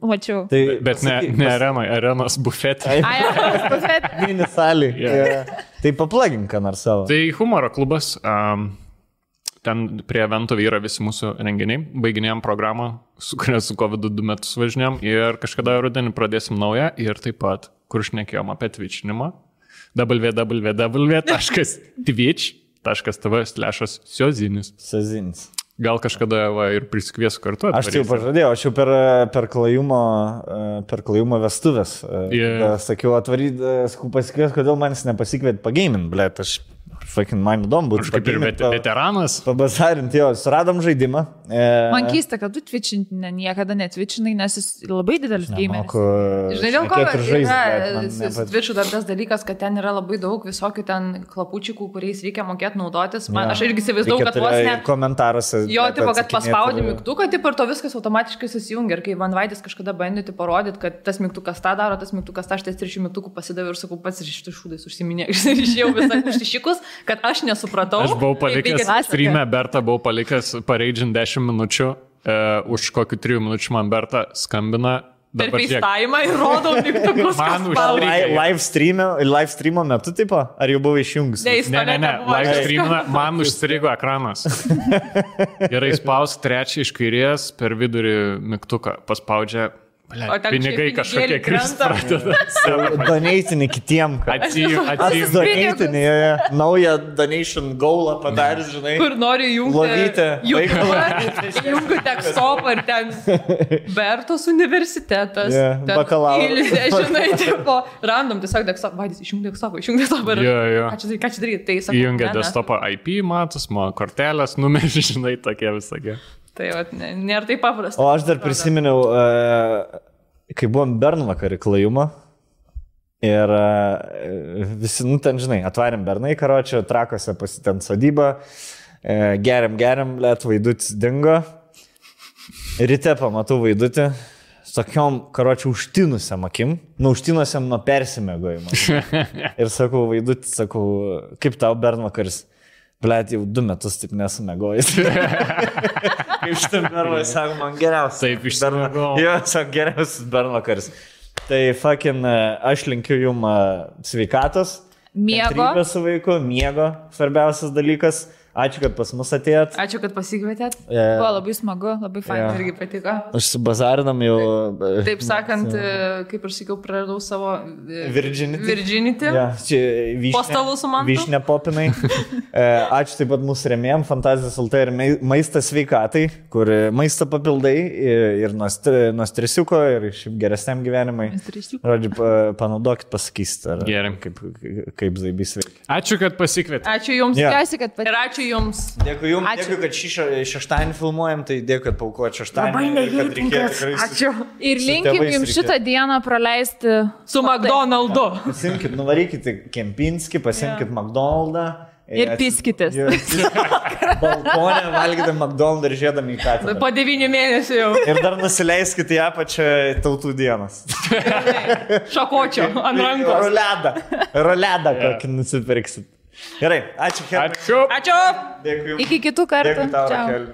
Mačiau. Bet ne arenos bufetė. Arenos bufetė. Mini salį. Tai paplagink, ką nors savo. Tai humoro klubas, ten prie evento yra visi mūsų renginiai, baiginėjom programą, su kuria su COVID 2 metus važinėjom ir kažkada rudenį pradėsim naują ir taip pat, kur šnekėjom apie twitchinimą, www.twitch.tv/siozinis. Gal kažkada ir prisikviesiu kartu. Aš tai jau pažadėjau, aš jau per klajumo vestuvės. Sakiau, pasikvies, kodėl manis nepasikviet pagamint, blėt, aš fucking man įdomu būtų. Aš kaip ir veteranas. Pabasarinti, jo, suradom žaidimą. Man keista, kad tu twitchinti niekada netwitchinai, nes jis labai didelis gameris. Žinai, dėl ko yra su Twitchu dar tas dalykas, kad ten yra labai daug visokių ten klapučikų, kuriais reikia mokėti naudotis. Aš irgi įsivaizduoju, kad vos ne... Komentaruose. Jo, tipo, kad paspaudi mygtuką, tipo, ir to viskas automatiškai susijungia. Ir kai Van Vaidis kažkada bandė parodyti, kad tas mygtukas tą daro, tas mygtukas tą, aš tais 3 mygtukų pasidaviau ir sakau, pats iš šitų šūdais užsiminė. Ir išėjau visą užsišikus, kad aš nesupratau. Aš buvau palikęs streamę, Berta buvau palikęs pareidžiant 10 minučių, už kokių 3 minučių man Berta skambina. Per FaceTime ir rodau mygtukus. Man užstrigo. Live streamo metu, tipo? Ar jau buvo išjungus? Ne, live streamą man užstrigo ekranas. Gerai, spaus 3 iš kairės per vidurį mygtuką, paspaudžia. Pinigai kažkokie kristų pradeda. Doneitinį kitiem. Doneitinį, naują donation goalą padarys, žinai. Kur nori jungti. Jungti tekstopą ir ten Bertos universitetas. Bakalauras. Žinai, tipo, random tiesiog tekstopą. Vaidis, išjungti tekstopą. Ką čia daryti? Įjungia desktopą IP, matus, kortelės, numerį, žinai, tokie visokie. Tai nėra taip paprasta. O aš dar prisiminiau, kai buvom Bernvakarį klajumą ir visi, ten žinai, atvarėm Bernai karočią, Trakose pasitent sodybą, geriam, let Vaidutis dingo. Ryte pamatau Vaidutį, tokiom karočią užtinusiam akim, užtinusiam nuo persimėgojimo. Ir sakau, Vaidutis, kaip tau Bernvakaris? Blet, jau 2 metus taip nesumegojęs. Kaip šitam Bernvakaris, sako, man geriausias. Taip, išsimegojau. Jo, sako, geriausias Bernvakaris. Tai fucking, aš linkiu jum sveikatos. Miego. Su vaiku, miego, svarbiausias dalykas. Ačiū, kad pas mus atėjot. Ačiū, kad pasikvietėt. Buvo labai smagu, labai fain. Irgi patiko. Aš su bazarinam jau... Taip sakant, kaip aš sakiau, praradau savo... Virginity. Ja, čia po stalu su man. Vyšnė popinai. Ačiū taip pat mūsų rėmėjom, Fantazijos LT ir Maistas sveikatai, kur maisto papildai ir nuo stresiuko ir šiaip geresniam gyvenimai. Žodžiu, panaudokit, pasakysit, kaip zaibys veikia. Ačiū, kad pasikvietėt. Ačiū jums. Tikiuosi, kad ir ačiū Ačiū Jums. Dėkui Jums, dėkui, kad šeštadienį filmuojam, tai dėkui, kad paukojat šeštadienį. Labai neįtinkas. Ačiū. Ir linkim Jums šitą dieną praleisti su McDonald'u. Pasimkit, nuvarykit Kempinski, pasimkit McDonald'ą. Ir piskitės. Balkonė valgyti McDonald's ir žiedami į katę. Po 9 mėnesių jau. Ir dar nusileiskite į apačią Tautų dienos. Šakočio ant rankos. Roledą kokį nusipirksit. Gerai, ačiū. Ačiū. Ačiū. Dėkui Jums. Iki kitų kartų. Dėkui tau, Ciao. Rakel.